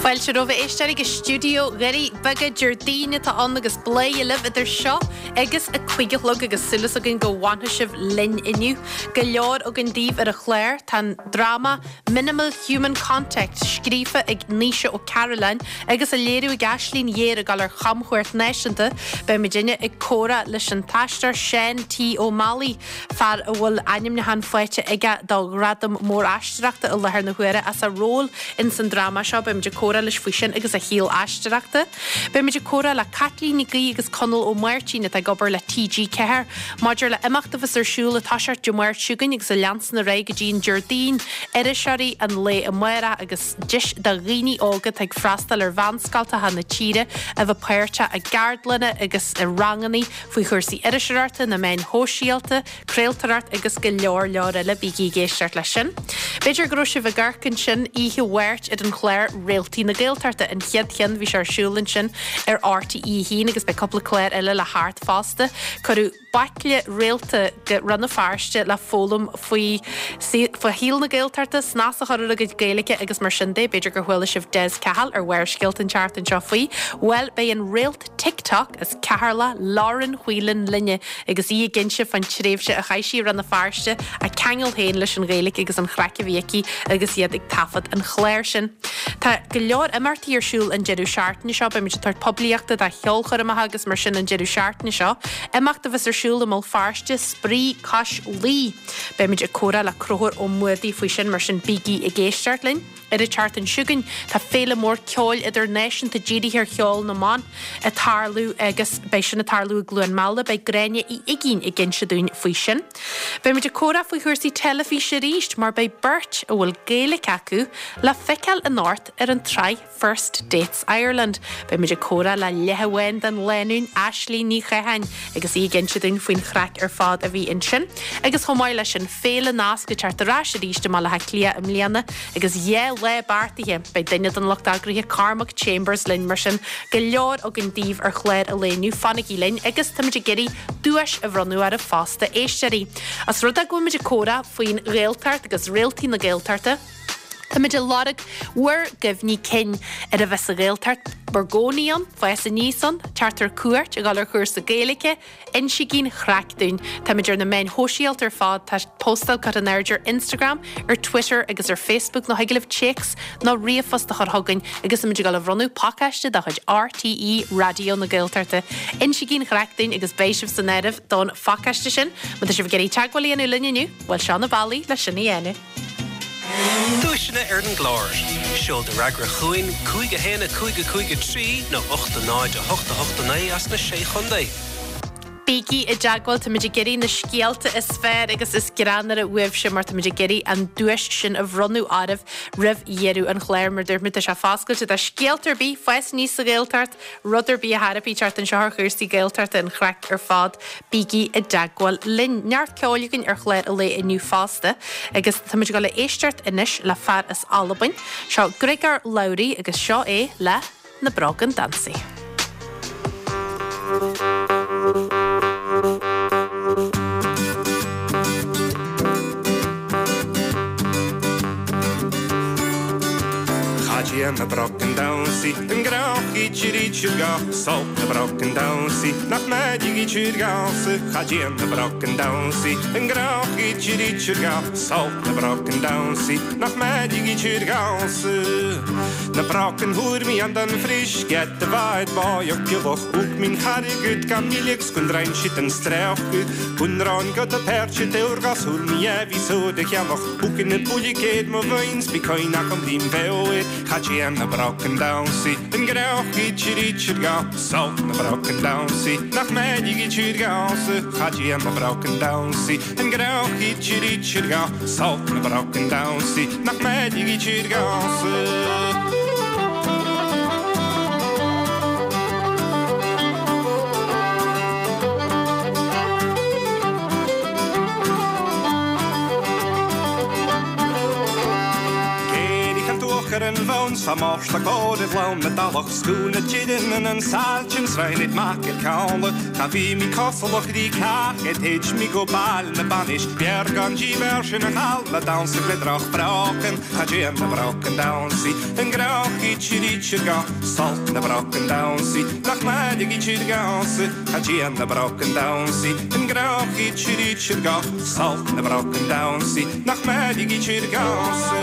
Fáilte romhaibh a éisteoirí go stiúideo Dhoirí Beaga Déardaoin atá ann agus Bladhaire libh idir seo agus a 5 a chlog agus súil againn go bhfanfaidh sibh linn inniu. Go leor againn daoibh ar an chlár. Tá an dráma Minimal Human Contact scríofa ag Naoise Ó Cairealláin agus á léiriú ag Aislinn Ghéar ag dul ar chamchuairt náisiúnta. Beidh muidinne ag comhrá leis an t-aisteoir Seán T Ó Meallaigh fear a bhfuil ainmniúchán faighte aige do ghradam mór aisteoireachta i láthair na huaire as a ról ins an dráma seo. Beimid ag comhrá leis faoi sin agus a shaol aisteoireachta. Beimid ag comhrá le Caitlín Nic Aoidh agus Conall Ó Máirtín atá ag obair le TG4 maidir le imeacht a bheas ar siúl ag toiseacht Dé Máirt seo chugainn agus a leansan ar aghaidh go dtí an Déardaoin, Iriseoirí an Lae Amárach agus deis do dhaoine óga atá ag freastal ar mheánscoltacha na tíre a bheith páirteach i gceardlanna agus i ranganna faoi chúrsaí iriseoireachta, na meáin shóisialta, craoltóireacht agus go leor leor eile. Bígí ag éisteacht leis sin. B'fhéidir go raibh sibh ag amharc ansin oíche Mháirt ar an chlár Réaltaí na Gaeltachta, an chéad cheann, bhí sé ar siúl ansin ar RTÉ 1 agus beidh cúpla clár eile le theacht fosta. Cuireadh baicle réalta go Rann na Feirste le foghlaim faoi faoi shaol na Gaeltachta, snas a chur ar a gcuid Gaeilge agus mar sin de. B'fhéidir gur chuala sibh Des Cahill ar Bharrscéalta an tseachtain seo faoi. Bhuel, beidh an réalt TikTok as Ceatharlach, Lauren Whelan linne agus í ag inse fán tréimhse a chaith sí i Rann na Feirste, a ceangal féin leis an Ghaeilge agus an chraic a bhí aici agus iad ag taifead an chláir sin. Tá go leor imeachtaí ar siúl an deireadh seachtaine seo, beimid ag tabhairt poiblíochta do cheolchoirmeacha agus mar sin an deireadh seachtaine seo. Imeacht a bheas ar siúl i mBéal Feirste, Spraoi Cois Laoi. Beimid ag comhrá le Conchúr Ó Muadaigh faoi sin, mar sin bígí ag éisteacht linn. Ar an tseachtain seo chugainn, tá féile mór ceoil idirnáisiúnta dírithe ar cheol na mban ag tarlú agus beidh sin ag tarlú i gCluain Meala. Beidh Gráinne Uí Uigínn ag inse dúinn faoi sin. Beimid ag comhrá faoi chúrsaí teilifíse arís mar beidh beirt a bhfuil Gaeilge acu le feiceáil anocht ar an tsraith First Dates Ireland. Beimid ag comhrá le leath amháin den lánúin, Aislinn Ní Chatháin, agus í ag inse dúinn faoin chraic ar fad a bhí ansin. Agus chomh maith leis sin, Féile Nasc ag teacht ar ais arís i mBaile Átha Cliath i mbliana agus 2 lá beartaithe. Beidh duine den lucht eagraithe, Cormac Chambers, linn mar sin go leor againn daoibh ar chlár an lae inniu. Fanaigí linn agus táimid ag iarraidh duais a bhronnadh oraibh fosta, éisteoirí. Os rud é go bhfuilimid ag comhrá faoin Ghaeltacht agus réaltaí na Gaeltachta, Táimid ag lorg bhur gcuimhní cinn ar a bheith sa Ghaeltacht, bhur gcónaí ann, fás aníos ann, teacht ar cuairt, a dhul ar chúrsa Gaeilge, insígí an chraic dúinn. Táimid ar na meáin shóisialta ar fad, tá postáil curtha in airde ar Instagram, ar Twitter agus ar Facebook nó thig libh téacs nó ríomhphost a chur chugainn agus táimid ag dul a bhronnadh pacáiste de chuid RTÉ Raidió na Gaeltachta. Insígí an chraic dúinn agus beidh sibh san áireamh don phacáiste sin. Má tá sibh ag iarraidh teagmháil a dhéanamh linn inniu, bhuel seo na bealaí le sin a dhéanamh. Duaiseanna ar an gclár. Seol do fhreagra chugainn, 5 1 5 5 3 nó 8 0 8 8 9 as na Sé Chontae. Bígí i dteagmháil, táimid ag iarraidh na scéalta is fearr agus is greannmhaire uaibhse mar táimid ag iarraidh an duais sin a bhronnadh oraibh roimh dheireadh an chláir. Mar dúirt mé, tá sé foscailte do scéalta ar bith, fás aníos sa Ghaeltacht, Rud ar bith a thairfí teacht anseo ar chúrsaí Gaeltachta an chraic ar fad, bígí i dteagmháil linn. Neart ceoil againn ar chlár an lae inniu fosta agus táimid ag dul a éisteacht anois le fear as Albain. Seo Griogair Labhruidh agus seo é le Na Brogan Dansaigh. Cha dtéann na brocan damhsaí an grauch Salt na brocan damhsaí nach mbeidh gása Cha dtéann na brocan damhsaí an grauch Salt na brocan damhsaí nach mbeidh gása Na brocan thuair an den frisch get de waid báiach piwch ook min charigud gan milig skundrain shit en strauchgud Gunrán go de pertje deurgas hul mi evi so de cheannach Hoeken het boeie mo veins Bitcoin nach am dim veoir Cad sé na brocken damhsaí an grauch idir ga Salt na brocken damhsaí nach mbeidh idir gása Cad é na brocken damhsaí an grauch idir ga Salt na brocken damhsaí nach mbeidh idir gása. Géirigh an t-uachar an bhonn 's fá Márta go raibh lán na dtulach 's go na dtireann an sailtin sraith mac el Ceanla Cha bhí mí cosalach rí cách ed théid mí go bail na bainis B'fhearr gan díbhearr sin a chall le damhsa le droch brocan Cha dtéann na brocan damhsaí an gcroch idir idir ga Sult na brocan damhsaí nach maith ag idir damhsa Cha dtéann na brocan damhsaí an gcroch idir idir ga Sult na brocan damhsaí nach maith ag idir damhsa.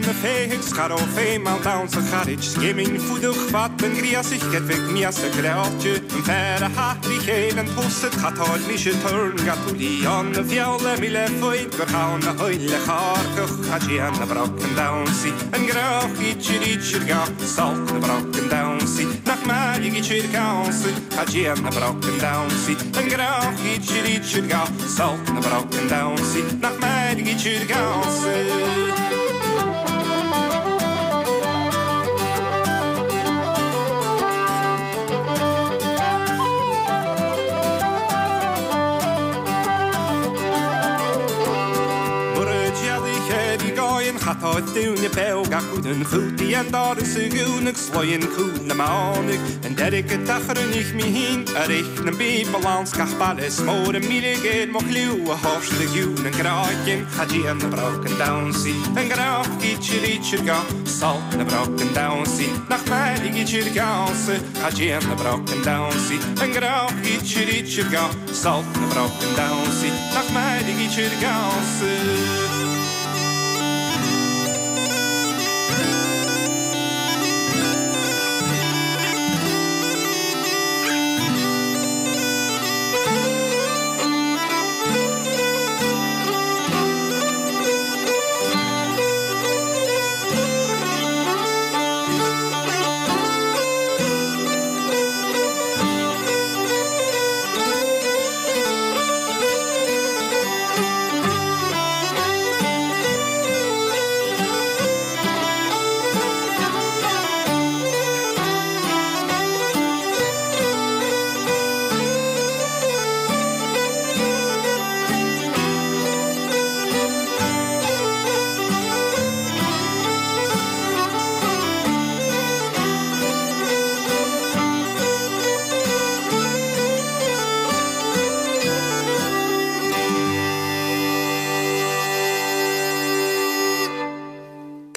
Na féithigh 's cha raibh féim ann damhsa chairid Scéimín fuadach fad an ghríosaigh Geitfidh miasa greáite An fear a hathraigh chéile an pósad Chatáil mise turn ga túlí an a bheal le míle foid gur thann a thuille chárcach Cha dtéann na brocan damhsaí an gcroch idir idir ga Sult na brocan damhsaí nach mairg idir damhsa Cha dtéann na brocan damhsaí an gcroch idir idir ga Sult na brocan damhsaí nach mairg idir damhsa. Mura dtéadaí céad i gcáin chatá dúine beag acu den chútaí an doras a dhúnadh sloinn cúl na mánaigh an deiridh go dtachar an ich mín ar ich na bíobal ann 's gach baile is mór a míle géar mo chliú a thabhairt do ghiúin an gcráicinn cha dtéann na brocan damhsaí an gcróc idir idir ga sult na brocan damhsaí nach mairg idir damhsa cha dtéann na brocan damhsaí an gcróc idir idir ga sult na brocan damhsaí nach mairg idir damhsa.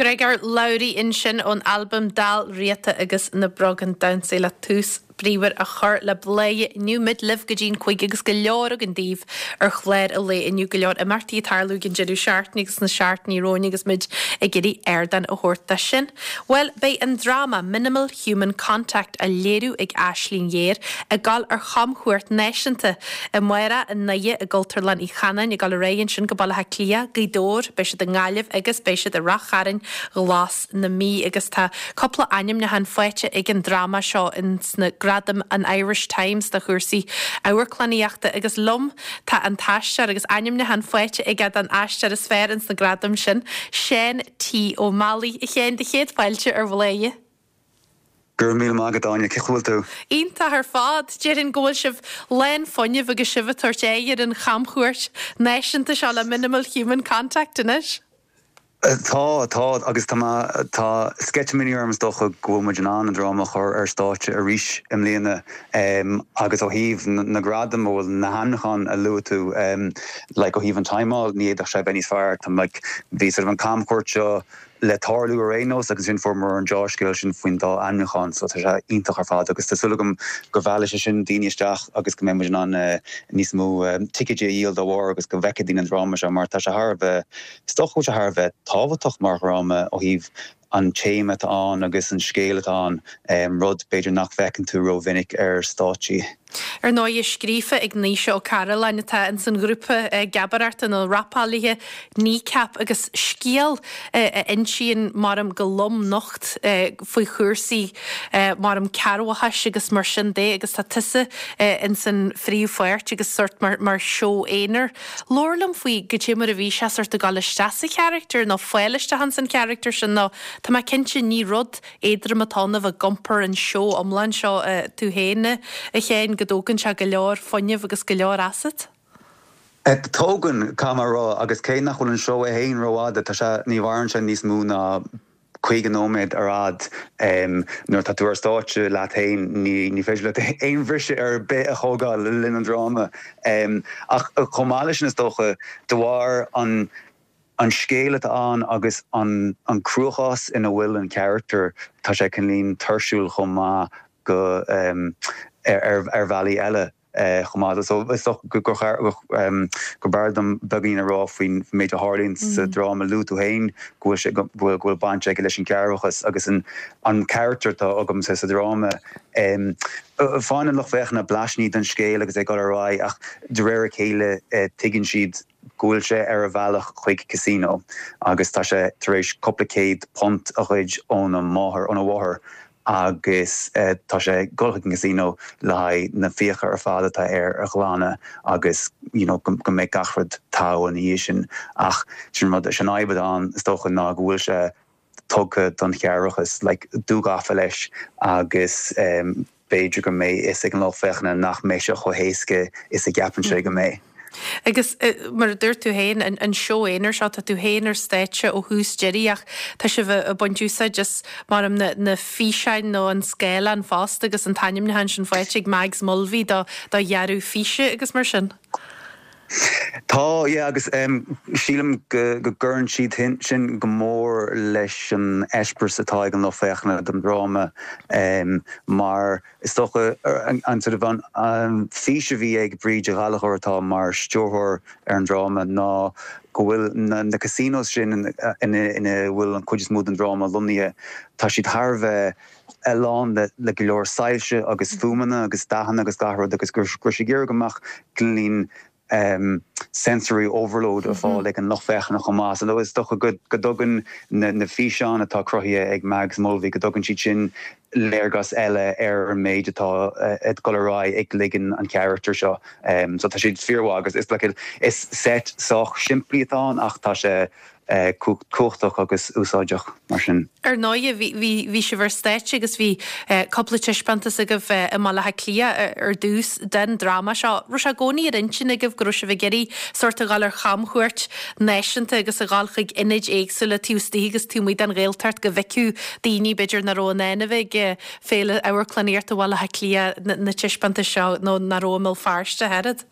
Gregor Lowry ansin ón albam Dál Riata agus na Brogan Damhsaí le tús bríomhar a chur le Bladhaire inniu. Muid libh go dtí'n 5 agus go leor againn daoibh ar chlár an lae inniu, go leor imeachtaí ag tarlú ag an deireadh seachtaine agus sna seachtainí romhainn agus muid ag iarraidh ardán a thabhairt dó sin. Bhuel, beidh an dráma Minimal Human Contact á léiriú ag Aisling Ghéar ag dul ar chamchuairt náisiúnta amárach i nDoire i gCultúrlann Uí Chanáin, ag dul ar aghaidh ansin go Baile Átha Cliath, Gaoth Dobhair, beidh siad i nGaillimh agus beidh siad i Rath Chairn, Ghlas na Mí agus tá cúpla ainmniúchán faighte ag an dráma seo ins na gradaim an Irish Times do chúrsaí amharclannaíochta agus liom tá an t-aisteoir agus ainmniúchán faighte aige don aisteoir is fearr ins na gradaim sin, Seán T. Ó Meallaigh. A Sheáin, do chéad fáilte ar Bhladhaire. Go raibh míle maith agat, Áine. Cén chaoi a bhfuil tú? Iontach ar fad. Déarfainn go bhfuil sibh lán fuinnimh agus sibh ag tabhairt aghaidh ar an chamchuairt náisiúnta seo le Minimal Human Contact anois. Tá, tá, agus tá mé, tá sceitimíní orm is dócha go bhfuil muid in ann an dráma a chur ar stáitse arís i mbliana agus ó thaobh na gradaim, bhuel na hainmniúcháin a luaigh tú, like ó thaobh an timeáil ní fhéadfadh sé a bheith níos fearr. Tá like, bhí sort of an camchuairt seo le tarlú ar aon nós agus ansin fuaireamar an deá-scéal sin faoin dá ainmniúchán so tá sé iontach ar fad agus tá súil agam go mheallfaidh sé sin daoine isteach agus go mbeidh muid in ann níos mó ticéidí a dhíol dá bharr agus go bhfeicfidh daoine an dráma seo mar tá sé thar a bheith, is dócha go bhfuil sé thar a bheith tábhachtach mar dhráma ó thaobh an téama atá ann agus an scéal atá ann, rud b'fhéidir nach bhfeiceann tú rómhinic ar stáitsí. Ar ndóighe, scríofa ag Naoise Ó Cairealláin atá ins an ghrúpa geabaireachta nó rapálaithe Kneecap agus scéal a insíonn maram go lom nocht faoi chúrsaí maram cearrbhachais agus mar sin de agus tá tusa ins an phríomhpháirt agus sort mar mar seó aonair. Labhair liom faoi goidé mar a bhí sé sort ag dul isteach sa charachtar nó fáil isteach ins an charachtar sin nó tá mé cinnte ní rud éadrom atá ann a bheith ag iompar an seó iomlán seo tú féin, a Sheáin, go dtógann sé go leor fuinnimh agus go leor asat. Tógann, caithfidh mé a rá, agus cé nach bhfuil an seó é féin rófhada, tá sé, ní mhaireann sé níos mó ná 50 nóiméad ar fhad. Nuair atá tú ar stáitse leat féin, ní féidir leat aon bhriseadh ar bith a thógáil le linn an dráma. Ach chomh maith leis sin, is dócha, de bharr an an scéal atá ann agus an cruachás ina bhfuil an charachtar, tá sé cineáilín tuirsiúil chomh maith go ar bhealaí eile chomh maith. So is dócha gur b'fhearr dom beagáinín a rá faoin méid a tharlaíonn sa dráma. Luaigh tú féin go bhfuil sé go bhfuil baint aige leis an gcearrbhachas agus an an charachtar atá agamsa sa dráma. Faigheann an lucht féachana blaisíní den scéal agus é ag dul ar aghaidh ach de réir a chéile tuigeann siad go bhfuil sé ar a bhealach chuig casino agus tá sé tar éis cúpla céad punt a ghoid óna máthair, óna mháthair agus tá sé ag dul chuig an casino le haghaidh na fiacha ar fad atá air a ghlanadh agus you know go mbeidh gach rud togha ina dhiaidh sin. Ach sin rud, sin fhadhb atá ann is dócha ná go bhfuil sé tugtha don chearrbhachas, like, dúghafa leis agus b'fhéidir go mbeidh fhios ag an lucht féachana nach mbeidh sé chomh héasca is a gceapann sé go mbeidh. Agus mar a dúirt tú féin, an seó aonair seo, tá tú féin ar stáitse ó thús deiridh ach tá sibh ag baint úsáid as, maram, na físeáin nó an scáileán fosta agus an t-ainmniúchán sin faighte ag Mags Mulvey do dhearadh físe agus mar sin. Tá, yeah, agus sílim go gcuireann siad sin go mór leis an eispéireas atá ag an lucht féachana den dráma mar is dócha an sort of an fís a bhí ag Bríd Ghallchóir atá mar stiúrthóir ar an dráma ná go bhfuil na casinos sin ina bhfuil an chuid is mó den dráma lonnaithe, tá siad thar a bheith lán le go leor soilse agus fuaimeanna agus dathanna agus gach rud agus go raibh sí ag iarraidh go mbeadh cineáilín sensory overload ar fáil ag an lucht féachana chomh maith. So is dócha go dtugann na físeáin atá cruthaithe ag Mags Mulvey, go dtugann siad sin léargas eile ar an méid atá ag dul ar aghaidh i gcloigeann an charachtair seo. So tá siad fíormhaith agus is like is set sách simplí atá ann ach tá sé cumhachtach agus úsáideach mar sin. Ar ndóighe, bhí, bhí, bhí sibh ar stáitse agus bhí cúpla taispeántas agaibh i mBaile Átha Cliath ar dtús den dráma seo. Raibh sé i gcónaí ar intinn agaibh go raibh sibh ag iarraidh sórt a dhul ar chamchuairt náisiúnta agus a dhul chuig ionaid éagsúla taobh istigh agus taobh amuigh den Ghaeltacht go bhfeicfeadh daoine b'fhéidir nach raibh in ann a bheith ag Féile Amharclannaíochta Bhaile Átha Cliath na taispeántais seo nó nach raibh i mBéal Feirste ach oiread?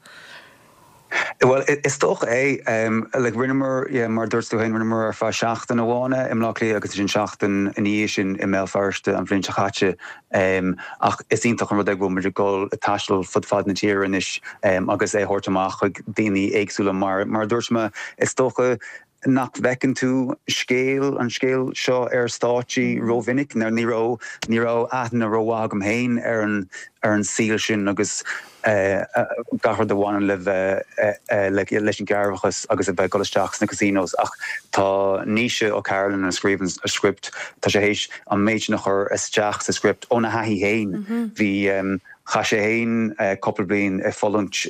Bhuel, is dócha é. Like, rinneamar, yeah, mar a dúirt tú féin, rinneamar ar feadh seachtain amháin é i mBleá Cliath agus ansin seachtain ina dhiaidh sin i mBéal Feirste an bhliain seo caite. Ach is iontach an rud é go bhfuil muid ag dul ag taisteal fud fad na tíre anois agus é a thabhairt amach chuig daoine éagsúla mar, mar a dúirt mé, is dócha nach bhfeiceann tú scéal, an scéal seo ar stáitsí rómhinic. Ní raibh, ní raibh aithne rómhaith agam féin ar an, ar an saol sin agus gach rud a bhaineann le bheith, leis an gcearrbhachas agus a bheith ag dul isteach sna casinos. Ach tá Naoise Ó Cairealláin a scríobh an script, tá sé théis an méid sin a chur isteach sa script óna thaithí féin. Bhí, chaith sé féin cúpla bliain ag fulaingt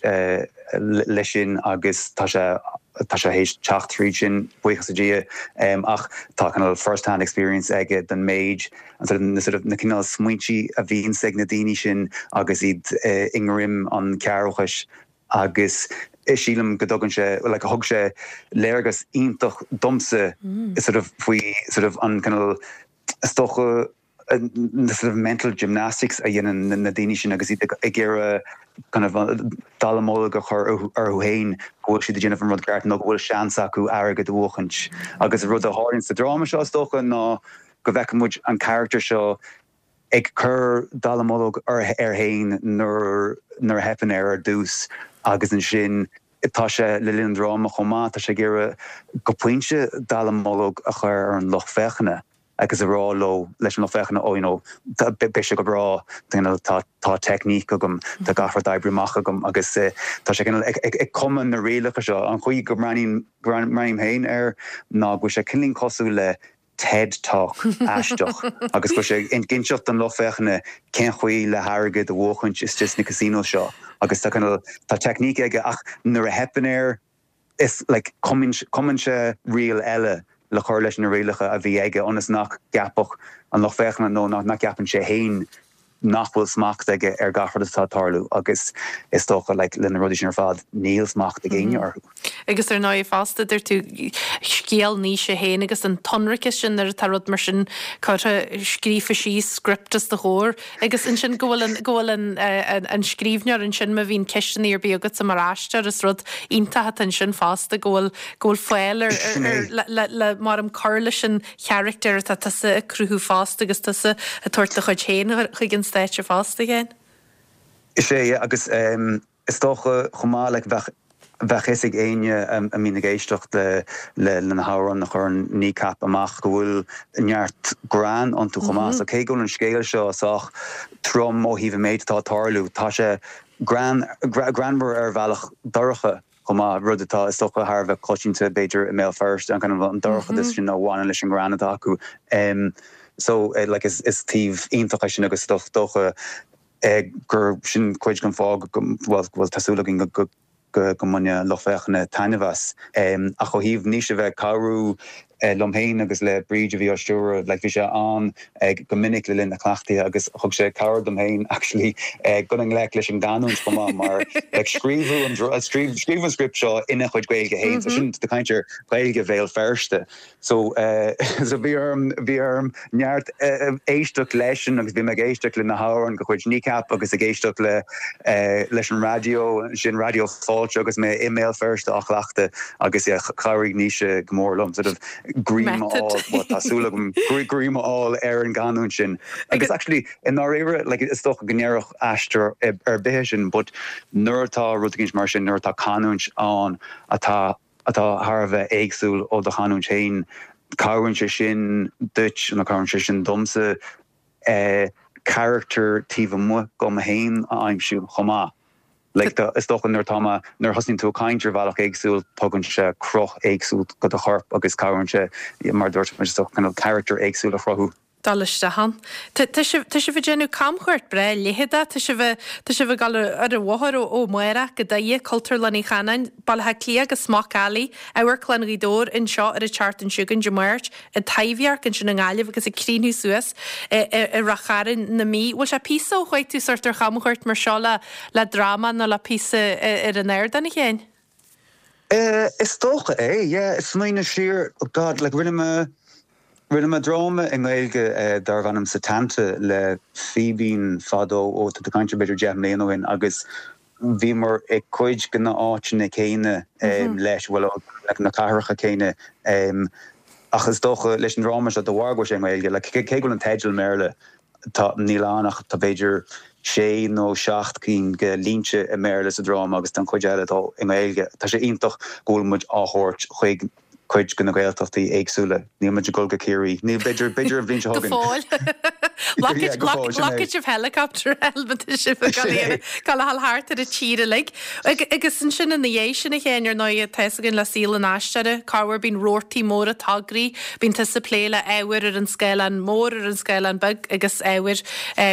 leis sin agus tá sé, tá sé théis teacht tríd sin, buíochas le Dia, ach tá cineál first hand experience aige den méid, na sort of, na cineál smaointí a bhíonns ag na daoine sin agus iad i ngreim an chearrbhachais agus sílim go dtugann sé, like thug sé léargas iontach domsa sort of faoi sort of an cineál, is dócha, na sort of mental gymnastics a dhéanann na daoine sin agus iad ag iarraidh kind of dallamullóg a chur orthu féin go bhfuil siad ag déanamh an rud ceart nó go bhfuil seans acu airgead a bhuachaint. Agus an rud a tharlaíonn sa dráma seo is dócha ná go bhfeiceann muid an charachtar seo ag cur dallamullóg air féin nuair nuair a theipeann air ar dtús agus ansin tá sé le linn an dráma chomh maith, tá sé ag iarraidh go pointe dallamullóg a chur ar an lucht féachana. agus a rá leo, leis an lucht féachana, oh you know, beidh sé go breá, you know, tá tá teicníc agam, tá gach rud oibrithe amach agam agus tá sé cineál ag ag cumadh na rialacha seo. An chaoi go mbreathnaím mbreathnaím féin air ná go bhfuil sé cineáilín cosúil le TED Talk aisteach agus go bhfuil sé ag inseacht don lucht féachana cén chaoi le hairgead a bhuachaint istigh sna casinos seo agus tá cineál tá teicníc aige ach nuair a theipeann air is like cumann cumann sé riail eile le cur leis na rialacha a bhí aige ionas nach gceapfadh an lucht féachana nó nach gceapann sé féin nach bhfuil smacht aige ar gach rud atá ag tarlú agus is dócha like le na rudaí sin ar fad níl smacht ag éinne orthu. Agus ar ndóigh fosta deir tú scéal Naoise féin agus an t-ionraiceas sin nuair atá rud mar sin curtha scríofa síos script os do chomhair agus ansin go bhfuil an go bhfuil an an scríbhneoir ansin má bhíonn ceisteanna ar bith agatsa mar aisteoir is rud iontach atá ansin fosta go bhfuil go bhfuil fáil ar ar le le le mar um cur leis an charachtar atá tusa ag cruthú fosta agus tusa ag tabhairt do chuid féin chuig an stáitse fosta, a Sheáin. Is ea, yeah, agus is dócha chomh maith, like, bheadh, bheadh fhios ag éinne a mbíonn ag éisteacht le, le, le na hamhráin a chuireann Kneecap amach go bhfuil neart greann iontu chomh maith. So cé go bhfuil an scéal seo sách trom ó thaobh an méid atá ag tarlú, tá sé greann, greannmhar ar bhealach dorcha. chomh maith, rud atá, is dócha, thar a bheith coitianta, b'fhéidir, i mBéal Feirste, an kind of an dorchadas sin a bhaineann leis an ngreann atá acu. So, like, is taobh iontach é sin agus is dócha gur sin cuid den fáth go bhfuil, bhuel, tá súil againn go go mbainfidh an lucht féachana taitneamh as. Ach ó thaobh Naoise a bheith ag cabhrú liom féin agus le Bríd a bhí á stiúradh, like bhí sé ann go minic le linn na cleachtaithe agus thug sé cabhair dom féin actually dul i ngleic leis an gcanúint chomh maith mar like scríobhadh an scríobhadh an script seo ina chuid Gaeilge féin so sin tá caint ar Ghaeilge Bhéal Feirste so so bhí orm bhí orm neart éisteacht leisean agus bhí mé ag éisteacht le na hamhráin de chuid Kneecap agus ag éisteacht le leis an raidió, sin Raidió Fáilte agus mé i mBéal Feirste á chleachtadh agus yeah chabhraigh Naoise go mór liom sort of greim a fháil, well tá súil agam greim a fháil ar an gcanúint sin. Agus actually i ndáiríre like is dócha go ndéarfadh aisteoir ar bith é sin but nuair atá rud éicint mar sin, nuair atá canúint ann atá atá thar a bheith éagsúil ó do chanúint féin, cabhraíonn sé sin duit nó cabhraíonn sé sin domsa carachtar taobh amuigh dhom féin a aimsiú chomh maith. Like, is dócha nuair atá mé, nuair a thosaíonn tú ag caint ar bhealach éagsúil, tugann sé cruth éagsúil go do chorp agus cabhraíonn sé, mar a dúirt mé, is dócha cineál carachtar éagsúil a chruthú. dul isteach ann. Tá sibh, tá sibh ag déanamh camchuairt breá leitheadach, tá sibh, tá sibh ag dul ar an bhóthar ó, ó amárach go Doire, Cultúrlann Uí Chanáin, Baile Átha Cliath go Smock Alley, Amharclann Ghaoth Dobhair anseo ar an tseachtain seo chugainn, Dé Máirt, an Taibhdhearc ansin i nGaillimh agus ag críochnú suas i, i, i Rath Chairn na Mí. Bhfuil sé píosa ó chuaigh tú sórt ar chamchuairt mar seo le, le dráma nó le píosa ar an ardán, a Sheáin? Is dócha é, yeah. Smaoineamh siar, oh God, like rinne mé, rinne mé dráma i nGaeilge darbh ainm Setanta le Fíbín fadó, ó tá tú ag caint ar b'fhéidir 10 mbliana ó shin agus bhíomar i cuid de na áiteanna céanna leis, bhuel, na cathracha céanna ach is dócha leis an dráma seo de bharr go bhfuil sé i nGaeilge, like cé go bhfuil an teideal i mBéarla, Tá, níl ann ach tá b'fhéidir sé nó seacht cinn de línte i mBéarla sa dráma agus tá an chuid eile atá i nGaeilge. Tá sé iontach go bhfuil muid á thabhairt chuig cuid de na Gaeltachtaí éagsúla. Níl muid ag dul go Ciarraí. Níl, b'fhéidir, b'fhéidir an bhliain seo Go chugainn. fóill. Yeah, go fóill, sin é. Glacfaidh sibh helicopter má tá sibh ag dul a ghabháil thart ar an tír uilig. Agus ansin ina dhiaidh sin, a Sheáin, ar ndóigh, tá fhios againn le saol an aisteora, corruair bíonn rabhartaí móra tograí, bíonn tusa ag plé le ábhair ar an scáileán mór, ar an scáileán beag agus ábhair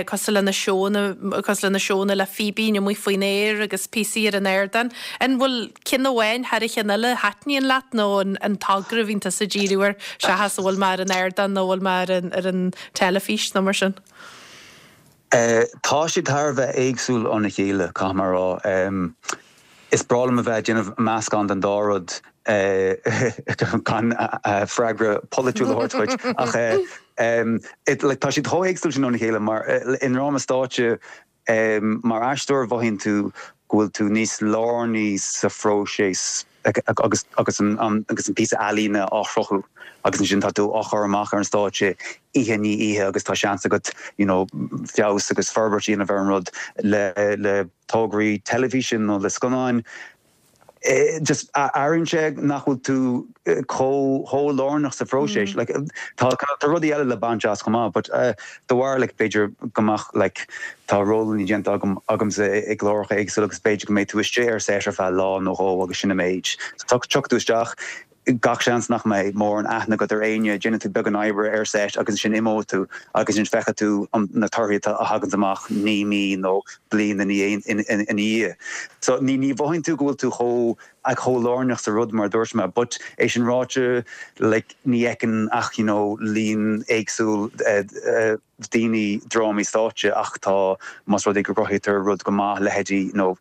cosúil le na seónna, cosúil le na seónna le Fíbín amuigh faoin aer agus píosaí ar an ardán. An bhfuil ceann amháin thar a cheann eile a thaitníonn leat nó an togra a bhíonn tusa ag díriú air seachas an bhfuil mé ar an ardán nó an bhfuil mé ar an, ar an teilifís nó mar sin? Tá siad thar a bheith éagsúil óna chéile, caithfidh mé a rá. Is breá liom a bheith ag déanamh meascán den dá rud, gan freagra polaitiúil a thabhairt dhuit, ach tá siad chomh héagsúil sin óna chéile mar i ndráma stáitse, mar aisteoir mhothaíonn tú go bhfuil tú níos lárnaí sa phróiseas agus agus an agus an píosa ealaíne á chruthú agus ansin tá tú á chur amach ar an stáitse oíche i ndiaidh oíche agus tá seans agat you know feabhas agus forbairt a dhéanamh ar an rud le le tograí teilifíse nó le scannáin. Just airíonn sé nach bhfuil tú chomh chomh lárnach sa phróiseas. Like tá tá rudaí eile le baint as chomh maith but de bharr like b'fhéidir go mbeadh like tá rólanna déanta agam agamsa i gcláracha éagsúla agus b'fhéidir go mbeidh tú istigh ar set ar feadh lá nó dhó agus sin an méid. So tiocfaidh tú isteach gach seans nach mbeidh mórán aithne agat ar éinne, déanfaidh tú beagán oibre ar set agus ansin imeoidh tú agus ansin feicfidh tú na torthaí a thaganns amach naoi mí nó bliain ina dhiaidh. So ní ní mhothaíonn tú go bhfuil tú chomh chomh lárnach sa rud mar a dúirt mé but é sin ráite like ní fheiceann ach you know líon éagsúil daoine drámaí stáitse ach tá, más rud é go gcruthaítear rud go maith, leithéidí, you know,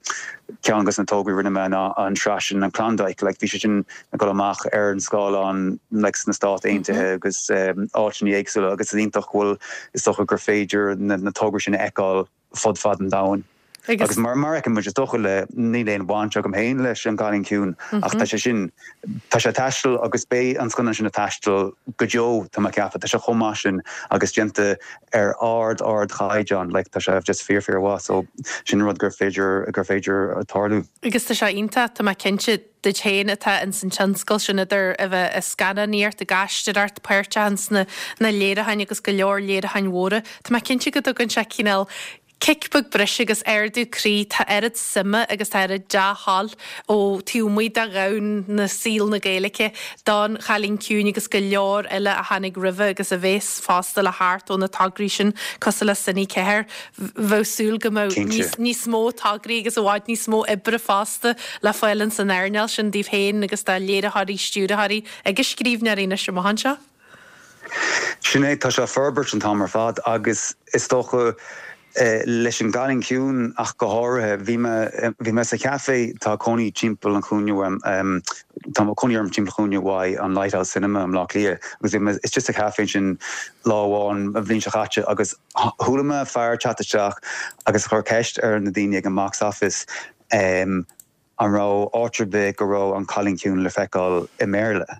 ceann de na tograí a rinne mé ná an tsraith sin, an Klondike, like bhí sé sin ag dul amach ar an scáileán like sna Stáit Aontaithe agus áiteanna éagsúla agus is iontach go bhfuil, is dócha gur féidir na tograí sin a fheiceáil fud fad an domhain. Agus mar mar a fheiceann muid, is dócha le, níl aon bhaint agam féin leis An Cailín Ciúin ach tá sé sin, tá sé ag taisteal agus beidh an scannán sin ag taisteal go deo, tá mé ag ceapadh. Tá sé chomh maith sin agus déanta ar ard ard chaighdeán, like tá sé just fíor fíor mhaith so sin rud gur féidir, gur féidir tarlú. Agus tá sé iontach, tá mé cinnte, duit féin atá ins an tionscal sin idir a bheith ag scannánaíocht, ag aisteoireacht, páirteach ins na na léiriúcháin agus go leor léiriúcháin mhóra, tá mé cinnte go dtugann sé cineál cic beag breise agus ardú croí, tá oiread suime agus tá oiread dea-thoil ó taobh amuigh de dhomhan na saol na Gaeilge don Chailín Ciúin agus go leor eile a tháinig roimhe agus a bhéas fosta le theacht ó na tograí sin cosúil le Cine 4. Bheadh súil go mbeadh níos níos mó tograí agus i bhfad níos mó oibre fosta le fáil ins an earnáil sin daoibh féin agus do léiritheoirí, stiúrthóirí agus scríbhneoirí anois amach anseo. Sin é, tá sé ag forbairt an t-am ar fad agus is dócha leis an gCailín Ciúin ach go háirithe, bhí mé, bhí mé sa chaife, tá cónaí timpeall an chúinne uaim, tá cónaí orm timpeall an chúinne uaidh an Lighthouse Cinema i mBleá Cliath agus bhí mé istigh sa chaife ansin lá amháin an bhliain seo chaite agus chuala mé fear ag teacht isteach agus chuir ceist ar na daoine ag an box office an raibh áit ar bith go raibh an Cailín Ciúin le feiceáil i mBéarla.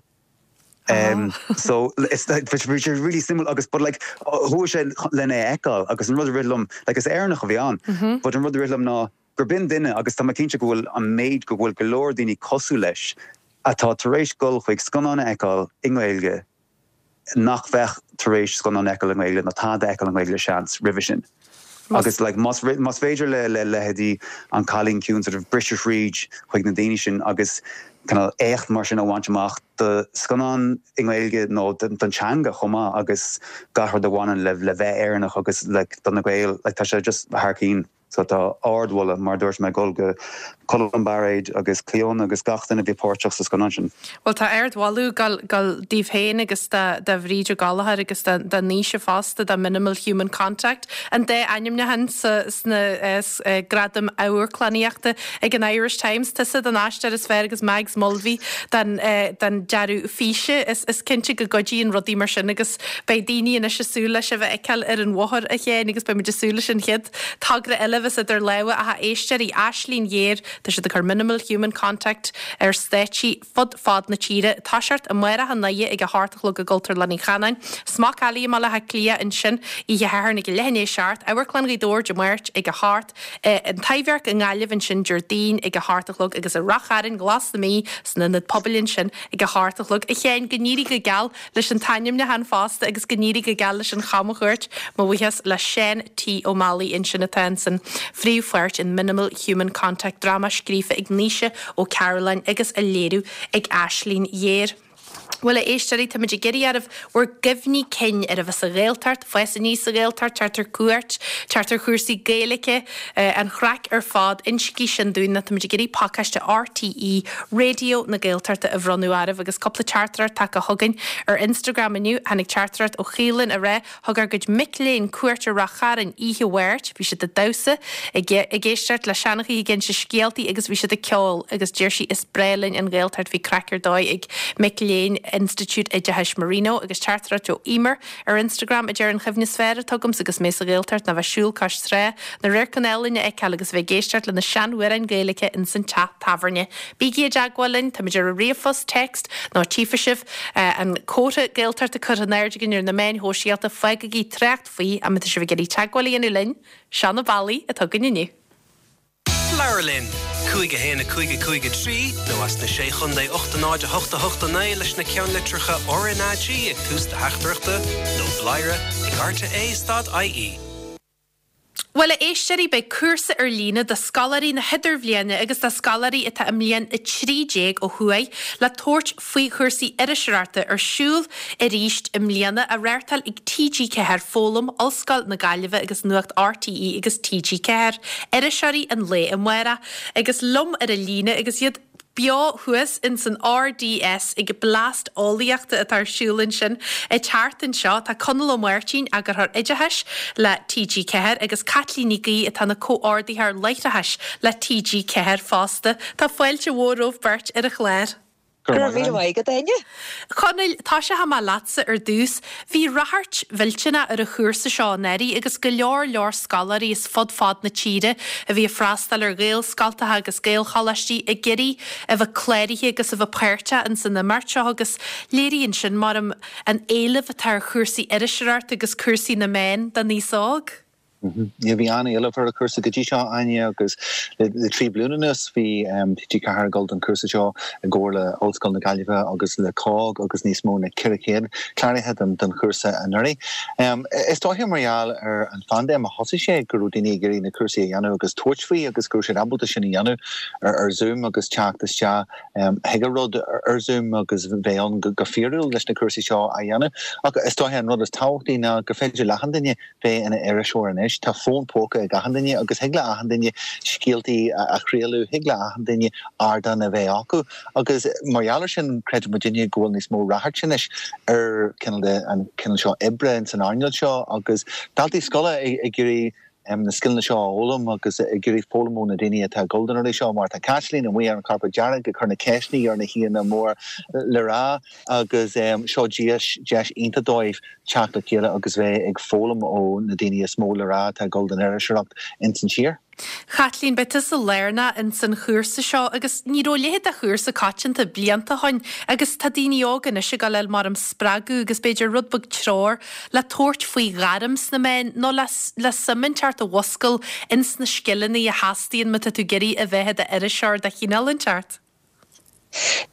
So it's like bhí sé really suimiúil agus but like chuaigh sé lena é fheiceáil agus an rud a rith liom like is Éireannach a bhí ann but an rud a rith liom ná gur b'in duine agus tá mé cinnte go bhfuil an méid go bhfuil go leor daoine cosúil leis atá tar éis dul chuig scannán a fheiceáil i nGaeilge nach bheadh tar éis scannán a fheiceáil i nGaeilge nó tada a fheiceáil i nGaeilge seans roimhe sin. Agus like más más féidir le le leithéidí An Cailín Ciúin sort of briseadh thríd chuig na daoine sin agus kind of éacht mar sin a bhaint amach do scannán i nGaeilge nó don teanga chomh maith agus gach rud a bhaineann le le bheith Éireannach agus like do na Gaeil like tá sé just thar cinn. So tá ardmholadh, mar a dúirt mé, ag dul go Colm Bairéad agus Clíona agus gach duine a bhí páirteach sa scannán sin. Bhuel, tá ardmholadh ag dul daoibh féin agus do Bhríd Ó Gallchóir agus do Naoise fosta, do Minimal Human Contact, an dá ainmniúchán sna Gradaim Amharclannaíochta ag an Irish Times. Tusa don aisteoir is fearr agus Mags Mulvey don dearadh físe. Is cinnte go gcuidíonn rudaí mar sin agus beidh daoine anois ag súil le sibh a fheiceáil ar an bhóthar, a Sheáin, agus beidh muid ag súil leis an chéad togra eile a bheas idir lámha ach a éisteoirí, Aislinn Ghéar, tá siad ag cur Minimal Human Contact ar stáitsí fud fad na tíre. Toiseacht amárach i nDoire ag a hocht a chlog i gCultúrlann Uí Chanáin, Smock Alley i mBaile Átha Cliath ansin oíche Shathairn ag a leath i ndiaidh a seacht, Amharclann Ghaoth Dobhair Dé Máirt ag a hocht, An Taibhdhearc i nGaillimh ansin Déardaoin ag a hocht a chlog agus i Rath Chairn, Glas na Mí san Ionad Pobail ansin ag a hocht a chlog. A Sheáin, go n-éirí go geal leis an t-ainmniúchán fosta agus go n-éirí go geal leis an chamchuairt. Mo bhuíochas le Seán T. Ó Meallaigh ansin atá insan phríomhpháirt in Minimal Human Contact, dráma scríofa ag Naoise Ó Cairealláin agus á léiriú ag Aislinn Ghéar. Bhuel, a éisteoirí, táimid ag iarraidh oraibh bhur gcuimhní cinn ar a bheith sa Ghaeltacht, fás aníos sa Ghaeltacht, teacht ar cuairt, teacht ar chúrsaí Gaeilge, an chraic ar fad, insígí sin dúinn nó táimid ag iarraidh pacáiste RTÉ Raidió na Gaeltachta a bhronnadh oraibh agus cúpla teachtaireacht tagtha chugainn ar Instagram inniu. Tháinig teachtaireacht ó Chaoilinn ag rá, Thug ár gcuid mic léinn cuairt ar Rath Chairn oíche Mháirt. Bhí siad ag damhsa, ag ag éisteacht le seanchaithe ag inse scéaltaí agus bhí siad ag ceol agus deir sí is breá linn an Ghaeltacht. Bhí craic ar dóigh ag mic léinn Institiúid Oideachais Marino agus teachtaireacht ó Emer ar Instagram a deir an chuimhne is fearr atá agamsa agus mé sa Ghaeltacht ná bheith siúl cois trá, na radharcanna álainn a fheiceáil agus a bheith ag éisteacht le na seanamhráin Gaeilge ins an teach tábhairne. Bígí i dteagmháil linn, táimid ar an ríomhphost, text nó tchífidh sibh an comhartha Gaeltachta curtha in airde againn ar na meáin shóisialta, fágaigí trácht faoi má tá sibh ag iarraidh teagmháil a dhéanamh linn. Seo na bealaí atá againn inniu. Labhair linn! 5 1 5 5 3 nó as na Sé Chontae 8 0 8 8 9 leis na ceannlitreacha RnaG ag tús do theachtaireachta nó bladhaire ag rte stad ie. Bhuel, a éisteoirí, beidh cúrsa ar líne do scoláirí na hIdirbhliana agus do scoláirí atá i mbliain 13 ó thuaidh le tabhairt faoi chúrsaí iriseoireachta ar siúl arís i mbliana, á reáchtáil ag TG4 Foghlaim, Ollscoil na Gaillimhe agus Nuacht RTÉ agus TG4, Iriseoirí an Lae Amárach. Agus liom ar an líne agus iad beo thuas ins an RDS ag Blast Eolaíochta atá ar siúl ansin an tseachtain seo. Tá Conall Ó Máirtín, Eagarthóir Oideachais le TG4 agus Caitlín Ní Ghaoith atá ina Comhordaitheoir Láithreachais le TG4 fosta. Tá fáilte mhór romhaibh beirt ar an chlár. Go raibh míle maith agat, Áine. Chonaill, tosóidh mé leatsa ar dtús. Bhí ráchairt mhillteanach ar an chúrsa seo anuraidh agus go leor leor scoláirí as fud fad na tíre a bhí ag freastal ar Ghaelscoltacha agus Gaelcholáistí ag iarraidh a bheith cláraithe agus a bheith páirteach ins an imeacht seo agus léiríonn sin, maram, an éileamh atá ar chúrsaí iriseoireachta agus cúrsaí na meán don aos óg. Bhí an-éileamh ar an chúrsa go dtí seo, Áine, agus le 3 bliana anuas bhí TG4 ag dul don chúrsa seo i gcomhar le Ollscoil na Gaillimhe agus le COGG agus níos mó na 400 cláraithe don chúrsa anuraidh. Is dóiche mar gheall ar an phaindéim a thosaigh sé go raibh daoine ag iarraidh na cúrsaí a dhéanamh agus tabhairt faoi agus go raibh siad ábalta sin a dhéanamh ar Zoom agus teacht isteach chuig an rud ar Zoom agus bheith ann go fíorúil leis na cúrsaí seo a dhéanamh. Ach is dóiche an rud is tábhachtaí ná gur féidir le achan duine bheith ina iriseoir anois. Tá fón póca ag achan duine agus thig le achan duine scéaltaí a chraoladh, thig le achan duine ardán a bheith acu agus mar gheall ar sin creideann muidinne go bhfuil níos mó ráchairt anois ar cineál de an cineál seo oibre ins an earnáil seo agus daltaí scoile ag iarraidh na scileanna seo a fhoghlaim agus ag iarraidh foghlaim ó na daoine atá ag dul don rudaí seo mar tá Caitlín amuigh ar an charpet dearg ag cur na ceisteanna ar na haíonna mór le rá agus seo deis deis iontach dóibh teacht le chéile agus bheith ag foghlaim ó na daoine is mó le rá atá ag dul don iriseoireacht ins an tír. Chaitlín, beidh tusa lárnach ins an chúrsa seo agus ní raibh a leithéid de chúrsa coitianta blianta ó shoin agus tá daoine óga anois ag dul a fháil maram spreagadh agus b'fhéidir rud beag treoir le tabhairt faoi ghairm sna meáin nó le le suim inteacht a mhuscail ins na scileanna a theastaíonn má tá tú ag iarraidh a bheith i d'iriseoir de chineál inteacht.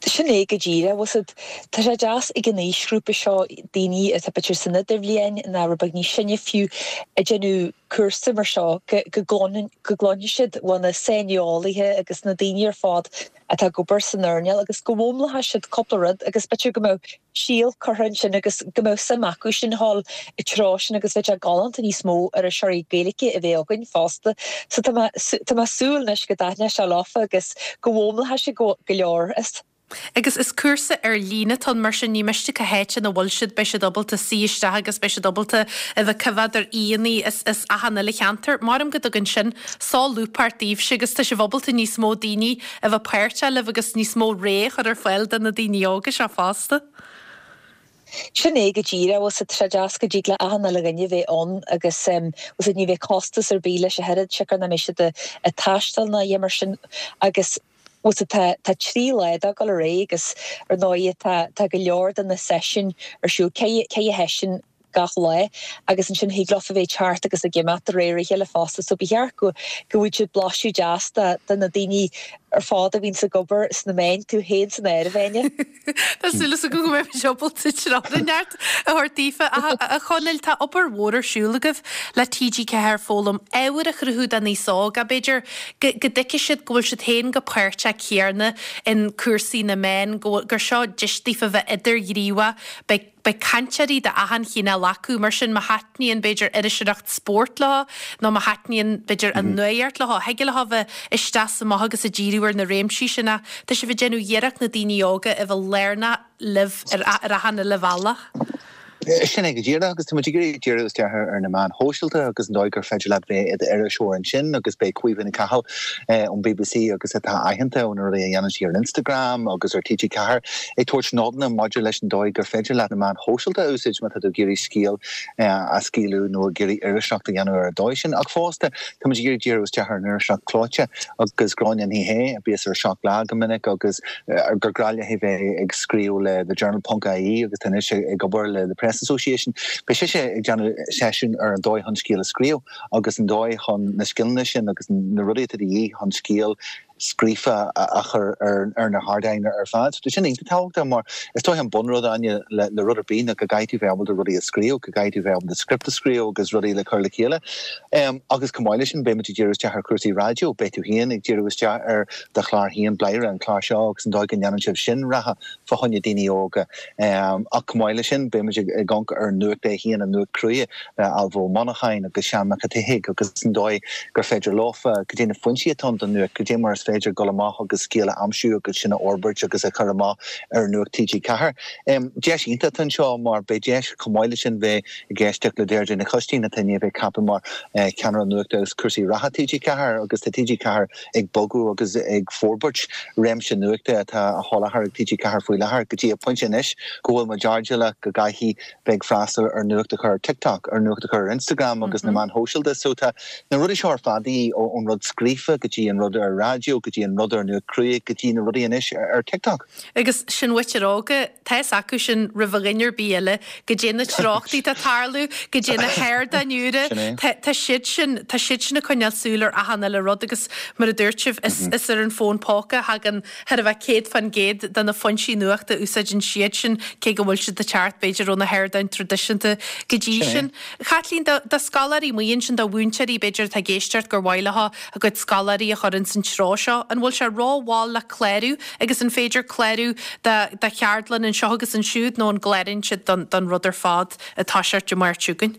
Sin é go díreach, bhfuil 's a'd. Tá sé deas ag an aoisghrúpa seo, daoine atá b'fhéidir san idirbhliain nó rud beag níos sine fiú, ag déanamh cúrsa mar seo, go gcluinfidh siad ó na saineolaithe agus na daoine ar fad atá ag obair san earnáil agus go bhfoghlaimeoidh siad cúpla rud agus b'fhéidir go mbeadh síol curtha ansin agus go mbeadh suim acu sin a dhul i dtreo sin agus bheadh sé galánta níos mó iriseoirí Gaeilge a bheith againn fosta. So tá mé tá mé ag súil anois go dtaitneoidh sé leofa agus go bhfoghlaimeoidh siad go go leor as. Agus is cúrsa ar líne atá ann mar sin ní miste cá háit ina bhfuil siad beidh siad ábalta suí isteach agus beidh siad ábalta a bheith coimheád ar aíonna as as achan uile cheantar. Maram go dtugann sin solúbthacht daoibhse agus tá sibh ábalta níos mó daoine a bheith páirteach libh agus níos mó rogha a chur ar fáil do na daoine óga seo fosta. Sin é go díreach, bhfuil 's a'd, tá sé deas go dtig le achan uile dhuine bheith ann agus bhfuil 's a'd, ní bheidh costas ar bith leis ach oiread, siocair nach mbeidh siad ag taisteal ná a dhath mar sin agus bhfuil 's a'd, tá tá 3 lá de ag dul ar aghaidh agus ar ndóigh tá tá go leor de na seisiúin ar siúl, 4 sheisiún gach lá agus ansin thig leofa bheith ag teacht agus ag imeacht de réir a chéile fosta so ba cheart go go bhfaigheadh siad blaiseadh deas de de na daoine ar fad a bhíonns ag obair sna meáin, tú féin san áireamh, Áine. Tá súil agam go mbeidh muid ábalta treoir neart a thabhairt daofa. A Chonaill, tá obair mhór ar siúl agaibh le TG4 Foghlaim, ábhar a chruthú don aos óg, b'fhéidir go go dtuigfidh siad go bhfuil siad féin chomh páirteach céarna in cúrsaí na meán, go bhfuil gur seo deis daofa bheith idirghníomhach, beidh Beidh cainteoirí de achan chineál acu, mar sin má thaitníonn, b'fhéidir, iriseoireacht spóirt leo, nó má thaitníonn, b'fhéidir, an nuaíocht leo, thig leo bheith isteach is amach agus ag díriú ar na réimsí sin ach tá sibh ag déanamh iarracht na daoine óga a bheith lárnach libh ar ar achan uile bhealach. Sin é go díreach agus tá muid ag iarraidh díriú isteach ar na meáin shóisialta agus an dóigh gur féidir leat bheith i d'iriseoir ansin agus beidh Caoimhe Nic Cathal ón bbc agus atá aitheanta ó na rudaí a dhéanann sí ar Instagram agus ar TG4 ag tabhairt nodanna maidir leis an dóigh gur féidir leat na meáin shóisialta a úsáid má tá tú ag iarraidh scéal a scaoileadh nó ag iarraidh iriseoireacht a dhéanamh ar an dóigh sin. Ach fosta, tá muid ag iarraidh díriú isteach ar an iriseoireacht chlóite agus Gráinne Ní Shé, a bíos ar 7 Lá go minic agus gur grá léi bheith ag scríobh le The Journal ponc ie agus tá anois ag obair le The Press Association. Beidh sise ag déanamh seisiún ar an dóigh chun scéal a scríobh agus an dóigh chun na scileanna sin agus na rudaí atá de dhíth chun scéal. scríofa a chur ar na hardáin ar fad. So tá sin iontach tábhachtach mar is dóiche an bunrud, Áine, le rud ar bith ná go gcaithfidh tú bheith ábalta rudaí a scríobh, go gcaithfidh tú bheith ábalta script a scríobh agus rudaí le cur le chéile. Agus chomh maith leis sin beidh muid ag díriú isteach ar chúrsaí raidió, beidh tú féin ag díriú isteach ar do chlár féin, Bladhaire, an clár seo agus an dóigh go ndéanann sibh sin rogha fá choinne daoine óga. Ach chomh maith leis sin beidh muid ag amharc ar an nuacht é féin, an nuacht cruaidh le Ailbhe Ó Monacháin agus Seán Mac an tSíthigh agus an dóigh gur féidir leofa, cad é na foinsí atá ann don nuacht, cad é mar is féidir dul amach agus scéal a aimsiú agus sin a fhorbairt agus a chur amach ar Nuacht TG4. Deis iontach atá anseo mar beidh deis chomh maith leis sin bheith ag éisteacht le Deirdre Nic Choistín atá i ndiaidh bheith ceaptha mar Cheannaire Nuachta agus Cúrsaí Reatha TG4 agus tá TG4 ag bogadh agus ag forbairt réimse nuachta atá á sholáthar ag TG4 faoi láthair go dtí an pointe anois go bhfuil muid airdeallach go gcaithfidh bheith ag freastal ar nuacht a chur ar TikTok, ar nuacht a chur ar Instagram agus na meáin shóisialta. So tá na rudaí seo ar fad de dhíth, ón rud scríofa go dtí an rud ar raidió, go dtí an rud ar nuacht cruaidh, go dtí na rudaí anois ar TikTok. Agus sin mhuintir óga, tá fhios acu sin roimh dhuine ar bith eile, goidé na treochtaí atá ag tarlú, goidé na hardáin úra, tá siad sin, tá siad sin ag coinneáil súil ar achan uile rud agus mar a dúirt sibh, is ar an bhfón póca a thagann Thar a bheith 100% de na foinsí nuachta a úsáideann siad sin, cé go bhfuil siad ag teacht, b'fhéidir, ó na hardáin traidisiúnta go dtí sin. A Chaitlín, do scoláirí amuigh ansin, do mhúinteoirí, b'fhéidir, atá ag éisteacht gur mhaith leo a gcuid scoláirí a chur ins an treo seo, an bhfuil sé rómhall le clárú agus an féidir clárú do cheardlann anseo agus ansiúd nó an gcláraíonn siad don rud ar fad ag toiseacht Dé Máirt seo chugainn?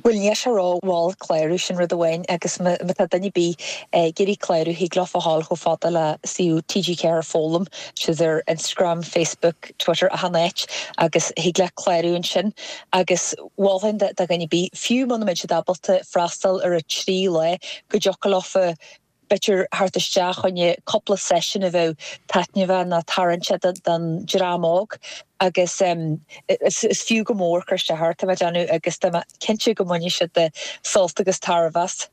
Bhuel, níl sé rómhall clárú, sin rud amháin, agus má tá duine ar bith ag iarraidh clárú, thig leofa a ghabháil chomh fada le suíomh TG4 Foghlaim, siad ar Instagram, Facebook, Twitter, achan áit, agus thig leat clárú ansin. Agus mholfainn do dhuine ar bith, fiú muna mbeidh siad ábalta freastal ar an trí lá, go dtiocfadh leofa b'fhéidir theacht isteach choinne cúpla seisiún a bheadh taitneamhach nó tarraingteach don dream óg agus is fiú go mór cur isteach air, tá mé ag déanamh agus tá mé cinnte go mbainfidh siad sult agus tairbhe as.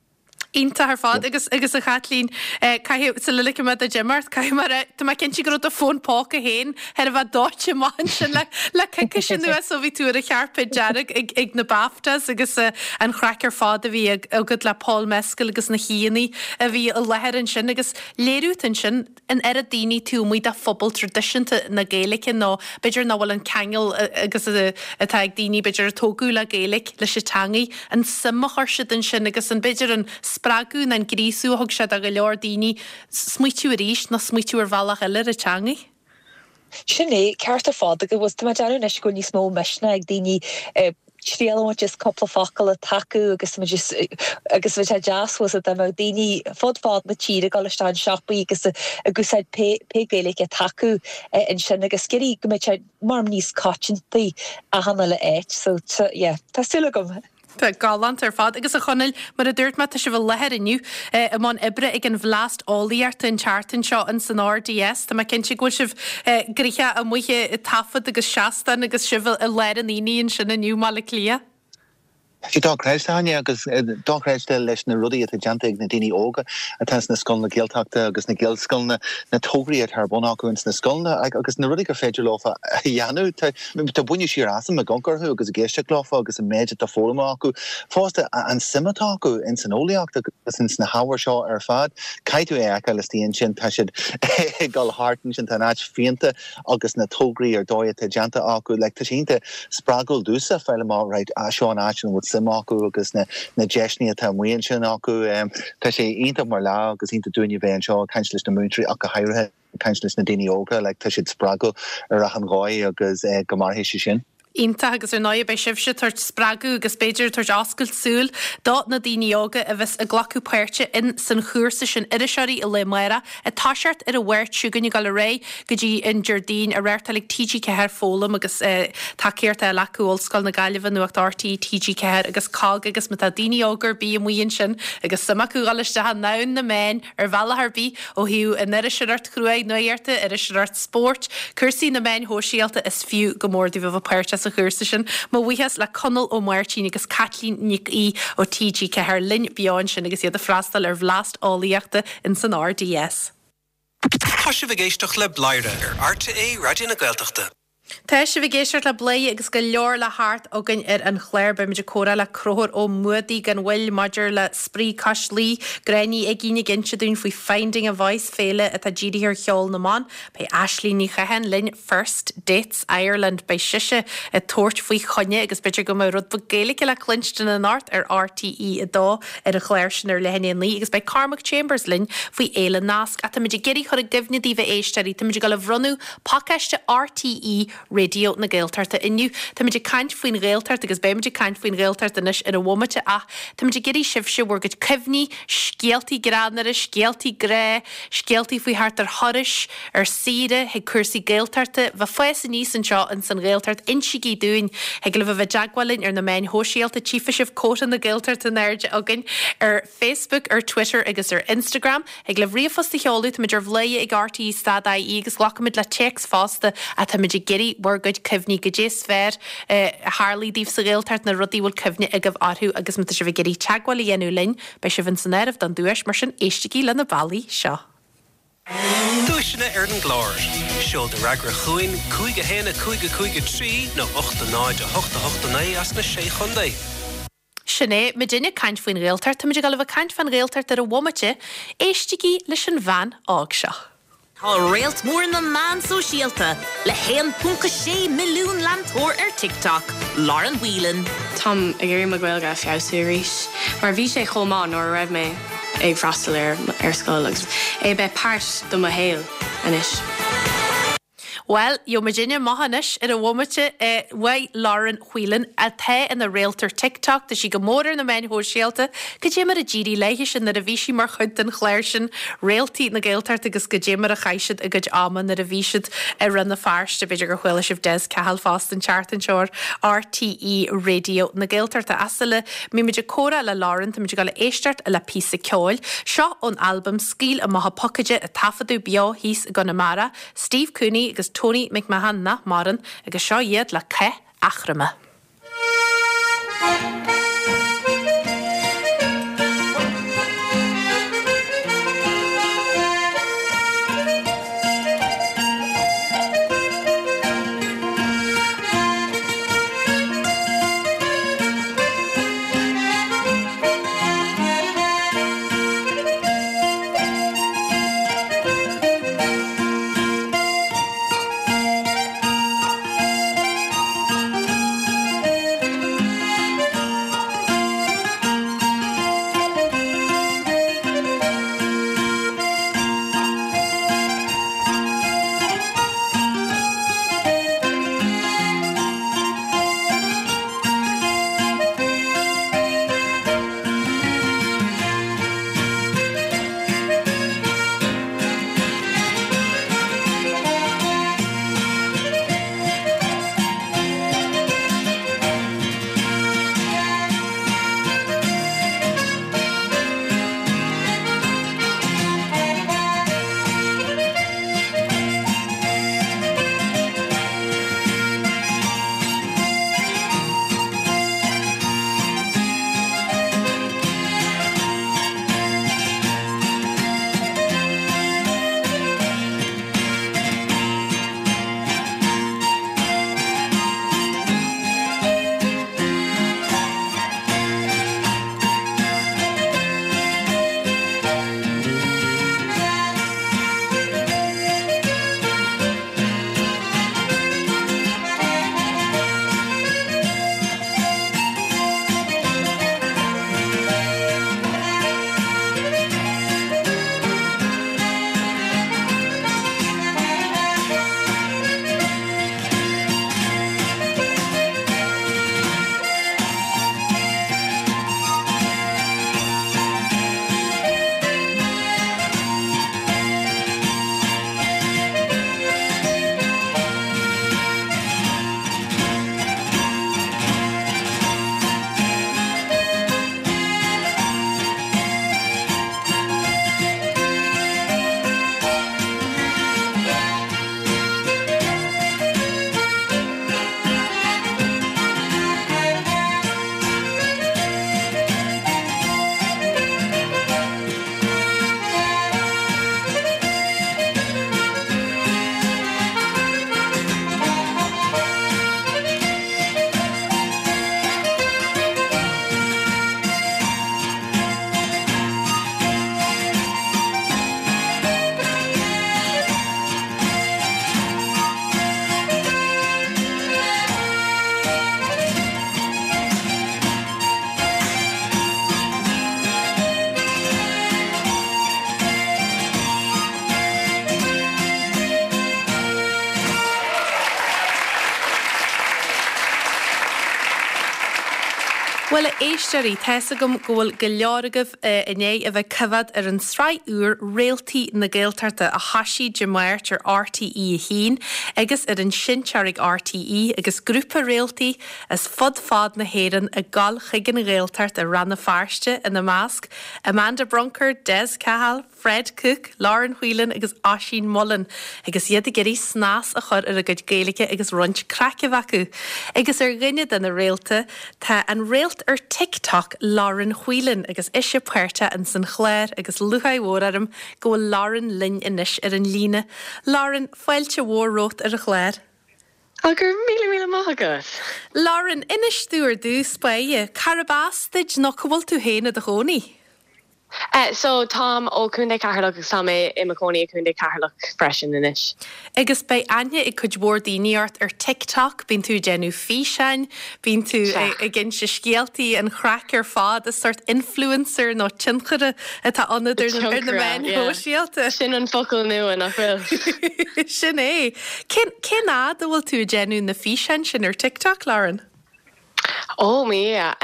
Iontach ar fad agus agus a Chaitlín, caithfidh, sula ligfidh mé duit imeacht, caithfidh mé a rá, tá mé cinnte go raibh do fón póca féin thar a bheith dóite amach ansin le le coicís anuas ó bhí tú ar an chairpéad dearg ag ag na BAFTAs agus an chraic ar fad a bhí agat le Paul Mescal agus na haíonna a bhí i láthair ansin agus léiriú atá ansin an oiread daoine taobh amuigh de phobal traidisiúnta na Gaeilge nó b'fhéidir nach bhfuil an ceangal agus atá ag daoine b'fhéidir a tógadh le Gaeilge leis an teangaidh, an suim a chuir siad ansin agus an b'fhéidir an spreagadh nó an gríosú a thug sé do go leor daoine smaoitiú arís nó smaoitiú ar bhealach eile ar an teangaidh. Sin é, ceart ar fad agus tá mé ag déanamh anois go bhfuil níos mó misneach ag daoine triail a bhaint as cúpla focal atá acu agus muid agus bheadh sé deas fós dá mbeadh daoine fud fad na tíre ag dul isteach in siopaí agus ag úsáid pé pé Gaeilge atá acu ansin agus ag iarraidh go mbeadh sé mar níos coitianta achan uile áit so yeah tá súil agam. Tá galánta ar fad. Agus a Chonaill, mar a dúirt mé, tá sibh i láthair inniu i mbun oibre ag an Bhleaist Eolaíochta an tseachtain seo in san RDS. Tá mé cinnte go bhfuil sibh gnoitheach amuigh ag taifead agus seastán agus sibh i lár an aonaigh ansin inniu i mBaile Átha Cliath. Tá sé dochreidte, Áine, agus dochreidte leis na rudaí atá déanta ag na daoine óga atá sna scoileanna Gaeltachta agus na Gaelscoileanna, na tograí atá ar bun acu ins na scoileanna agus na rudaí gur féidir leo a dhéanamh. Tá baineadh siar asam ag amharc orthu agus ag éisteacht leofa agus an méid atá foghlamtha acu. Fosta, an suim atá acu ins an eolaíocht agus ins na hábhair seo ar fad. Caithfidh tú é a fheiceáil istigh ansin, tá siad ag dul thart ansin, tá an áit phéinte agus na tograí ar dóigh atá déanta acu. Like, tá sé iontach spreagúil domhsa fáil amach, right, seo an áit ina bhfuil suim acu agus na na deiseanna atá amuigh ansin acu. Tá sé iontach mar lá agus iontach dúinne bheith anseo ag caint leis na múinteoirí ach go háirithe. Ag caint leis na daoine óga, like, tá siad spreagúil ar achan dhóigh agus go mairfidh sé sin. Iontach agus ar ndóigh beidh sibhse ag tabhairt spreagadh agus b'fhéidir ag tabhairt oscailt súil do na daoine óga a bheas ag glacadh páirte in san chúrsa sin Iriseoirí an Lae Amárach ag toiseacht ar an Mháirt seo chugainn ag dul ar aghaidh go dtí an Déardaoin á reáchtáil ag TG4 Foghlaim agus tacaíocht á fháil acu Ollscoil na Gaillimhe, Nuacht RTÉ, TG4 agus cogg agus má tá daoine óga ar bith amuigh ansin agus suim acu dhul isteach i ndomhan na meán ar bhealach ar bith, ó thaobh an iriseoireacht chruaidh nuachta, iriseoireacht spóirt, cúrsaí na meáin shóisialta, is fiú go mór daoibh a bheith páirteach sa chúrsa sin. Mo bhuíochas le Conall Ó Máirtín agus Caitlín Nic Aoidh ó TG4 linn beo ansin agus iad ag freastal ar Bhleaist Eolaíochta ins an RDS. Tá sibh ag éisteacht le Bladhaire ar RTÉ Raidió na Gaeltachta. Tá sibh ag éisteacht le Bladhaire agus go leor le theacht againn ar an chlár. Beimid ag comhrá le Conchúr Ó Muadaigh gan mhoill maidir le Spraoi Cois Laoi, Gráinne Ní Uigín ag inse dúinn faoi Finding a Voice, féile atá dírithe ar cheol na mban. Beidh Aisling Ní Chatháin linn, First Dates Ireland. Beidh sise ag tabhairt faoi choinne agus b'fhéidir go mbeidh rud beag Gaeilge le cluinstin anocht ar RTÉ 2 ar an chlár sin ar leath i ndiaidh a 9 agus beidh Cormac Chambers linn faoi Fhéile Nasc. Ach táimid ag iarraidh chur i gcuimhne daoibh a éisteoirí, táimid ag dul a bhronnadh Pacáiste RTÉ Raidió na Gaeltachta inniu. Táimid ag caint faoin Ghaeltacht agus beimid ag caint faoin Ghaeltacht anois ar an bhomaite ach táimid ag iarraidh sibhse bhur gcuid cuimhní, scéaltaí greannmhara, scéaltaí grá, scéaltaí faoi theacht ar thurais, ar saoire, chuig cúrsaí Gaeltachta, bheith fás aníos anseo ins an Ghaeltacht, insígí dúinn. Thig libh a bheith i dteagmháil linn ar na meáin shóisialta, tchífidh sibh cóta na Gaeltachta in airde againn ar Facebook, ar Twitter agus ar Instagram. Thig libh ríomhphost a sheoladh, táimid ar bhladhaire ag RTÉ stad IE agus glacfaimid le téacs fosta ach táimid ag iarraidh bhur gcuid cuimhní, goidé is fearr a tharlaigh daoibh sa Ghaeltacht, na rudaí a bhfuil cuimhne agaibh orthu agus má tá sibh ag iarraidh teagmháil a dhéanamh linn, beidh sibh ins an áireamh don duais, mar sin éistigí le na bealaí seo. Duaiseanna ar an gclár. Seol do fhreagra chugainn, 5 1 5 5 3 nó 8 0 8 8 9 as na Sé Chontae. Sin é, muidinne ag caint faoin Ghaeltacht, táimid ag dul a bheith ag caint fán Ghaeltacht ar an bhomaite, éistigí leis an bhean óg seo. Tá réalt mór na meán sóisialta le 1.6 milliún leantóir ar TikTok, Lauren Whelan. Táim ag iarraidh mo Ghaeilge a feabhsú arís mar bhí sé chomh maith nuair a raibh mé ag freastal ar ar scoil agus é bheith páirt de mo shaol anois. Bhuel, gheobhaidh muidinne amach anois ar an bhomaite uaidh Lauren Whelan, atá ina réalt ar TikTok, tá sí go mór ar na meáin shóisialta, cad é mar a d'éirigh léithise nuair a bhí sí mar chuid den chlár sin Réaltaí na Gaeltachta agus cad é mar a chaith siad a gcuid ama nuair a bhí siad i Rann na Feirste. B'fhéidir gur chuala sibh Des Cahill fosta an tseachtain seo ar RTÉ Raidió na Gaeltachta. Ach sula mbímid ag comhrá le Lauren, táimid ag dul a éisteacht le píosa ceoil. Seo ón albam Scaoil Amach an Pocáide a taifeadadh beo thíos i gConamara. Steve Cooney agus Tony McMahon nach maireann, agus seo iad le Cath Eachroma. Bhuel, a éisteoirí, tá's agam go bhfuil go leor agaibh i ndiaidh a bheith ag coimhéad ar an tsraith úr Réaltaí na Gaeltachta a thoisigh Dé Máirt ar RTÉ 1 agus ar an seinnteoir ag RTÉ agus grúpa réaltaí as fud fad na hÉireann ag gabháil chuig an Ghaeltacht i Rann na Feirste ina measc, Amanda Brunker, Des Cahill, Fred Cooke, Lauren Whelan agus Oisín Mullin agus iad ag iarraidh snas a chur ar a gcuid Gaeilge agus roinnt craic a bheith acu. Agus ar dhuine de na réalta tá an réalt ar TikTok Lauren Whelan agus ise páirteach ins an chlár agus lúcháir mhór orm go bhfuil Lauren linn anois ar an líne. Lauren, fáilte mhór romhat ar an chlár. Á, go raibh míle míle maith agat! Lauren, inis domh ar dtús báire, cárb as duit nó cá bhfuil tú féin i do chónaí? So, táim ó Chontae Cheatharlach agus tá mé i mo chónaí i Contae Cheatharlach freisin anois. Agus beidh aithne ag cuid mhór daoine ort ar TikTok, bíonn tú ag déanamh físeáin, bíonn tú ag inse scéaltaí, an chraic ar fad, is sórt influencer nó tionchaire atá ionat ar na meáin shóisialta. Sin an focal nua, nach bhfuil? Sin é. Cén cén fhad a bhfuil tú ag déanamh na físeáin sin ar TikTok, Lauren? Ó, mo Dhia.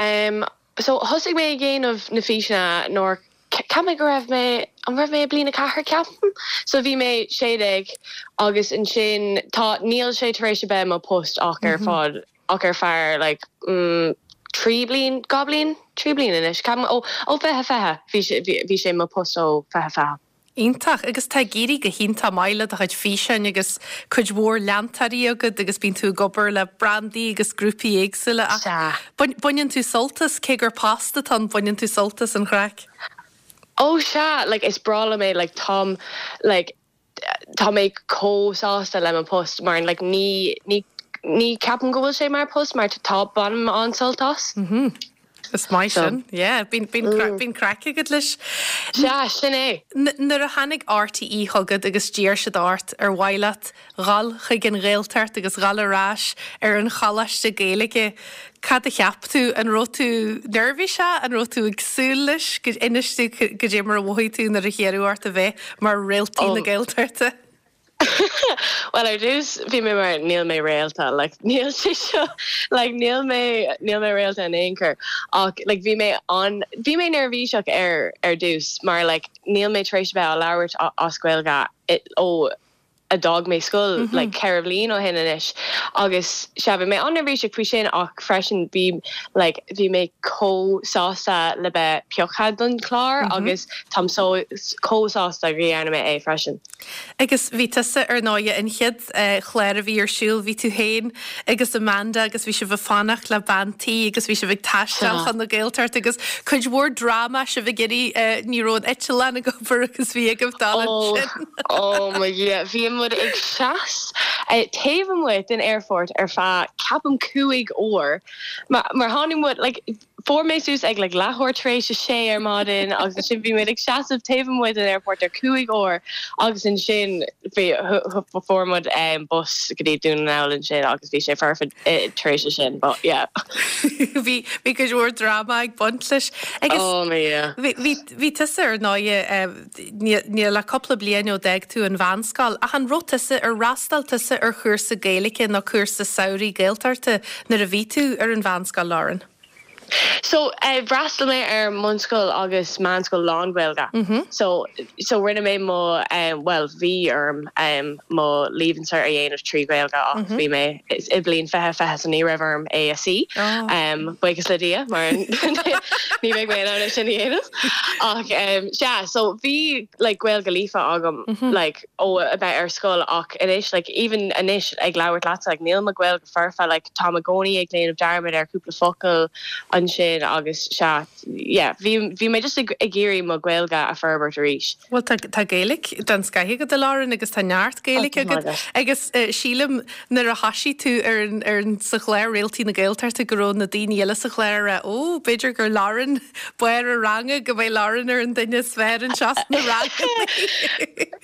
So, thosaigh mé ag déanamh na físeanna nuair, cheap mé go raibh mé, an raibh mé i bliain a ceathair ceapaim? So bhí mé 16 agus ansin tá, níl sé tar éis a bheith mo post ach ar fad, ach ar feadh like mm 3 bliain, 2 bliain, 3 bliain anois ceapaim, ó, ó 2020, bhí sé, bhí sé mo post ó 2020. Iontach. Agus tá ag éirí go hiontach maith le do chuid físeáin agus cuid mhór leantóirí agat agus bíonn tú ag obair le brandaí agus grúpaí éagsúla ach Sea. baineann tú sult as, cé gur post atá ann, baineann tú sult as an chraic. Ó sea, like is breá liom é, like táim like tá mé chomh sásta le mo post mar like ní ní ní ceapaim go bhfuil sé mar post mar tá bainim an-sult as. Is maith sin, yeah. Bíonn bíonn craic agat leis. Sea, sin é. Nuair a tháinig RTÉ chugat agus d'iarr siad ort ar mhaith leat dhul chuig an Ghaeltacht agus dhul ar ais ar an choláiste Gaeilge, cad a cheap tú? An raibh tú neirbhíseach? An raibh tú ag súil leis? Inis domh cad é mar a mhothaigh tú nuair a hiarradh ort a bheith mar réaltaí na Gaeltachta. Bhuel ar dtús bhí mé mar níl mé réalta like níl sé seo like níl mé níl mé réalta in aon chor ach like bhí mé an bhí mé neirbhíseach ar ar dtús mar like níl mé tar éis a bheith á labhairt as Gaeilge ó a d'fhág mé scoil like 4 bhliain ó shin anois agus sea bhí mé an-neirbhíseach faoi sin ach freisin bhí like bhí mé chomh sásta le bheith pioctha don chlár agus táim so chomh sásta go dhearna mé é freisin. Agus bhí tusa, ar ndóighe, an chéad chlár a bhí ar siúl, bhí tú féin agus Amanda agus bhí sibh ag fanacht le bean tí agus bhí sibh ag taisteal chun na Gaeltachta agus cuid mhór dráma, sibh ag iarraidh, ní raibh an eitleán ag obair agus bhí agaibh dul ansin. Ó mo Dhia, bhí muid ag seas taobh amuigh den aerfort ar feadh ceapaim 5 uair mar tháinig muid like, Fuair mé suas ag like leathuair tar éis a sé ar maidin agus ansin bhí muid ag seasamh taobh amuigh den airport ar 5 uair agus ansin bhí fuair muid bus go dtí Dún na nGall ansin agus bhí sé foirfe tar éis sin but yeah. Bhí bhí cuid mhór dráma ag baint leis agus Oh my yeah. bhí bhí bhí tusa ar ndóighe níl ach cúpla bliain ó d'fhág tú an mheánscoil ach an raibh tusa ar fhreastail tusa ar chúrsa Gaeilge nó cúrsa samhraidh Gaeltachta nuair a bhí tú ar an mheánscoil, Lauren? So, d'fhreastail mé ar mbunscoil agus meánscoil lán-Ghaeilge. So, so rinne mé mo, bhuel, bhí orm mo Leaving Cert a dhéanamh trí Ghaeilge ach bhí mé i bliain 2020 so ní raibh orm é a suí. Buíochas le Dia mar ní bheidh mé in ann é sin a dhéanamh. Ach sea, so bhí like Gaeilge líofa agam like ó a bheith ar scoil ach anois like even anois ag labhairt leatsa like níl mo Ghaeilge foirfe like táim i gcónaí ag déanamh dearmad ar cúpla focal ansin agus sea yeah bhí bhí mé just ag ag iarraidh mo Ghaeilge a forbairt arís. Bhuel tá tá Gaeilge den scoith agat a Lauren agus tá neart Gaeilge agat agus sílim nuair a thoisigh tú ar an ar an sa chlár Réaltaí na Gaeltachta go raibh na daoine eile sa chlár ag rá ó b'fhéidir gur Lauren barr an ranga go mbeidh Lauren ar an duine is fearr anseo sna ranganna.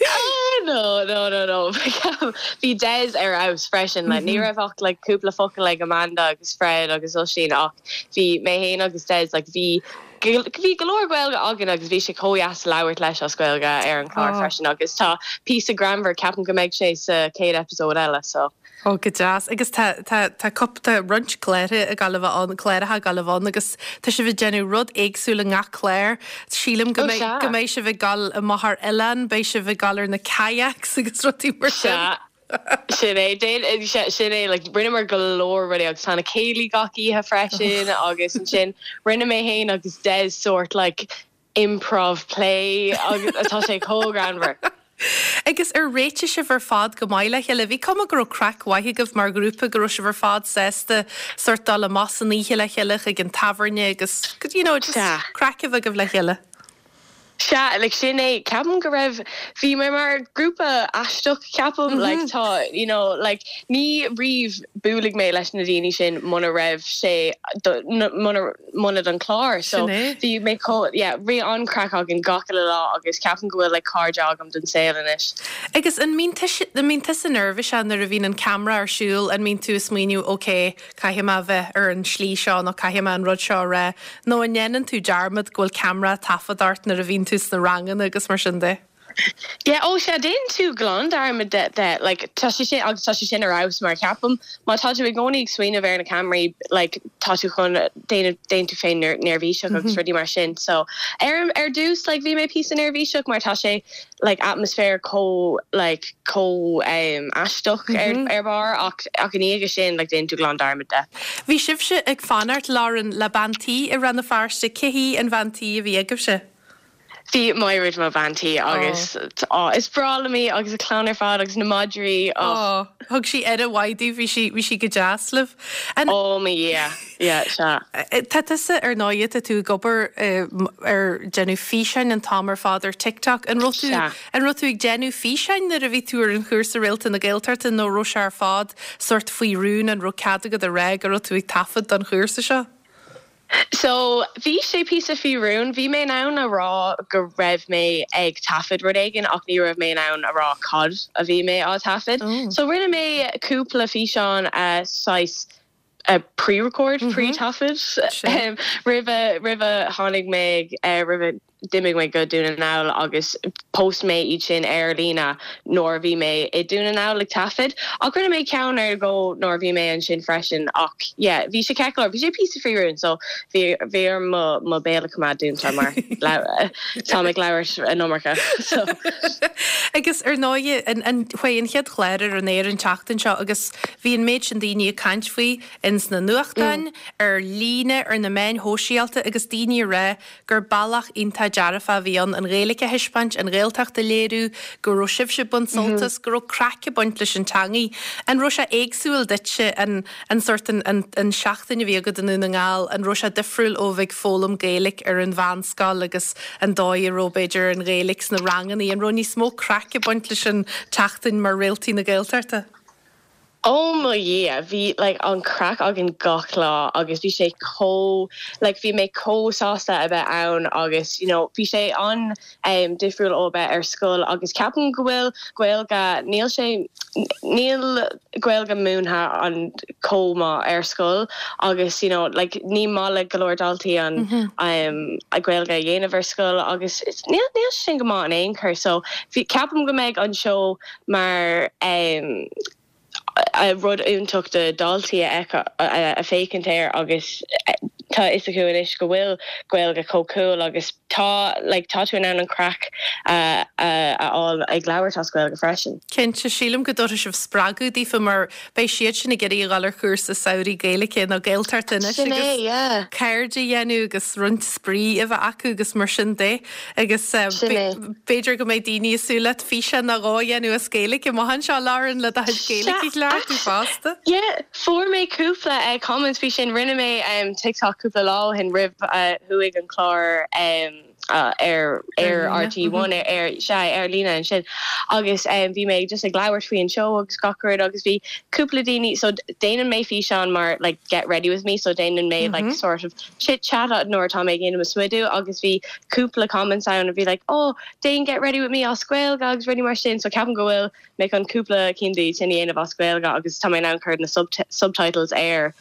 Ah no no no no bhí Des ar fheabhas freisin like ní raibh ach like cúpla focal ag Amanda agus Fred agus Oisín ach bhí mé féin agus Des like bhí. Bhí go leor Gaeilge againn agus bhí sé chomh dheas labhairt leis as Gaeilge ar an chlár freisin agus tá píosa greannmhar, ceapaim go mbeidh sé sa chéad episode eile so. Ó, go deas. Agus tá, tá, tá cúp, tá roinnt cláracha ag gabháil a bheith ann, cláracha ag gabháil a bheith ann agus tá sibh ag déanamh rud éagsúil i ngach clár. Sílim go mbeidh, go mbeidh sibh ag gabháil amach ar oileán, beidh sibh ag gabháil ar na kayaks agus rudaí mar sin. Sea. Sin é, sin é, like, rinneamar go leor rudaí agus tá na céilí gach oíche freisin agus ansin rinne mé féin agus Des sórt like improv play agus tá sé chomh greannmhar. Agus ar réitigh sibh ar fad go maith le chéile? Bhí cuma go raibh craic mhaith agaibh mar ghrúpa, go raibh sibh ar fad sásta sórt dul amach san oíche le chéile chuig an tábhairne agus, you know, just craic a bheith agaibh le chéile. Sea, like sin é, ceapaim go raibh, bhí mé mar grúpa aisteach ceapaim, like tá, you know, like ní riamh buailfidh mé leis na daoine sin muna raibh sé, muna, muna don chlár. So Sin é. bhí mé chomh, yeah, bhí an-chraic againn gach uile lá agus ceapaim go bhfuil like cairde agam don saol anois. Agus an mbíonn tusa, an mbíonn tusa neirbhíseach nuair a bhíonn an ceamara ar siúl, an mbíonn tú ag smaoineamh ok, caithfidh mé a bheith ar an slí seo nó caithfidh mé an rud seo a rá, nó an ndéanann tú dearmad go bhfuil ceamara ag taifead ort nuair a bhíonn tú sna ranganna agus mar sin de? Yeah, oh sea, déanann tú glan dearmad de, de, like, tá sé sin, agus tá sé sin ar fheabhas mar ceapaim má tá tú i gcónaí ag smaoineamh ar na ceamaraí, like, tá tú chun déanamh, déanann tú féin neirbhíseach agus rudaí mar sin. So, ar, ar dtús, like, bhí mé píosa neirbhíseach mar tá sé, like atmaisféar chomh like chomh um aisteach ar ar barr ach ach i ndiaidh sin like déanann tú glan dearmad de. Bhí sibhse ag fanacht, Lauren, le bean tí i Rann na Feirste. Cé hí an bhean tí a bhí agaibhse? Bhí Maighread mo bhean tí agus oh is breá liom í agus a clann ar fad agus na madraí oh. Oh, thug sí aire mhaith daoibh, bhí sí bhí sí go deas libh. An. Oh mo Dhia, yeah, sea. Tá tusa, ar ndóighe, tá tú ag obair ar déanamh físeáin an t-am ar fad ar TikTok. An raibh tú, an raibh tú ag déanamh físeáin nuair a bhí tú ar an chúrsa Réalta na Gaeltachta nó raibh sé ar fad sórt faoi rún, an raibh cead agat a rá go raibh tú ag taifead don chúrsa seo? So, bhí sé píosa faoi rún. Bhí mé in ann a rá go raibh mé ag taifead rud éigin ach ní raibh mé in ann a rá cad a bhí mé á taifead. So, rinne mé cúpla físeán saghas pre-record, pre-taifead roimhe roimhe tháinig mé roimhe d'imigh mé go Dún na nGall agus post mé iad sin ar líne nuair a bhí mé i Dún na nGall ag taifead. Ach rinne mé ceann nó dhó nuair a bhí mé ansin freisin ach yeah bhí sé ceart go leor, bhí sé píosa faoi rún so bhí bhí orm mo mo béal a choimeád dúnta mar táim ag labhairt an iomarca so. Agus ar ndóighe an an chuaigh an chéad chlár ar an aer an tseachtain seo agus Bhí an méid sin daoine ag caint faoi ins na nuachtáin, ar líne, ar na meáin shóisialta agus daoine ag rá gur bealach iontach dearfach a bhí ann an Ghaeilge a thaispeáint, an Ghaeltacht a léiriú, go raibh sibhse ag baint sult as, go raibh craic ag baint leis an teangaidh. An raibh sé éagsúil duitse an an sórt an an an seachtain a bhí agat i nDún na nGall, an raibh sé difriúil ó bheith ag foghlaim Gaeilge ar an mheánscoil agus an dóigh a raibh b'fhéidir an Ghaeilge sna ranganna, an raibh níos mó craic ag baint leis an tseachtain mar Réaltaí na Gaeltachta? Oh mo Dhia, bhí like an craic againn gach lá agus bhí sé chomh like bhí mé chomh sásta a bheith ann agus you know bhí sé an em difriúil ó a bheith ar scoil agus ceapaim go bhfuil Gaeilge níl sé níl Gaeilge múinthe an chomh maith ar scoil agus you know like ní maith le go leor daltaí an em a Gaeilge a dhéanamh ar scoil agus níl níl sé sin go maith in aon chor so bhí ceapaim go mbeidh an seó mar rud iontach do dhaltaí a a féachaint air agus tá a fhios acu anois go bhfuil Gaeilge chomh cool agus tá like tá tú in ann an craic a a fháil ag labhairt as Gaeilge freisin. Cinnte, sílim go dtabharfaidh sibh spreagadh daofa mar beidh siad sin ag iarraidh a dhul ar chúrsa samhraidh Gaeilge nó Gaeltachta anois Sin é, agus yeah. cairde a dhéanamh agus roinnt spraoi a bheith acu agus mar sin de. Agus Sin é. b'fhéidir go mbeidh daoine ag súil leat físeán nó dhó a dhéanamh as Gaeilge amach anseo, Lauren, le do chuid Gaeilge a chleachtadh fosta. Yeah, fuair mé cúpla comments faoi sin. Rinne mé TikTok cúpla lá ó shin roimh a chuaigh an clár. Ar ar RTÉ One ar sea ar líne ansin agus bhí mé just ag labhairt faoi an seó agus gach rud agus bhí cúpla daoine so déanann mé físeán mar like get ready with me so déanann mé like sort of chit chat nuair atá mé ag déanamh mo smidiú agus bhí cúpla comments ann a bhí like oh déan get ready with me as Gaeilge agus rudaí mar sin so ceapaim go bhfuil mé chun cúpla cinn de sin a dhéanamh as Gaeilge agus tá mé in ann cur na subtitles air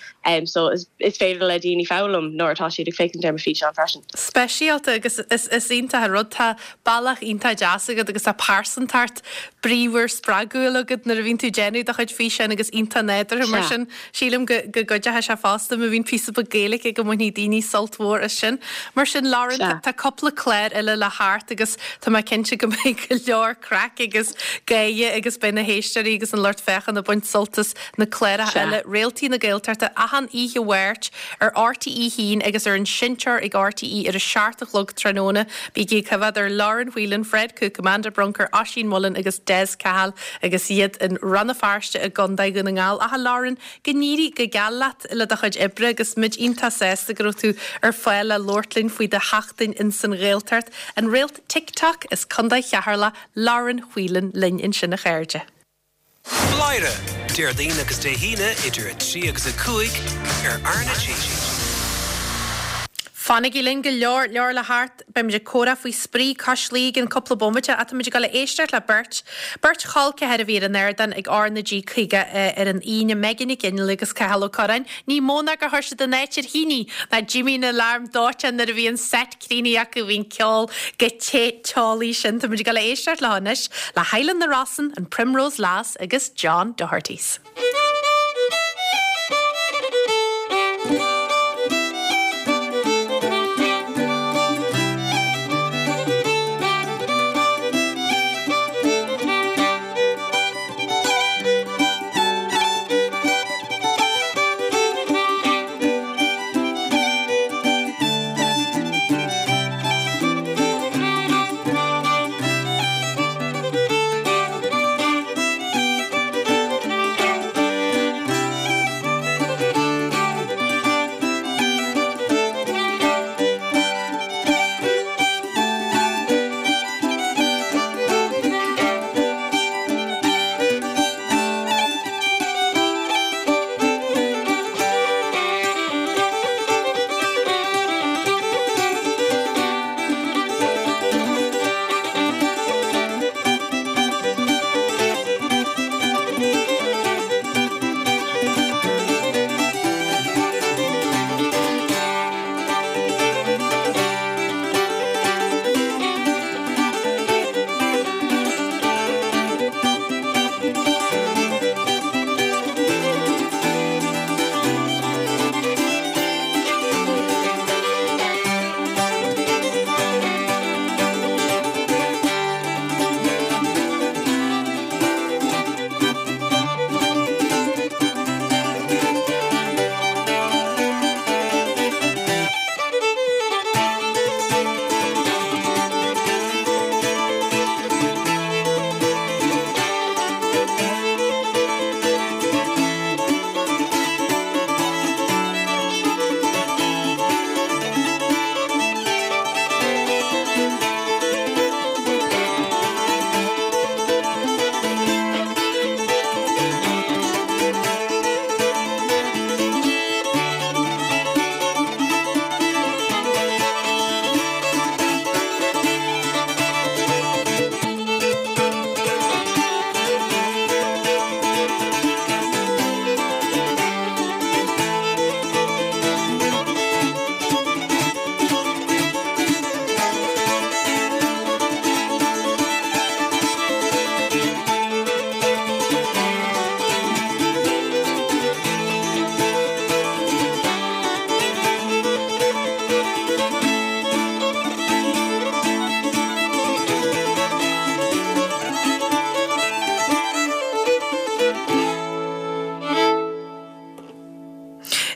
so is féidir le daoine foghlaim nuair atá siad ag féachaint ar mo físeán freisin. Speisialta agus is iontach an rud. Tá bealach iontach deas agat agus tá pearsantacht bríomhar spreagúil agat nuair a bhíonn tú ag déanamh do chuid físeáin agus iontach nádúrtha mar sin. Sílim go gcuideoidh sé fosta má bhíonn píosa beag Gaeilge go mbainfidh daoine sult mhór as sin. Mar sin Lauren, tá cúpla clár eile le theacht agus tá mé cinnte go mbeidh go leor craic agus gáire agus beidh na héisteoirí agus an lucht féachana ag baint sult as na cláracha eile, Réaltaí na Gaeltachta, achan oíche Mháirt ar RTÉ 1 agus ar an seinnteoir ag RTÉ ar a 7 a chlog tráthnóna. Bígí ag coimhéad ar Lauren Whelan, Fred Cooke, Amanda Brunker, Oisín Mullin agus Des Cahill agus iad in Rann na Feirste i gContae Dhún na nGall. Ach a Lauren, go n-éirí go geal leat le do chuid oibre agus muid iontach sásta go raibh tú ar fáil le labhairt linn faoi do sheachtain ins an Ghaeltacht. An réalt TikTok as Contae Cheatharlach, Lauren Whelan linn ansin a chairde. Bladhaire, Déardaoin agus Dé hAoine idir 3 agus 5 ar R na G. Fanaigí linn, go leor leor le theacht. Beimid ag comhrá faoi Spraoi Cois Laoi i gcionn cúpla bomaite ach táimid ag dul a éisteacht le beirt, beirt chol ceathar a bhí ar an ardán ag R na G 50 ar an Aoine, Megan Nic Fhionnghaile agus Cathal Ó Curráin. Ní mó ná gur chuir siad an áit ar thine ná d'imigh an alarm dóiteáin nuair a bhí an set críochnaithe acu, bhí an ceol chomh te teolaí sin. Táimid ag dul a éisteacht leo anois le Highland na Rosann, an Primrose Lass agus John Doherty's.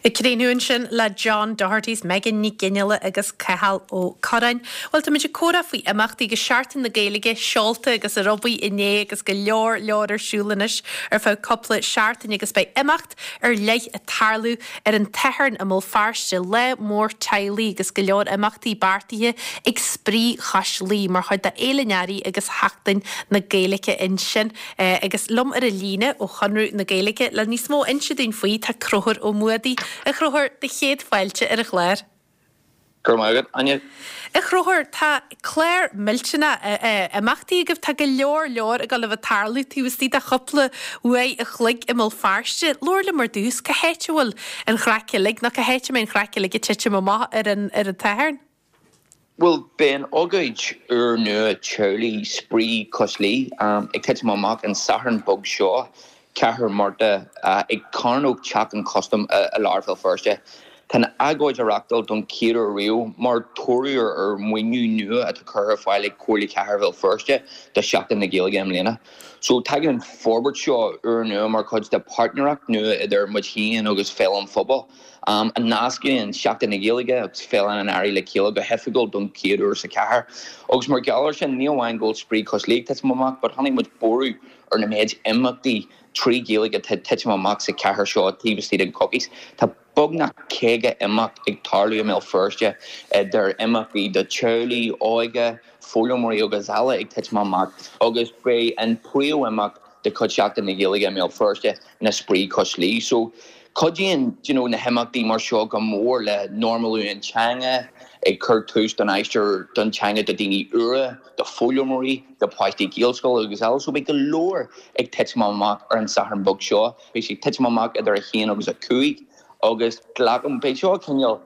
Ag críochnú ansin le John Doherty's Megan Nic Fhionnghaile agus Cathal Ó Curráin. Bhuel, táimid ag comhrá faoi imeachtaí agus Seachtain na Gaeilge seolta agus ar aghaidh inné agus go leor leor ar siúl anois ar feadh cúpla seachtain agus beidh imeacht ar leith ag tarlú ar an tSatharn i mBéal Feirste, lá mór teaghlaigh agus go leor imeachtaí beartaithe ag Spraoi Chois Laoi mar chuid de Fhéile an Earraigh agus Sheachtain na Gaeilge ansin. Agus liom ar an líne ó Chonradh na Gaeilge le níos mó a inse dúinn faoi tá Conchúr Ó Muadaigh. A Chonchúir, do chéad fáilte ar an chlár. Go raibh maith agat, Áine. A Chonchúir, tá clár millteanach imeachtaí agaibh. Tá go leor leor ag dul a bheith ag tarlú taobh istigh de chúpla uair a chloig i mBéal Feirste. Labhair liom ar dtús, cá háit a bhfuil an chraic uilig, nó cá háit a mbeidh an chraic uilig ag titim amach ar an tSatharn? Bhuel, beidh an ócáid úrnua teaghlaigh Spraoi Cois Laoi ag titim amach an Satharn beag seo, 4 Márta, ag Cearnóg Teach an Chustaim i lár Bhéal Feirste. Tá an ócáid á reáchtáil don chéad uair riamh mar thoradh ar mhaoiniú nua atá curtha ar fáil ag Comhairle Chathair Bhéal Feirste do Sheachtain na Gaeilge i mbliana. So tagann an forbairt seo úrnua mar chuid de páirtnéireacht nua idir muid féin agus Féile an Phobail. a nascann Seachtain na Gaeilge agus Féile an Earraigh le chéile go hoifigiúil don chéad uair sa chathair. Agus mar gheall ar sin, ní amháin go bhfuil Spraoi Cois Laoi ag titim amach, but chonaic muid borradh ar na méid imeachtaí trí Ghaeilge atá ag titim amach sa chathair seo taobh istigh den choicís. Tá beagnach 50 imeacht ag tarlú i mBéal Feirste, idir imeachtaí do teaghlaigh, óige, foghlaimeoirí agus eile ag titim amach, agus beidh an príomh-imeacht de chuid Sheachtain na Gaeilge i mBéal Feirste ná Spraoi Cois Laoi. So, cuidíonn do you know na himeachtaí mar seo go mór le normalú an teanga, ag cur tús don aistear don teanga do daoine úra, do foghlaimeoirí, do pháistí Gaelscoile agus eile. So beidh go leor ag titim amach ar an Satharn beag seo. Beidh sé ag titim amach idir 1 agus 5 agus glacaim, beidh seo cineál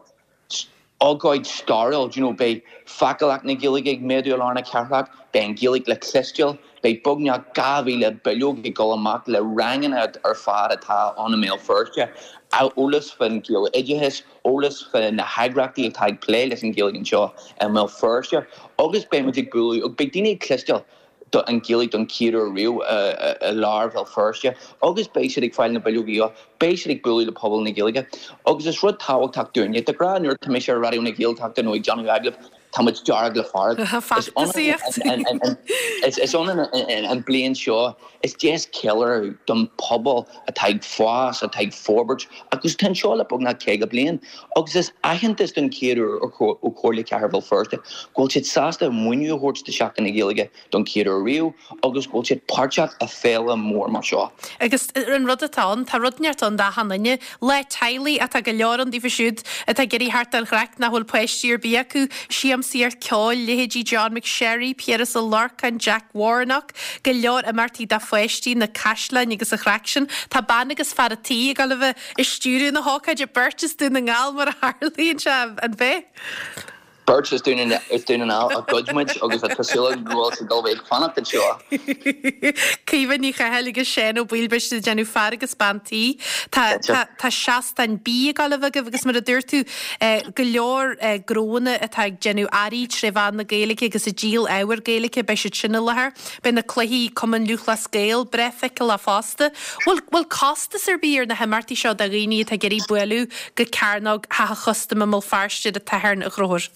ócáid stairiúil, do you know, beidh feiceálacht na Gaeilge ag méadú i lár na cathrach, beidh an Ghaeilge le cloisteáil, beidh beagnach 2,000 bileog ag dul amach le ranganna ar fad atá ann i mBéal Feirste, eolas fán Ghaeloideachas, eolas fá na heagraíochtaí atá ag plé leis an Ghaeilge anseo i mBéal Feirste agus beidh muid ag bualadh, agus beidh daoine ag cloisteáil. an Ghaeilge don chéad uair riamh i lár Bhéal Feirste agus beidh siad ag fáil na bileogaí seo, beidh siad ag bualadh le pobal na Gaeilge agus is rud tábhachtach dúinne. De ghnáth nuair atá mise ar Raidió na Gaeltachta nó ag déanamh agallaimh, tá muid dearg le fearg. Is ionann an bliain seo, is deis ceiliúradh don phobal atá ag fás, atá ag forbairt agus atá anseo le beagnach 50 bliain agus is aitheantas don chéad uair ó Chomhairle Chathair Bhéal Feirste go bhfuil siad sásta maoiniú a thabhairt do Sheachtain na Gaeilge don chéad uair riamh agus go bhfuil siad páirteach i féile mór mar seo. Agus an rud atá ann, tá rud inteacht ann d'achan duine. Lá teaghlaigh atá go leor ann daofa siúd atá ag iarraidh theacht don chraic nach bhfuil páistí ar bith acu, siamsaíocht ceoil, leithéidí John McSherry, Piaras Ó Lorcáin, Jack Warnock, go leor imeachtaí do pháistí, na caisleáin agus an chraic sin. Tá bean agus fear a' tí ag dul a bheith ag stiúradh na hócáide, beirt as Dún na nGall mar a tharlaíonn sé, an b'ea? Beirt as Dún na nGall a ghoid muid agus tá súil agam go bhfuil siad ag dul a bheith ag fanacht anseo. Caoimhe Ní Chathail agus Seán Ó Baoill, beidh siad ag déanamh fear agus bean tí. Tá, tá, tá seastán bídh ag dul a bheith agaibh agus mar a dúirt tú, go leor gnóanna atá ag déanamh earraí tré mheán na Gaeilge agus ag díol ábhar Gaeilge, beidh siad sin i láthair. Beidh na cluichí Cumann Lúthchleas Gael breá feiceálach fosta. Bhfuil bhfuil costas ar bith ar na himeachtaí seo do dhaoine atá ag iarraidh bualadh go Cearnóg Theach an Chustaim i mBéal Feirste ar an tSatharn, a Chonchúir?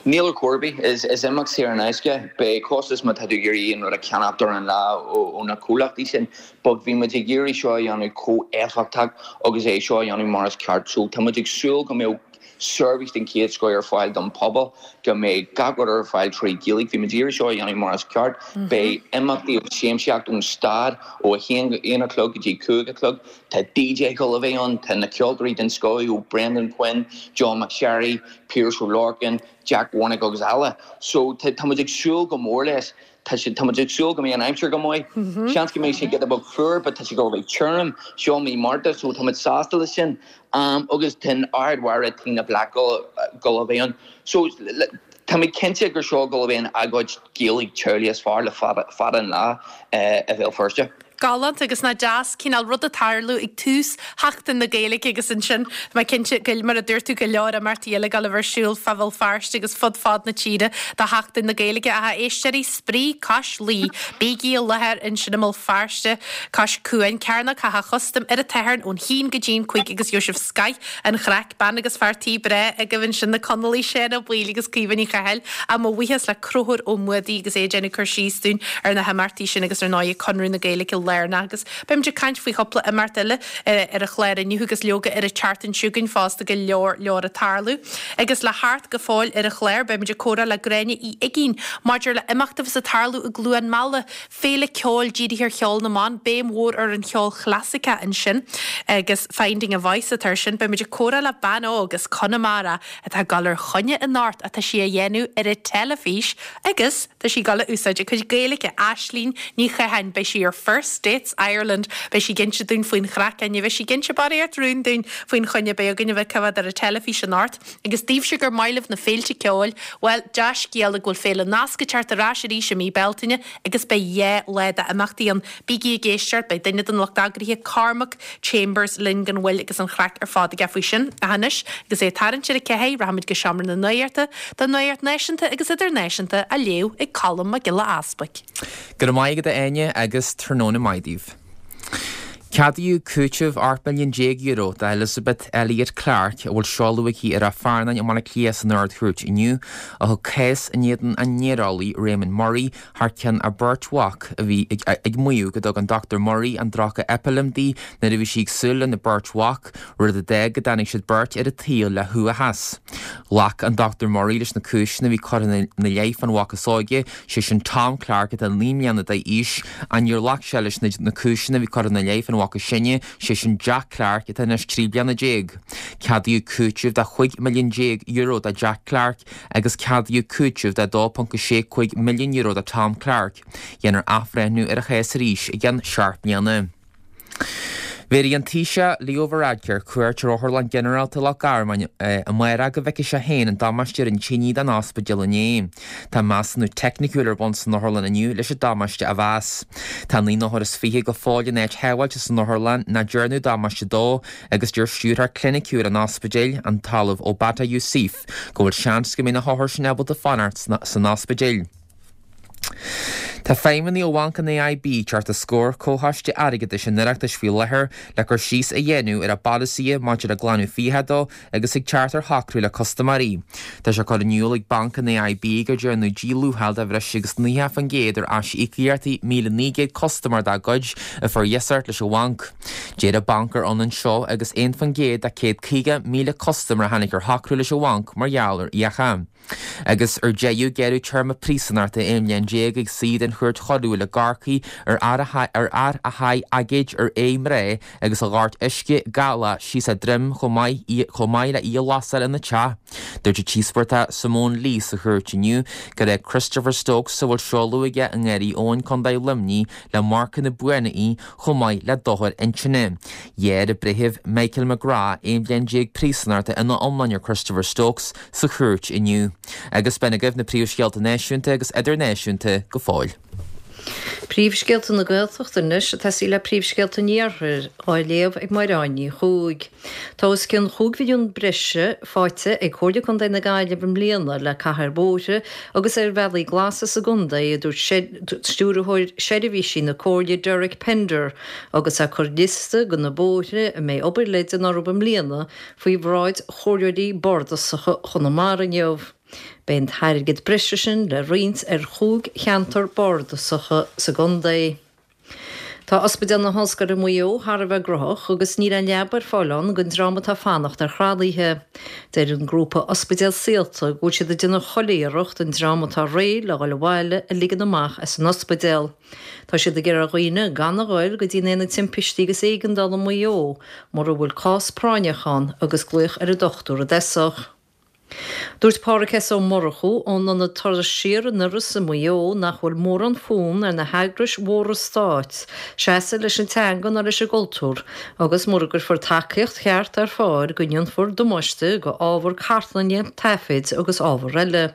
Níl ar chor ar bith. Is imeacht saor in aisce. Beidh costas má tá tú ag iarraidh aon rud a cheannacht ar an lá ó na comhlachtaí sin but bhí muid ag iarraidh seo a dhéanamh chomh éifeachtach agus é seo a dhéanamh mar is ceart so tá muid ag súil go mbeadh seirbhís den chéad scoth ar fáil don phobal, go mbeidh gach rud ar fáil trí Ghaeilge. Bhí muid ag iarraidh seo a dhéanamh mar is ceart. Beidh imeachtaí agus siamsaíocht ón stad ó 1 a chlog go dtí 5 a chlog. Tá DJ ag dul a bheith ann, tá na ceoltóirí den scoth ó Brendan Quinn, John McSherry, Piaras Ó Lorcáin, Jack Warnock agus eile. So tá muid ag súil go mór leis. Tá sé, tá muid ag súil go mbeidh an aimsir go maith. Seans go mbeidh sé giota beag fuar but tá sé ag dul a bheith tirim. Seo mí Márta so tá muid sásta leis sin. Agus tá an Ard-Mhéara Tina Black ag dul a bheith ann. So tá mé cinnte gur seo ag dul a bheith an agóid Gaeilge teaghlaigh is fearr le fada, fada an lá i Bhéal Feirste. Galánta agus nach deas cineál rud ag tarlú ag tús Sheachtain na Gaeilge agus ansin tá mé cinnte go, mar a dúirt tú, go leor imeachtaí eile ag dul a bheith ar siúl fá Bhéal Feirste agus fud fad na tíre do Sheachtain na Gaeilge. Ach a éisteoirí, Spraoi Cois Laoi, bígí i láthair ansin i mBéal Feirste cois cuain, Cearnóg Theach an Chustaim ar an tSatharn ón haon go dtí an 5 agus gheobhaidh sibh scoith an chraic, bean agus fear tí breá agaibh ansin, na Conallaigh, Seán Ó Baoill agus Caoimhe Ní Chathail. Ach mo bhuíochas le Conchúr Ó Muadaigh agus é ag déanamh cur síos dúinn ar na himeachtaí sin agus ar ndóigh Conradh na Gaeilge lárnach agus beimid ag caint faoi chúpla imeacht eile ar an chlár inniu agus leoga ar an tseachtain seo chugainn fosta go leor leor ag tarlú. Agus le theacht go fóill ar an chlár beimid ag comhrá le Gráinne Uí Uigínn maidir le imeacht a bheas ag tarlú i gCluain Meala Féile ceoil dírithe ar cheol na mban, béim mhór ar an cheol chlasaiceach ansin agus Finding a Voice atá ar sin. Beimid ag comhrá le bean óg as Conamara atá ag dul ar choinne anocht ach tá sí á dhéanamh ar an teilifís agus tá sí ag dul a úsáid a cuid Gaeilge. Aislínn Ní Chatháin, beidh sí ar First Dates Ireland, beidh sí ag inse dúinn faoin chraic, ní bheidh sí ag inse barraíocht rún dúinn faoin choinne a bheidh againn a bheith coimhéad ar an teilifís anocht. Agus daoibhse gur maith libh na féilte ceoil, bhuel, dea-scéala go bhfuil Féile Nasc ag teacht ar ais arís i mí Bealtaine agus beidh 2 lá d'imeachtaí ann. Bígí ag éisteacht, beidh duine den lucht eagraithe, Cormac Chambers, linn gan mhoill agus an chraic ar fad aige faoi sin. Ach anois, agus é ag tarraingt ar a ceathair, rachaimid go Seomra na Nuachta don nuacht náisiúnta agus idirnáisiúnta á léamh ag Colm Mac Giolla Easbuic. Go raibh maith agat a Áine agus tráthnóna maith daoibh. Ceadaíodh cúiteamh €18 milliún d'Elizabeth Elliot Clarke, a bhfuil seoladh aici i Ráth Fearnáin i mBaile Átha Cliath san Ard-Chúirt inniu, a thug cás in éadan an néareolaí Raymond Murray thar ceann a beirt mhac a bhí ag maíomh go dtug an Dr Murray an druga Epilim di nuair a bhí sí ag súil lena beirt mhac, rud a d'fhág go dtáinig siad beirt ar an tsaol le huathachas. Ghlac an Dr Murray leis na cúiseanna a bhí curtha ina leith fán mhac is óige, sé sin Tom Clarke atá 9 mbliana d'aois, ach níor ghlac sé leis na cúiseanna a bhí curtha ina leith fán mhac is sine, sé sin Jack Clarke atá anois 13 bliana. Ceadaíodh cúiteamh de €15 milliún do Jack Clarke agus ceadaíodh cúiteamh de €2.65 milliún do Tom Clarke. Dhéanfar athbhreithniú ar an chás arís i gceann seacht mbliana. Bhéarfaidh an Taoiseach Leo Varadkar cuairt ar Otharlann Ghinearálta Loch Garman amárach go bhfeicfidh sé féin an damáiste a rinne tine don ospidéal inné. Tá measúnú teicniciúil ar bun san otharlann inniu leis an damáiste a mheas. Tá 29 othar go fóill in áit shábháilte san otharlann nach ndearnadh damáiste dó agus deir stiúrthóir cliniciúil an ospidéil, an tOllamh Obada Yousif, go bhfuil seans go mbeidh na hothair sin ábalta fanacht san ospidéal. Tá feidhmeannaigh ó Bhanc an AIB ag teacht os comhair Comhchoiste Airgeadais an Oireachtais faoi láthair le cur síos a dhéanamh ar a bpolasaithe maidir le glanadh fiacha dó agus ag teacht ar shocrú le custaiméirí. Tá sé curtha in iúl ag Banc an AIB gur déanadh díluacháil de bhreis agus 90% ar aisíocaíochtaí 1,900 custaiméir dá gcuid a fuair iasacht leis an bhanc. Deir an banc gur ionann seo agus 1% de 150,000 custaiméir a tháinig ar shocrú leis an bhanc mar gheall ar fhiacha. Agus ar deireadh, gearradh téarma príosúnachta 11 mbliain ag saoi den Chúirt Choiriúil i gCorcaigh ar fhear a sháigh aigéad ar aghaidh mná agus a dhoirt uisce galach síos a droim chomh maith chomh maith le í a lasáil ina teach. Dúirt an t-íospartach Simone Lee sa chúirt inniu gur fhág Christopher Stokes, a bhfuil seoladh aige i nGarraí Eoin, Co. Luimnigh, le marcanna buana í chomh maith le dochar intinne. Ghearr an Breitheamh Michael McGrath 11 bhliain príosúnachta ina iomláine ar Christopher Stokes sa chúirt inniu. Agus b'in agaibh na príomhscéalta náisiúnta agus idirnáisiúnta go fóill. Príomhscéalta na Gaeltachta anois ag tosaí le príomhscéalta an Iarthair, á léamh ag Máire Áine Ní Chuaig. Tá os cionn chúig mhilliún breise faighte ag Comhairle Contae na Gaillimhe i mbliana le caitheamh ar bhóithre agus ar bhealaí glasa sa gcontae, a dúirt Stiúrthóir Seirbhísí na Comhairle Derek Pender agus é ag cur liosta de na bóithre a mbeidh obair le déanamh orthu i mbliana faoi bhráid Chomhairleoirí Bardasacha Chonamara inniu. Beidh an t-airgead breise sin le roinnt ar chúig cheantar bardasacha sa gcontae. Tá Ospidéal na hOllscoile Maigh Eo thar a bheith gnóthach agus níl aon leaba ar fáil ann don dream atá ag fanacht ar thralaithe. Deir an grúpa Ospidéal Saolta go bhfuil siad ag déanamh chuile iarracht an dream atá réidh le dhul abhaile a ligean amach as an ospidéal. Tá siad ag iarraidh ar dhaoine gan a ghoil go dtí an Aonad Timpistí agus Éigeandála i Maigh Eo mura bhfuil cás práinneach ann agus glaoch ar an dochtúir i dtosach. Dúirt Pádhraic S. Ó Murchú ón ionad Turas Siar in Iorras i Maigh Eo nach bhfuil mórán fonn ar na heagrais mhóra stáit seasamh leis an teanga ná leis an gcultúr agus mura gcuirfear tacaíocht cheart ar fáil go ndéanfar damáiste go ábhar cartlainne, taifid agus ábhar eile.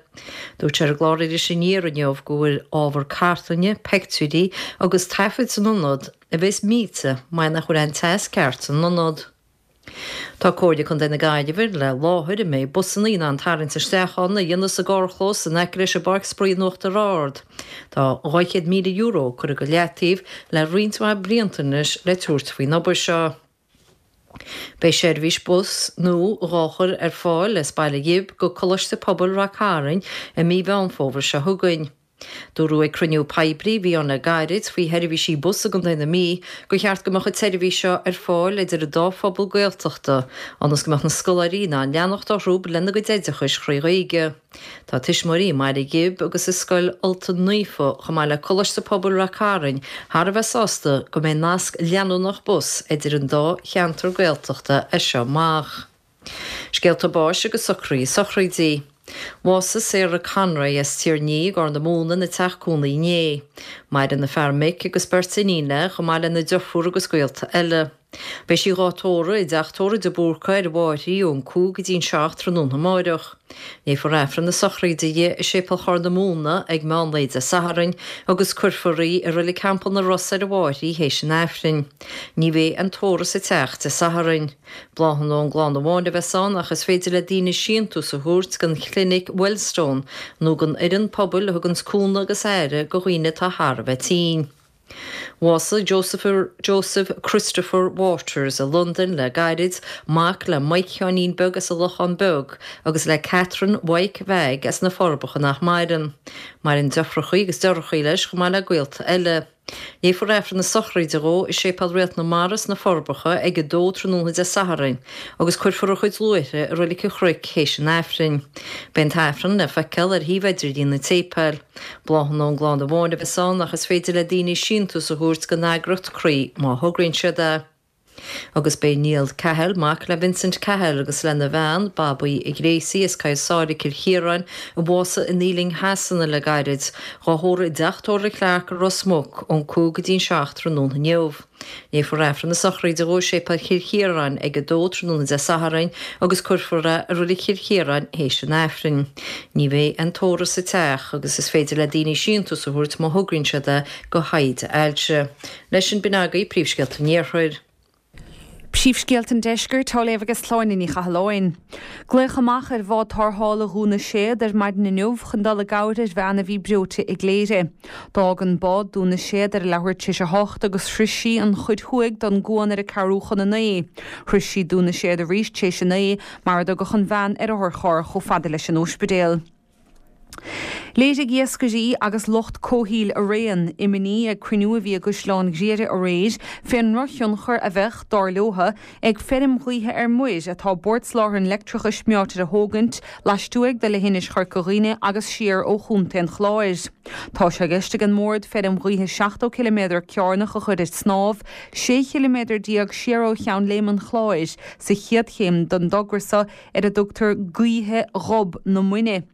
Dúirt sé ar an gclár Iris Aniar inniu go bhfuil ábhar cartlainne, peictiúirí agus taifid san ionad a bheas millte mar nach bhfuil an teas ceart san ionad. Tá Comhairle Contae na Gaillimhe le láthair a mbeidh busanna in ann tarraingt isteach ann a dhéanamh sa gcarrchlós in aice leis an bPáirc Spraoi in Uachtar Ard. Tá €200,000 curtha go leataobh le roinnt mhaith blianta anois le tabhairt faoin obair seo. Beidh seirbhís bus nua dhá chur ar fáil as Baile Ghib go Coláiste Pobail Rath Cairn i mí Mheán Fómhair seo chugainn. Dúradh ag cruinniú poiblí a bhí ann le gairid faoi sheirbhísí bus i gContae na Mí gur cheart go mbeadh an tseirbhís seo ar fáil idir an dá phobal Gaeltachta ionas go mbeadh na scoláirí in ann leanacht orthu lena gcuid oideachais thrí Ghaeilge. Tá tuismitheoirí i mBaile Ghib agus i Scoil Ultain Naofa chomh maith le Coláiste Pobail Rath Cairn thar a bheith sásta go mbeidh nasc leanúnach bus idir an dá cheantar Gaeltachta as seo amach. Scéalta báis agus socruithe sochraidí. Bhásaigh Sarah Conroy as Tír an Fhia i gCorr na Móna ina teach cónaí inné. Maireann a fear Mick agus beirt iníon léi chomh maith lena deirfiúr agus gaolta eile. Beidh sí dhá tórramh i dteach tórraimh de Búrca ar an bhFairche ón 5 go dtí an 7 tráthnóna amáireach. Léifear Aifreann na sochraide di i Séipéal Chorr na Móna ag meán lae Dé Sathairn agus cuirfear í i Reilig Theampall na Ros ar an bhFairche théis an Aifrinn. Ní bheidh aon tórramh sa teach Dé Sathairn. Bláthanna ón gclann amháin a bheas ann ach is féidir le daoine síntiús a thabhairt don chlinic Wellstone nó don fhoireann pobail a thuganns cúnamh agus aire go dhaoine atá thar a bheith tinn. Bhásaigh Joseph Joseph Christopher Waters i Londain le gairid, mac le Mike Sheáinín Beag as an Lochán Beag agus le Catherine Mhaidhc Mheaig as na Forbacha nach maireann. Maireann deirfiúrachaí agus deartháireachaí leis chomh maith le gaolta eile. Léifear Aifreann na sochraide dhó i Séipéal Réalt na Mara sna Forbacha ag 2 tráthnóna Dé Sathairn agus cuirfear a chuid luaithre i Reilig an Chnoic théis an Aifrinn. Beidh an tAifreann le feiceáil ar shuíomh idirlín an tséipéil. Bláthanna ón gclann amháin a bheas ann ach is féidir le daoine síntiús a thabhairt don eagraíocht Croí má thograíonn siad é. Agus b'é Niall Cahill, mac le Vincent Cahill agus lena bhean, Babaí Ghracie as Coill Sáile, Cill Chiaráin, a bhásaigh in Ealing Shasana le gairid, dhá thórramh i dteach tórraimh Clarke i Ros Muc ón 5 go dtí an 7 tráthnóna inniu. Léifear Aifreann na sochraide dhó i Séipéal Chill Chiaráin ag 2 tráthnóna Dé Sathairn agus cuirfear é i Reilig Chill Chiaráin théis an Aifrinn. Ní bheidh aon tórramh sa teach agus is féidir le daoine síntiús a thabhairt má thograíonn siad é go thaighde ailse. Leis sin, b'in agaibh príomhscéalta an Iarthair. Príomhscéalta an Deiscirt á léamh ag Sláine Ní Chathalláin. Glaodh amach ar bhád tarrthála Dhún na Séad ar maidin inniu chun dul i gcabhair ar bhean a bhí breoite i gCléire. D'fhág an bád Dún na Séad ar a leathuair tar éis a hocht agus shroich sí an chuid thuaidh don gcuan ar a ceathrú chun a naoi. Shroich sí Dún na Séad arís tar éis a naoi mar a dtugadh an bhean ar otharcharr chomh fada leis an óispidéal. Léirigh iascairí agus lucht comhshaoil araon imní ag cruinniú a bhí i gCaisleán Ghriaire aréir fén ndrochthionchar a bheadh, dar leotha, ag feirm ghaoithe ar muir atá Bord Soláthair an Leictreachais meáite a thógaint laistuaidh de leithinis Chorca Dhuibhne agus siar ó Chontae an Chláir. Tá sé i gceist ag an mBord feirm ghaoithe 70 ciliméadar cearnach a chur ar snámh, 16 chiliméadar siar ó Cheann Léime an Chláir, sa chéad chéim den dtogra so ar a dtugtar Gaoithe Ghob na Muine.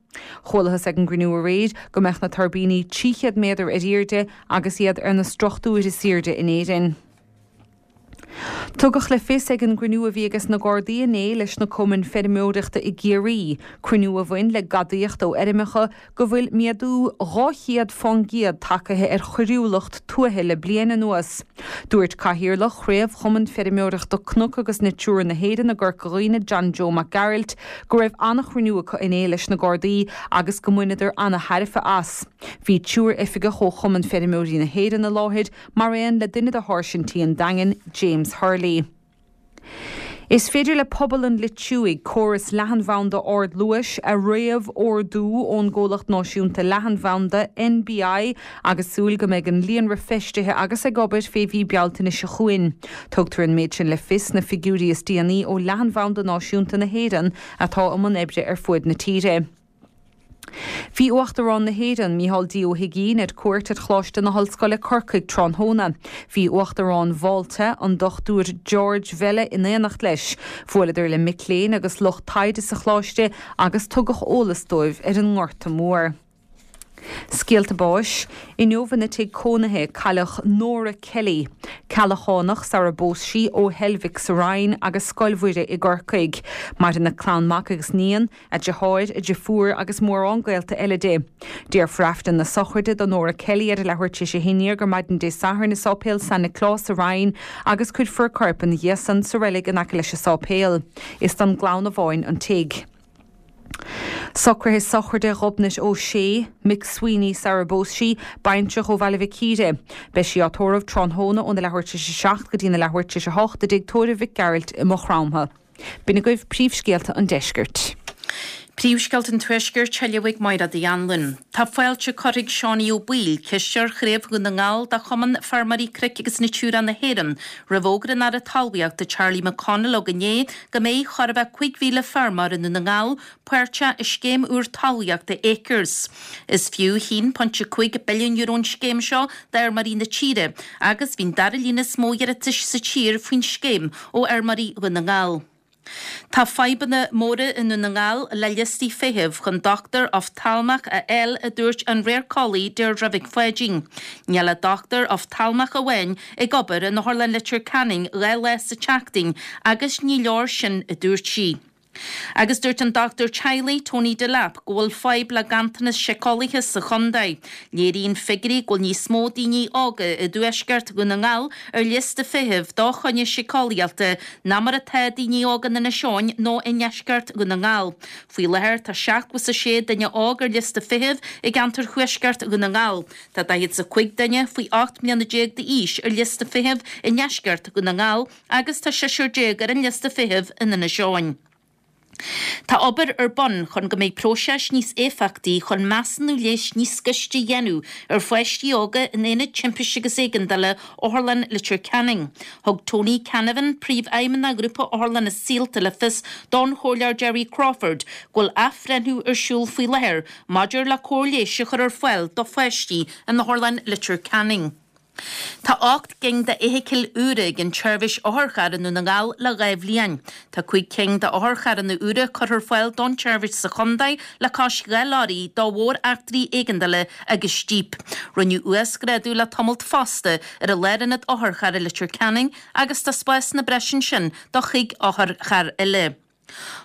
Chualathas ag an gcruinniú aréir go mbeadh na tuirbíní 300 méadar ar airde agus iad ar na struchtúir is airde in Éirinn. Tugadh le fios ag an gcruinniú a bhí ages na Gardaí inné leis na cumainn feirmeoireachta i gCiarraí, cruinniú a bhain le gadaíocht ó fheirmeacha, go bhfuil méadú 200 fán gcéad tagaithe ar choiriúlacht tuaithe le bliain anuas. Dúirt Cathaoirleach Chraobh Chumann Feirmeoireachta Cnoc agus Natura na hÉireann i gCorca Dhuibhne, John Joe Mac Gearailt, go raibh an-chruinniú acu inné leis na Gardaí agus go mbaineadar an-tairbhe as. Bhí triúr oifigeach ó Chumann Feirmeoirí na hÉireann i láthair, mar aon le duine de sháirsintí an Daingin, James Hurley. Is féidir le pobal an Loitsigh córas leathanbhanda ardluais a réamh-ordú ón gcomhlacht náisiúnta leathanbhanda, NBI, agus súil go mbeidh an líonra feistithe agus ag obair fé mhí Bealtaine seo chugainn. Tugtar an méid sin le fios sna figiúirí is déanaí ó Leathanbhanda Náisiúnta na hÉireann atá i mbun oibre ar fuaid na tíre. Bhí Uachtarán na hÉireann, Micheál D. Ó hUigínn, ar cuairt ar Choláiste na hOllscoile, Corcaigh, tráthnóna. Bhí Uachtarán Mhálta, an Dr George Vella in éineacht leis. Bhuaileadar le mic léinn agus lucht taighde sa choláiste agus tugadh eolas dóibh ar an nGorta Mór. Scéalta báis, Inniu ina tigh cónaithe cailleadh Nora Kelly, Ceallachánach sara bpós sí, ó Heilbhic sa Rinn agus Scoil Mhuire i gCorcaigh. Maireann a clann mac agus níon, a deartháir, a deirfiúr agus mórán gaolta eile di. Déarfar Aifreann na sochraide do Nora Kelly ar a leathuair tar éis a haon déag ar maidin Dé Sathairn i Sáipéal San Nioclás sa Rinn agus cuirfear a corp ina dhiaidh san sa reilig in aice leis an sáipéal. Is don gclann amháin an tigh. Socruithe sochraide Ghobnait O'Shea, Mick Sweeney sara bpós sí, baintreach ó Bhaile Mhic Íre. Beidh sí á tórramh tráthnóna óna leathuair tar éis a 7 go dtína leathuair tar éis a 8 i dtigh tórraimh Mhic Gearailt i Maigh Chromtha. B'in agaibh príomhscéalta an deiscirt. Príomhscéalta an Tuaiscirt á léamh ag Máire Uí Anluain. Tá fáilte curtha ag Seánie Ó Baoill, Cisteoir Chraobh Dhún na nGall de Chumann Feirmeoirí Cnoic agus Natura na hÉireann, roimh fhógra an Aire Talmhaíochta Charlie McConalogue inné go mbeidh chóir a bheith 5,000 feirmeoir i nDún na nGall páirteach i scéim úr talmhaíochta Acres. Is fiú €1.5 billiún an scéim seo d'fheirmeoirí na tíre agus bhí an dara líon is mó iarratais sa tír faoin scéim ó fheirmeoirí Dhún na nGall. Tá fadhbanna móra i nDún na nGall le liostaí feithimh chun dochtúir oftalmach a fháil a dúirt an radharceolaí Deirdre Mhic Pháidín. Níl ach dochtúir oftalmach amháin ag obair in Otharlann Leitir Ceanainn 2 lá sa tseachtain agus ní leor sin a dúirt sí. Agus dúirt an dochtúir teaghlaigh Tony Delap go bhfuil fadhb le ganntanas síceolaithe sa chontae. Léiríonn figiúirí go bhfuil níos mó daoine óga i dtuaisceart Dhún na nGall ar liosta feithimh do choinne síceolaíochta ná mar atá daoine óga in Inis Eoghain nó i ndeisceart Dhún na nGall. Faoi láthair tá 76 duine óg ar liosta feithimh i gceantar thuaisceart Dhún na nGall. Tá 45 duine faoi 18 mbliana d'aois ar liosta feithimh i ndeisceart Dhún na nGall agus tá seisear ar an liosta feithimh in Inis Eoghain. Tá obair ar bun chun go mbeidh próiseas níos éifeachtaí chun measúnú leighis níos gaiste a dhéanamh ar pháistí óga in Aonad Timpiste agus Éigeandála Otharlann Leitir Ceanainn. Thug Tony Canavan, Príomhfheidhmeannach Ghrúpa Otharlanna Saolta le fios don Chomhairleoir Gerry Crawford go bhfuil athbhreithniú ar siúl faoi láthair maidir le cóir leighis a chur ar fáil do pháistí in Otharlann Leitir Ceanainn. Tá 8 gcinn d'fheithicil úra ag an tseirbhís otharcharr i nDún na nGall le 2 bhliain. Tá 5 cinn d'otharcharranna úra curtha ar fáil don tseirbhís sa chontae le cois 2 leoraí do mhór-eachtraí éigeandála agus jíp. Rinneadh uasghrádú le tamalt fosta ar an lárionad otharcharr i Leitir Ceanainn agus tá spásanna breise ansin do chuig otharcharr eile.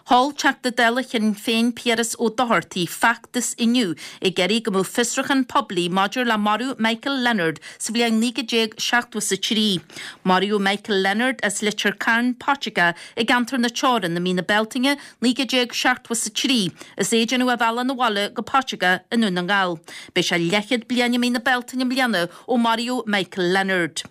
Sheol Teachta Dála Shinn Féin Piaras Ó Dochartaigh feachtas inniu ag iarraidh go mbeadh fiosrúchán poiblí maidir le marú Michael Leonard sa bhliain 1973. Maraíodh Michael Leonard as Leitir Cairn, Paiteagó i gceantar na Teorann i mí na Bealtaine 1973 is é ag déanamh a bhealach 'na bhaile go Paiteagó i nDún na nGall. Beidh sé leathchéad bliain i mí na Bealtaine i mbliana ó maraíodh Michael Leonard.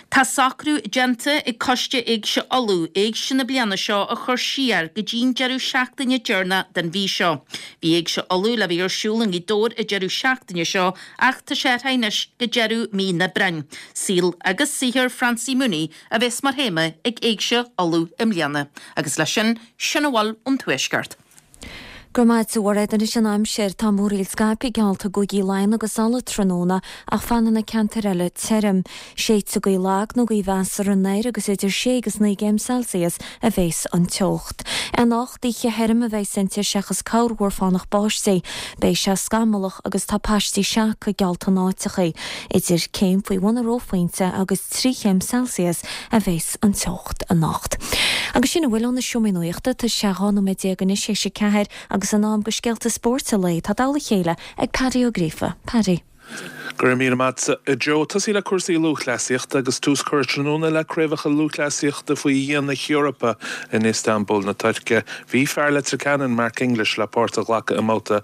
Tá socrú déanta ag Coiste Éigse Uladh Éigse na bliana seo a chur siar go dtí'n deireadh seachtaine deireanach den mhí seo. Bhí Éigse Uladh le bheith ar siúl i nGaoth Dobhair an deireadh seachtaine seo ach tá sé athraithe anois go deireadh mí an Aibreáin. Saol agus saothar Francie Mooney a bheas mar théama ag Éigse Uladh i mbliana. Agus leis sin, sin a bhfuil ón Tuaisceart. Go raibh maith agat a Mhairéad. Anois an aimsir. Tá múraíl scaipthe geallta i gcúigí Laighean agus Uladh tráthnóna ach fanfaidh na ceantair eile tirim. Séidfidh gaoth lag nó gaoth mheasartha anoir agus idir sé agus 9 gcéim Celsius a bhéas an teocht. Anocht, oíche thirim a bheas inti seachas corrmhúr fánach báistí. Beidh sé scamallach agus tá paistí seaca geallta in áiteachaí. Idir céim faoi bhun an reophointe agus 3 chéim Celsius a bhéas an teocht anocht. Agus sin a bhfuil ó na seomraí nuachta. Tá sé 12 nóiméad anois théis a ceathair agus in am do scéalta spóirt an lae. Tá i dtoll a chéile ag Paddy Ó Gríofa. Paddy. Go raibh míle maith agat, a Joe. Tosaí le cúrsaí lúthchleasaíochta agus tús curtha tráthnóna le craobhacha lúthchleasaíochta faoi dhíon na hEorpa in Istanbul na Tuirce. Bhí fear Leitir Ceanainn, Mark English, le páirt a ghlacadh i mbabhta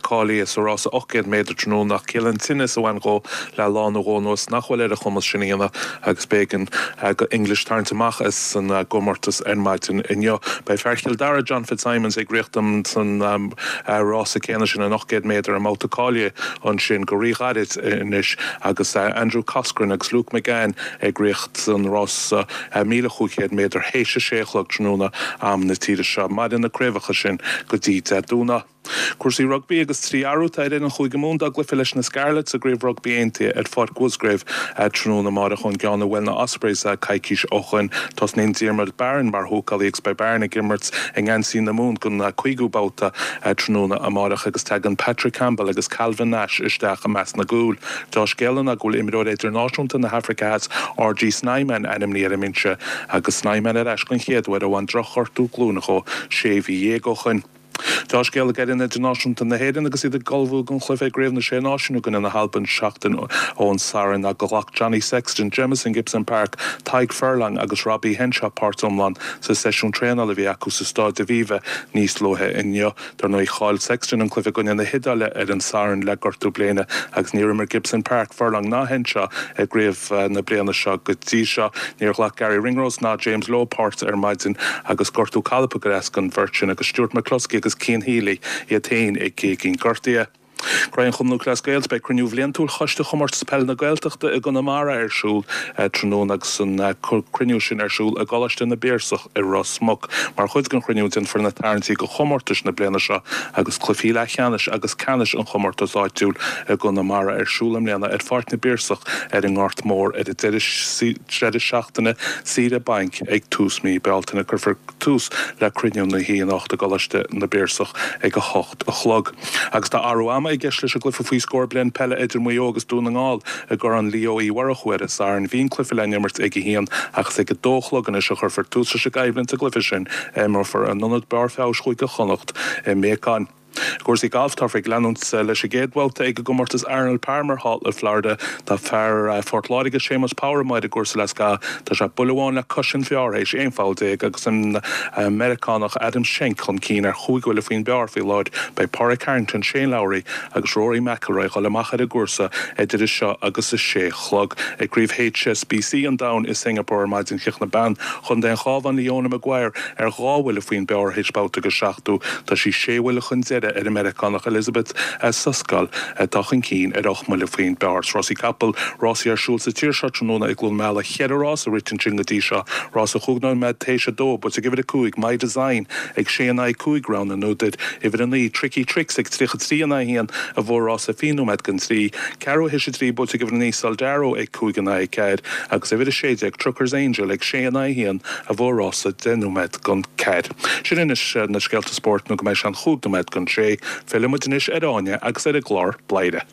cáilithe sa rása 800 méadar tráthnóna ach ciallaíonn tinneas a bhain dhó le lá nó dhó anuas nach bhfuil ar a chumas sin a dhéanamh agus b'éigean do English tarraingt amach as an gcomórtas ar maidin inniu. Beidh fear Chill Dara, John Fitzsimons, ag rith san rása céanna sin, an 800 méadar, i mbabhta cáilithe ansin go ríghairid anois agus Andrew Coscoran agus Luke McGann ag rith san rása 1,500 méadar théis a sé a chlog tráthnóna am na tíre seo. Mairfidh na craobhacha sin go dtí Dé Domhnaigh. Cúrsaí rugbaí agus 3 athrú atá ar fhoireann Chúige Mumhan dá gcluiche leis na Scarlets i gCraobh Rugbaí Aontaithe ar Pháirc Mhusgrave tráthnóna amárach ón gceann a bhuail na Ospreys coicís ó shoin. Tosnaíonn Diarmuid Barron mar húcálaí agus beidh Barron ag imirt i ngeansaí na Mumhan don cúigiú babhta tráthnóna amárach agus tagann Patrick Campbell agus Calvin Nash isteach i measc na gcúl. Deá-scéala ná go bhfuil imreoir idirnáisiúnta na hAfraice Theas RG Snyman ainmnithe ar an mbinse agus Snyman ar ais den chéad uair ó bhain drochghortú glúine dhó sé mhí dhéag ó shoin. Deá-scéala ag fhoireann idirnáisiúnta na hÉireann agus iad ag ullmhú don chluiche i gCraobh na Sé Náisiún i gcoinne na hAlban seachtain ón Satharn ná gur ghlac Johnny Sexton, Jamison Gibson-Park, Tadhg Furlong agus Robbie Henshaw páirt iomlán sa seisiún traenála a bhí acu sa Stáid Aviva níos luaithe inniu. Dar ndóigh, chaill Sexton an cluiche i gcoinne na hIodáile ar an Satharn le gortú bléine agus níor imir Gibson-Park, Furlong ná Henshaw i gcraobh na bliana seo go dtí seo. Níor ghlac Garry Ringrose ná James Lowe páirt ar maidin agus gortú cailp ag cur as don bheirt sin agus Stuart McCloskey agus Cian Healy iad féin ag géigín gortaithe. Craobh an Chumann Lúthchleas Gael Beidh cruinniú bhliantúil Choiste Chomórtas Peile na Gaeltachta i gConamara ar siúl tráthnóna agus an cruinniú sin ar siúl i gColáiste na bPiarsach i Ros Muc. Mar chuid den chruinniú déanfar na tarraingtí do chomórtais na bliana seo agus cluichí leathcheannais agus ceannais an chomórtais áitiúil i gConamara ar siúl i mbliana ar Pháirc na bPiarsach ar an nGort Mór ar an deireadh seachtaine saoire bainc ag tús mí Bealtaine. Cuirfear tús le cruinniú na hoíche anocht i gColáiste na bPiarsach ag 8 a chlog. Agus tá athrú ama i gceist leis an gcluiche faoi scór bliain peile idir Maigh Eo agus Dún na nGall i gCorn Leo Uí Mhurchú ar an Satharn. Bhí an cluiche le n-imirt ag a haon ach is ag a dó a chlog anois a chuirfear tús leis an gcoimhlint sa gcluiche sin a imreofar in Ionad Barr Feabhais Chúige Chonnacht i mBeacáin. I gcúrsaí gailf, táthar ag leanúint leis an gcéad bhabhta ag an gcomórtas Arnold Palmer thall i Florida. Tá fear Phort Láirge, Séamus Power amuigh ar an gcúrsa le scaitheamh. Tá sé buille amháin le cois an phar théis 11 pholl agus an Meiriceánach Adam Schenk chun cinn ar chúig bhuille faoin bpar faoi láthair. Beidh Pádraig Harrington, Shane Lowry agus Rory McIlroy ag dul amach ar an gcúrsa idir seo agus a sé a chlog. Ag Craobh HSBC an Domhain i Singapore ar maidin chríochnaigh bean Chontae an Chabháin Leona Maguire ar dhá bhuille faoin bpar théis babhta den seachtú. Tá sí sé bhuille chun deiridh ar an Meiriceánach Elizabeth Soskel atá chun cinn ar ocht mbuille faoin bpar. Rásaí capall, rásaí ar siúl sa tír seo tráthnóna i gCluain Meala. Cheithre rás a rite ansin go dtí seo. Rás a chúig nóiméad théis a dó, buaite ag uimhir a 5, My Design, ag sé in aghaidh 5, rogha an údair. Uimhir a 9, Tricky Tricks, ag 33 in aghaidh 1, a bhuaigh rás a 20 nóiméad don trí. Ceathrú théis a trí, buaite ag uimhir a 9, Soldaro, ag 5 in aghaidh 4, agus uimhir a 16, Trucker's Angel, ag sé in aghaidh 1, a bhuaigh rás a 10 nóiméad don ceathair. Sin anois na scéalta spóirt nó go mbeidh sé an chúig nóiméad don sé. Fillfidh muid anois ar Áine agus ar an gclár Bladhaire.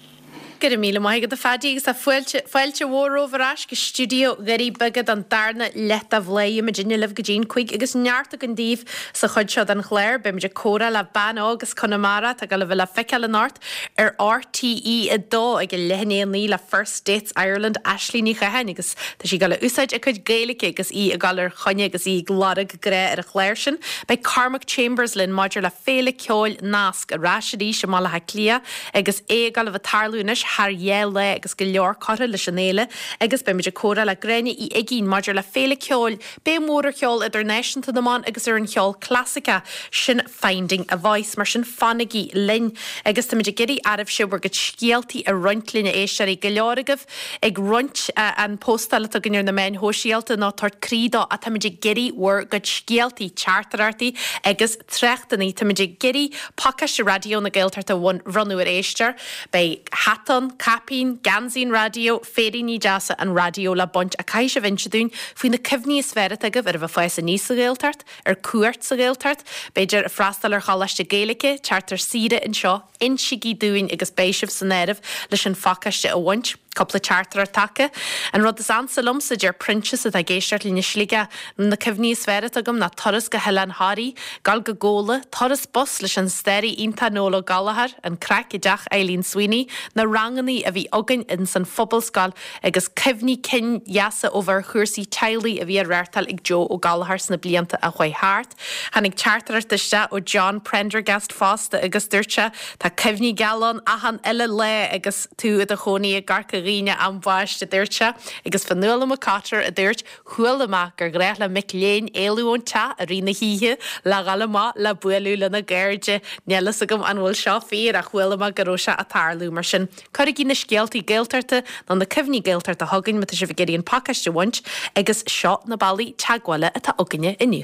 Go raibh míle maith agat a Phaddy agus tá fáilte, fáilte mhór romhaibh ar ais go stiúideo Dhoirí Beaga don darna leath de Bhladhaire. Muidinne libh go dtí'n 5 agus neart againn daoibh sa chuid seo den chlár. Beidh muid ag comhrá le bean óg as Conamara atá ag dul a bheith le feiceáil anocht ar RTÉ 2 ag a leath i ndiaidh a 9 le First Dates Ireland, Aisling Ní Chatháin agus tá sí ag dul a úsáid a cuid Gaeilge agus í ag dul ar choinne agus í ag lorg grá ar an chlár sin. Beidh Cormac Chambers linn maidir le Féile Ceoil Nasc ar ais arís i mBaile Átha Cliath agus é ag dul a bheith ag tarlú anois thar dhá lá agus go leor curtha leis an fhéile agus beidh muid ag comhrá le Gráinne Uí Uigínn maidir le Féile Ceoil Béim mhór ar cheol idirnáisiúnta na mban agus ar an cheol clasaiceach, sin Finding a Voice. Mar sin fanaigí linn agus táimid ag iarraidh oraibhse bhur gcuid scéaltaí a roinnt linn a éisteoirí. Go leor agaibh ag roinnt an póstáil atá againn ar na meáin shóisialta nó tabhairt croí dó ach táimid ag iarraidh bhur gcuid scéaltaí, teachtaireachtaí agus tráchtanna. Táimid ag iarraidh pacáiste Raidió na Gaeltachta a bhronnadh ar éisteoir. Beidh hata ann, caipín, geansaí an raidió, féiríní deasa an raidió le baint ach caithfidh sibh inse dúinn faoi na cuimhní is fearr atá agaibh ar a bheith ag fás aníos sa Ghaeltacht, ar cuairt sa Ghaeltacht, b'fhéidir ag freastal ar choláiste Gaeilge, teacht ar saoire anseo. Insígí dúinn agus beidh sibh san áireamh leis an phacáiste a bhaint. Cúpla teachtaireacht tagtha. An rud is ansa liomsa, deir Proinsias atá ag éisteacht linn i Sligeach, na cuimhní is fearr atá agam ná turas go hOileán Thoraí, dul go Gabhla, turas bus leis an staraí iontach Noel Ó Gallchóir, an craic i dteach Eileen Sweeney, na rangannaí a bhí againn ins an Phobalscoil agus cuimhní cinn dheasa ó bheith ar chúrsaí teaghlaigh a bhí á reáchtáil ag Joe Ó Gallchóir sna blianta a chuaigh thart. Tháinig teachtaireacht isteach ó John Prendergast fosta agus dúirt sé, Tá cuimhní geala ann achan uile lá agus tú i do chónaí i gCorca Dhuibhne ambaist, a dúirt sé. Agus Fionnuala McCotter a dúirt, Chuala mé gur ghnách le mic léinn éalú ón teach i rith na hoíche le dhul amach le bualadh lena gcairde. Níl fhios agam an bhfuil seo fíor ach chuala mé go raibh sé ag tarlú. Mar sin, Cuirigí na scéaltaí Gaeltachta nó na cuimhní Gaeltachta chugainn má tá sibh ag iarraidh an pacáiste a bhaint agus seo na bealaí teagmhála atá againne inniu.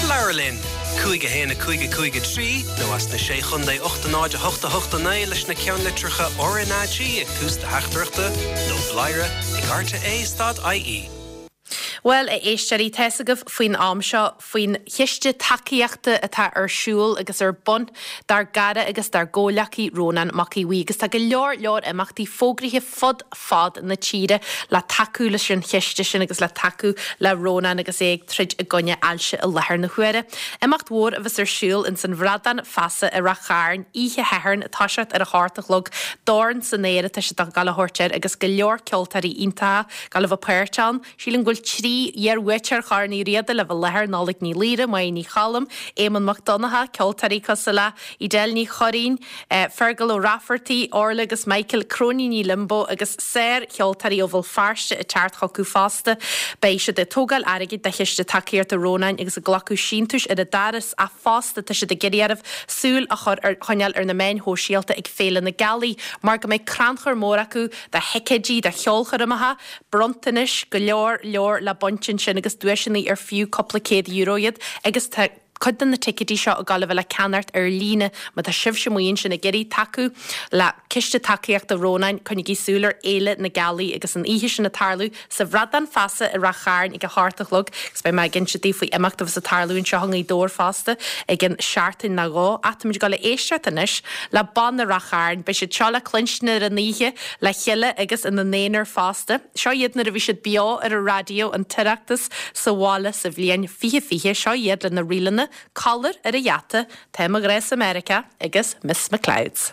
Labhair linn! 5 1 5 5 3 nó as na Sé Chontae 8 0 8 8 9 leis na ceannlitreacha RnaG ag tús do theachtaireachta nó bladhaire ag rte stad ie. Bhuel, a éisteoirí, tá's agaibh faoin am seo faoin chiste tacaíochta atá ar siúl agus ar bun dár gcara agus dár gcomhleacaí Rónán Mac Aodha Bhuí agus tá go leor leor imeachtaí fógraithe fud fad na tíre le tacú leis an chiste sin agus le tacú le Rónán agus é ag troid i gcoinne ailse i láthair na huaire. Imeacht mhór a bheas ar siúl ins an Bhradán Feasa i Rath Chairn oíche Shathairn ag toiseacht ar a hocht a chlog. Dorn san Aer atá siad ag gabháil a thabhairt air agus go leor ceoltóirí iontacha ag gabháil a bheith páirteach ann. Sílim go bhfuil 3 iar-bhuaiteoir Chorn Uí Riada le bheith i láthair, Nollaig Ní Laoire, Máire Ní Choilm, Éamonn Mac Donncha, ceoltóirí cosúil le Edel Ní Churraoin, Fergal Ó Raifeartaigh, Orla agus Michael, Cróiníní Limbo agus sár-cheoltóirí ó Bhéal Feirste ag teacht chucu fosta. Beidh siad ag tógáil airgid do Chiste Tacaíochta Rónáin agus ag glacadh síntiúis ar an doras ach fosta tá siad ag iarraidh oraibh súil a chur ar choinneáil ar na meáin shóisialta ag Féile na Gealaí mar go mbeidh crannchur mór acu do thicéidí do cheolchoirmeacha, bronntanais, go leor leor le baint ansin agus duaiseanna ar fiú cúpla €100 iad agus tá cuid de na ticéidí seo ag gabháil a bheith le ceannacht ar líne. Má tá sibhse amuigh ansin ag iarraidh tacú le Ciste Tacaíochta Rónáin, coinnigí súil ar Fhéile na Gealaí agus an oíche sin ag tarlú sa Bhradán Feasa i Rath Chairn ag a hocht a chlog agus beidh mé ag inse daoibh faoi imeacht a bheas ag tarlú anseo i nGaoth Dobhair fosta i gcionn seachtain nó dhó. Ach táimid ag dul a éisteacht anois le Banna Rath Chairn. Beidh siad seo le cluinstin ar an oíche le chéile agus ina n-aonar fosta. Seo iad nuair a bhí siad beo ar an raidió, an tOireachtas sa bhaile sa bhliain 2020. Seo iad lena ríleanna, Collar ar an Gheata, Tá mo Ghrá sa Meiriceá agus Miss McLeod's.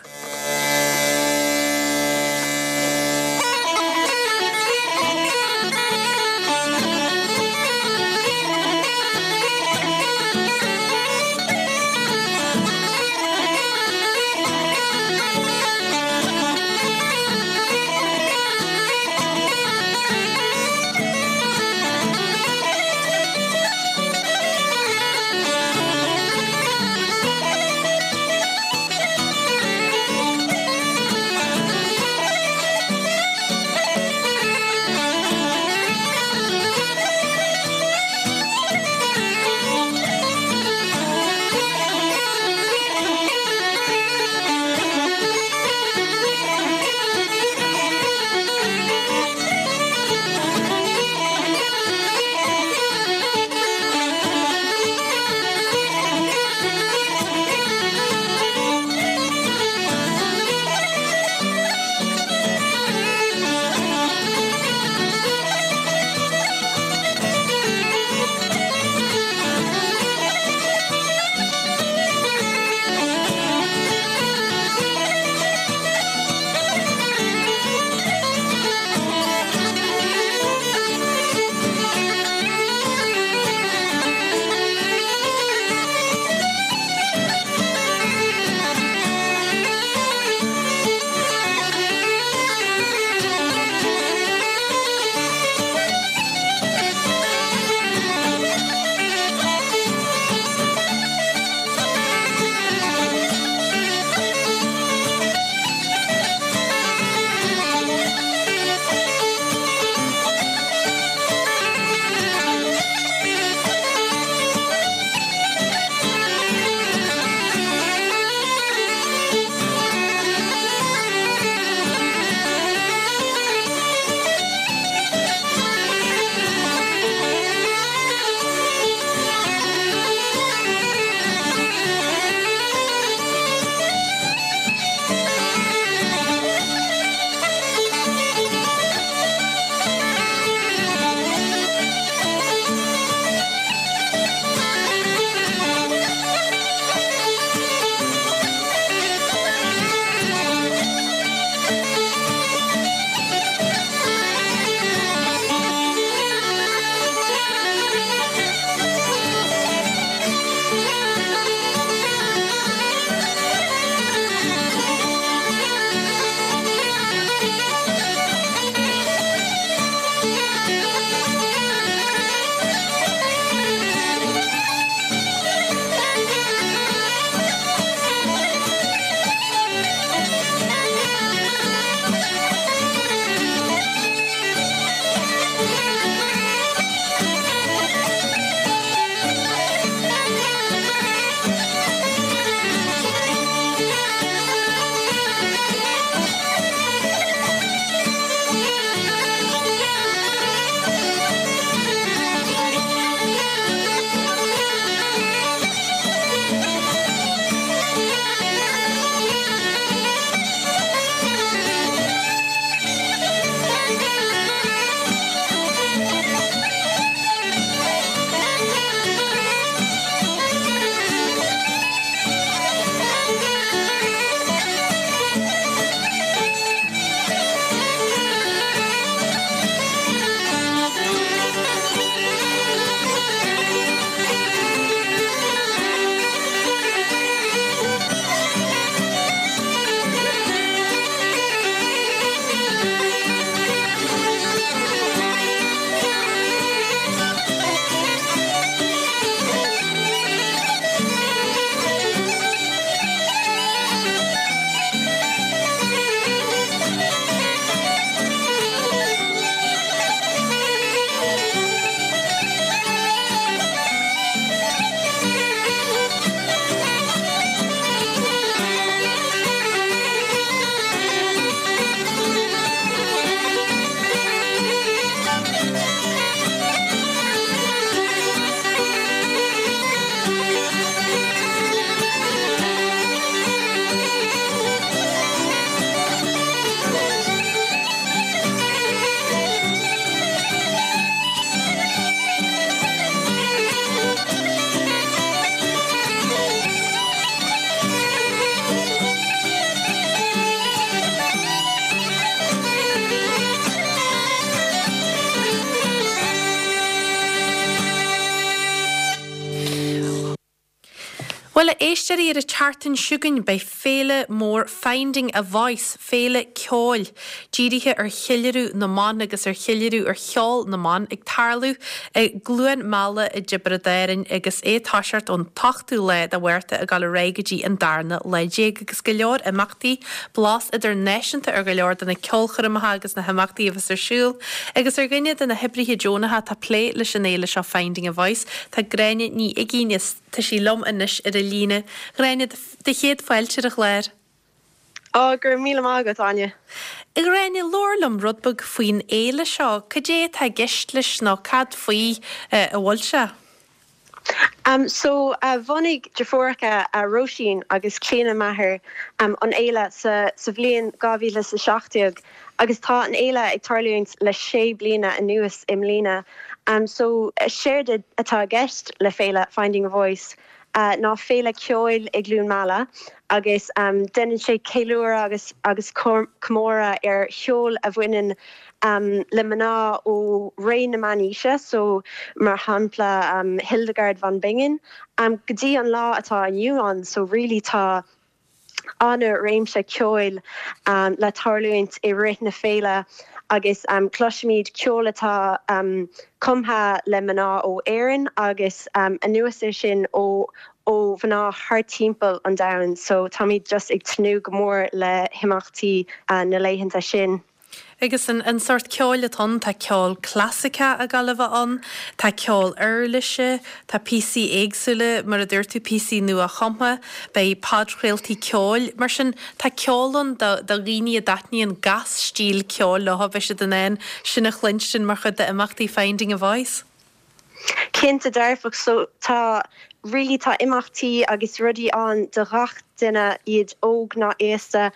Bhuel, a éisteoirí, ar an tseachtain seo chugainn beidh féile mór Finding a Voice, féile ceoil dírithe ar cheiliúradh na mban agus ar cheiliúradh ar cheol na mban, ag tarlú i gCluain Meala i dTiobraid Árann agus é ag toiseacht ón t-ochtú lá de Mhárta ag dul ar aghaidh go dtí an darna lá déag agus go leor imeachtaí, blas idirnáisiúnta ar go leor de na ceolchoirmeacha agus na himeachtaí a bheas ar siúl. Agus ar dhuine de na hoibrithe deonacha atá ag plé leis an fhéile seo Finding a Voice, tá Gráinne Ní Uigín. Tá sí liom anois ar an líne. Ghráinne, do chéad fáilte ar an chlár. Á, go raibh míle maith agat, Áine. A Ghráinne, labhair liom rud beag faoin fhéile seo. Cad é atá i gceist leis nó cad faoi a bhfuil sé? So, bhunaigh deirfiúracha Róisín agus Clíona Maher an fhéile sa bhliain 2017 agus tá an fhéile ag tarlúint le sé bliana anuas i mbliana. So, séard atá i gceist le féile Finding a Voice ná féile ceoil i gCluain Meala agus déanann sé ceiliúradh agus agus comóradh ar cheol a bhaineann le mná ó ré na meánaoise, so mar shampla Hildegard von Bingen, go dtí an lá atá inniu ann, so really tá an-réimse ceoil le tarlúint i rith na féile agus cloisfimid ceol atá cumtha le mná ó Éirinn agus anuas air sin ó ó mhná thar timpeall an domhain so táimid just ag tnúth go mór le himeachtaí na laethanta sin. Agus an sórt ceoil atá ann, tá ceol clasaiceach ag gabháil a bheith ann, tá ceol uirlise, tá píosaí éagsúla, mar a dúirt tú, píosaí nua-chumtha, beidh podchraoltaí ceoil. Mar sin, tá ceol ann do dhaoine a dtaitníonn gach stíl ceoil leo, beidh siad in ann sin a chluinstin mar chuid d'imeachtaí Finding a Voice. Cinnte dearfach. So tá really tá imeachtaí agus rudaí ann do ghach duine, iad óg ná aosta.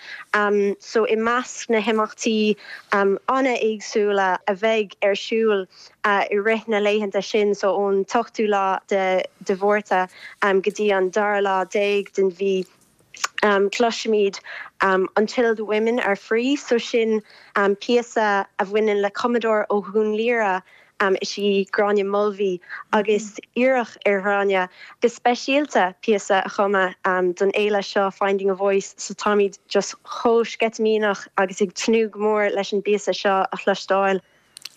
So i measc na himeachtaí an-éagsúla a bheidh ar siúl i rith na laethanta sin, so ón t-ochtú lá de Mhárta go dtí an dara lá déag den mhí, Cloisfimid Until the Women Are Free, so sin píosa a bhaineann le cumadóir ó Dhún Laoghaire, is í Gráinne Mulvey, agus iarradh ar Ghráinne go speisialta píosa a chumadh don fhéile seo Finding a Voice, so táimid just chomh sceitimíneach agus ag tnúth go mór leis an bpíosa seo a chloisteáil.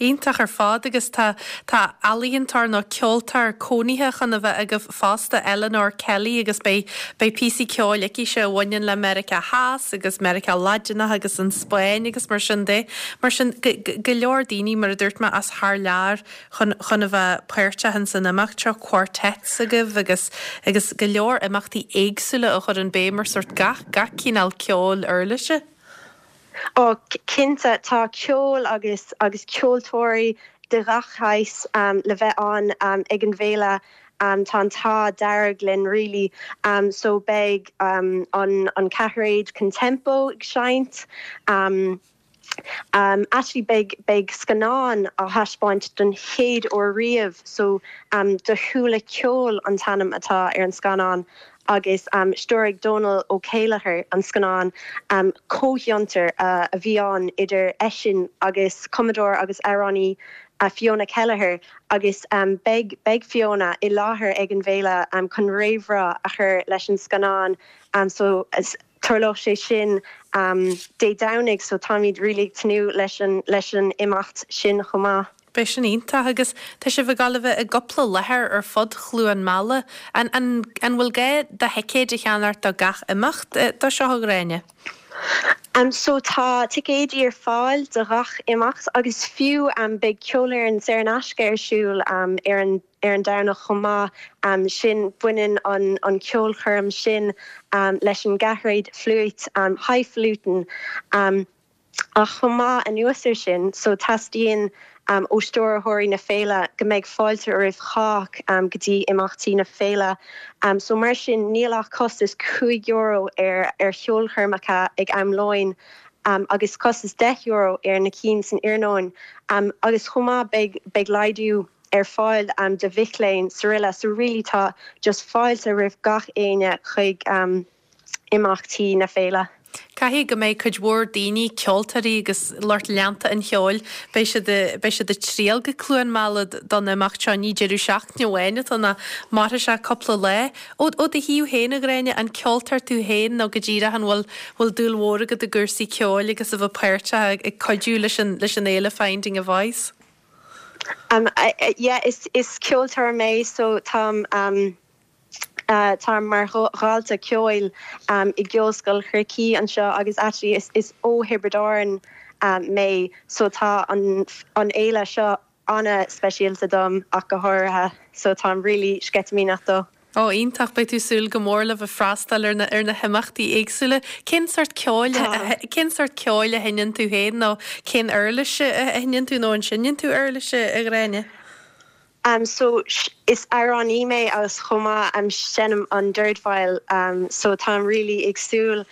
Iontach ar fad agus tá tá ealaíontóir nó ceoltóir cónaithe chun a bheith agaibh fosta, Eleanor Kelly agus beidh beidh píosaí ceoil aicise a bhaineann le Meiriceá Theas agus Meiriceá Laidineach agus an Spáinn agus mar sin de. Mar sin go go leor daoine mar a dúirt mé as thar lear chun chun a bheith páirteach ins an imeacht seo, quartets agaibh agus agus go leor imeachtaí éagsúla a chuireann béim ar sórt gach gach cineál ceoil uirlise. Ó, cinnte, tá ceol agus agus ceoltóirí de ghach shaghas le bheith ann ag an bhféile. Tá an t-ádh dearg linn really. So beidh an an ceathairéad Contempo ag seinnt. Actually beidh beidh scannán á thaispeáint don chéad uair riamh so Do Shúile Ceoil an t-ainm atá ar an scannán agus stiúraigh Dónal Ó Céilleachair an scannán. Comhfhiontar a bhí ann idir eisean agus cumadóir agus amhránaí Fiona Kelleher agus beidh beidh Fiona i láthair ag an bhféile chun réamhrá a chur leis an scannán so tarlóidh sé sin Dé Domhnaigh so táimid really ag tnúth leis an leis an imeacht sin chomh maith. Beidh sin iontach agus tá sibh ag gabháil a bheith i gcúpla láthair ar fud Chluain Meala. An, an, an bhfuil gá do thicéid a cheannacht do gach imeacht dó seo, a Ghráinne? So tá ticéidí ar fáil do ghach imeacht agus fiú beidh ceolfhoireann saor in aisce ar siúl ar an ar an Domhnach chomh maith sin. Baineann an an ceolchoirm sin leis an gceathairéad fliúit Highfalutin. Ach chomh maith anuas ar sin, so teastaíonn ó stiúrthóirí na féile go mbeidh fáilte roimh chách go dtí imeachtaí na féile. So mar sin níl ach costas €5 ar ar cheolchoirmeacha ag am lóin agus costas €10 ar na cinn san iarnóin. Agus chomh maith beidh beidh laghdú ar fáil do mhic léinn 's araile. So really tá just fáilte roimh gach éinne chuig imeachtaí na féile. Caithfidh go mbeidh cuid mhór daoine, ceoltóirí agus lucht leanta an cheoil, beidh siad, beidh siad ag triall go Cluain Meala don imeacht seo, ní deireadh seachtaine amháin atá ann ach mairfidh sé cúpla lá. Ó, ó do thaobh féin, a Ghráinne, an ceoltóir tú féin nó go díreach an bhfuil, bhfuil dúil mhór agat i gcúrsaí ceoil agus a bheith páirteach ag cuidiú leis an, leis an fhéile Finding a Voice? Um, yeah, is, is ceoltóir mé so táim, um, Táim mar dhalta ceoil i gCeolscoil Chorcaí anseo agus actually is ó Thiobraid Árann mé so tá an fhéile seo ana-speisialta dom ach go háirithe so táim really sceitimíneach dó. Ó, iontach, beidh tú ag súil go mór le bheith freastal ar na ar na himeachtaí éagsúla. Cén sórt ceoil cén sórt ceoil a sheinneann tú féin nó cén uirlis a sheinneann tú nó an seinneann tú uirlis a Ghráinne? So is amhránaí mé agus chomh maith seinnim an dordveidhil so táim really ag súil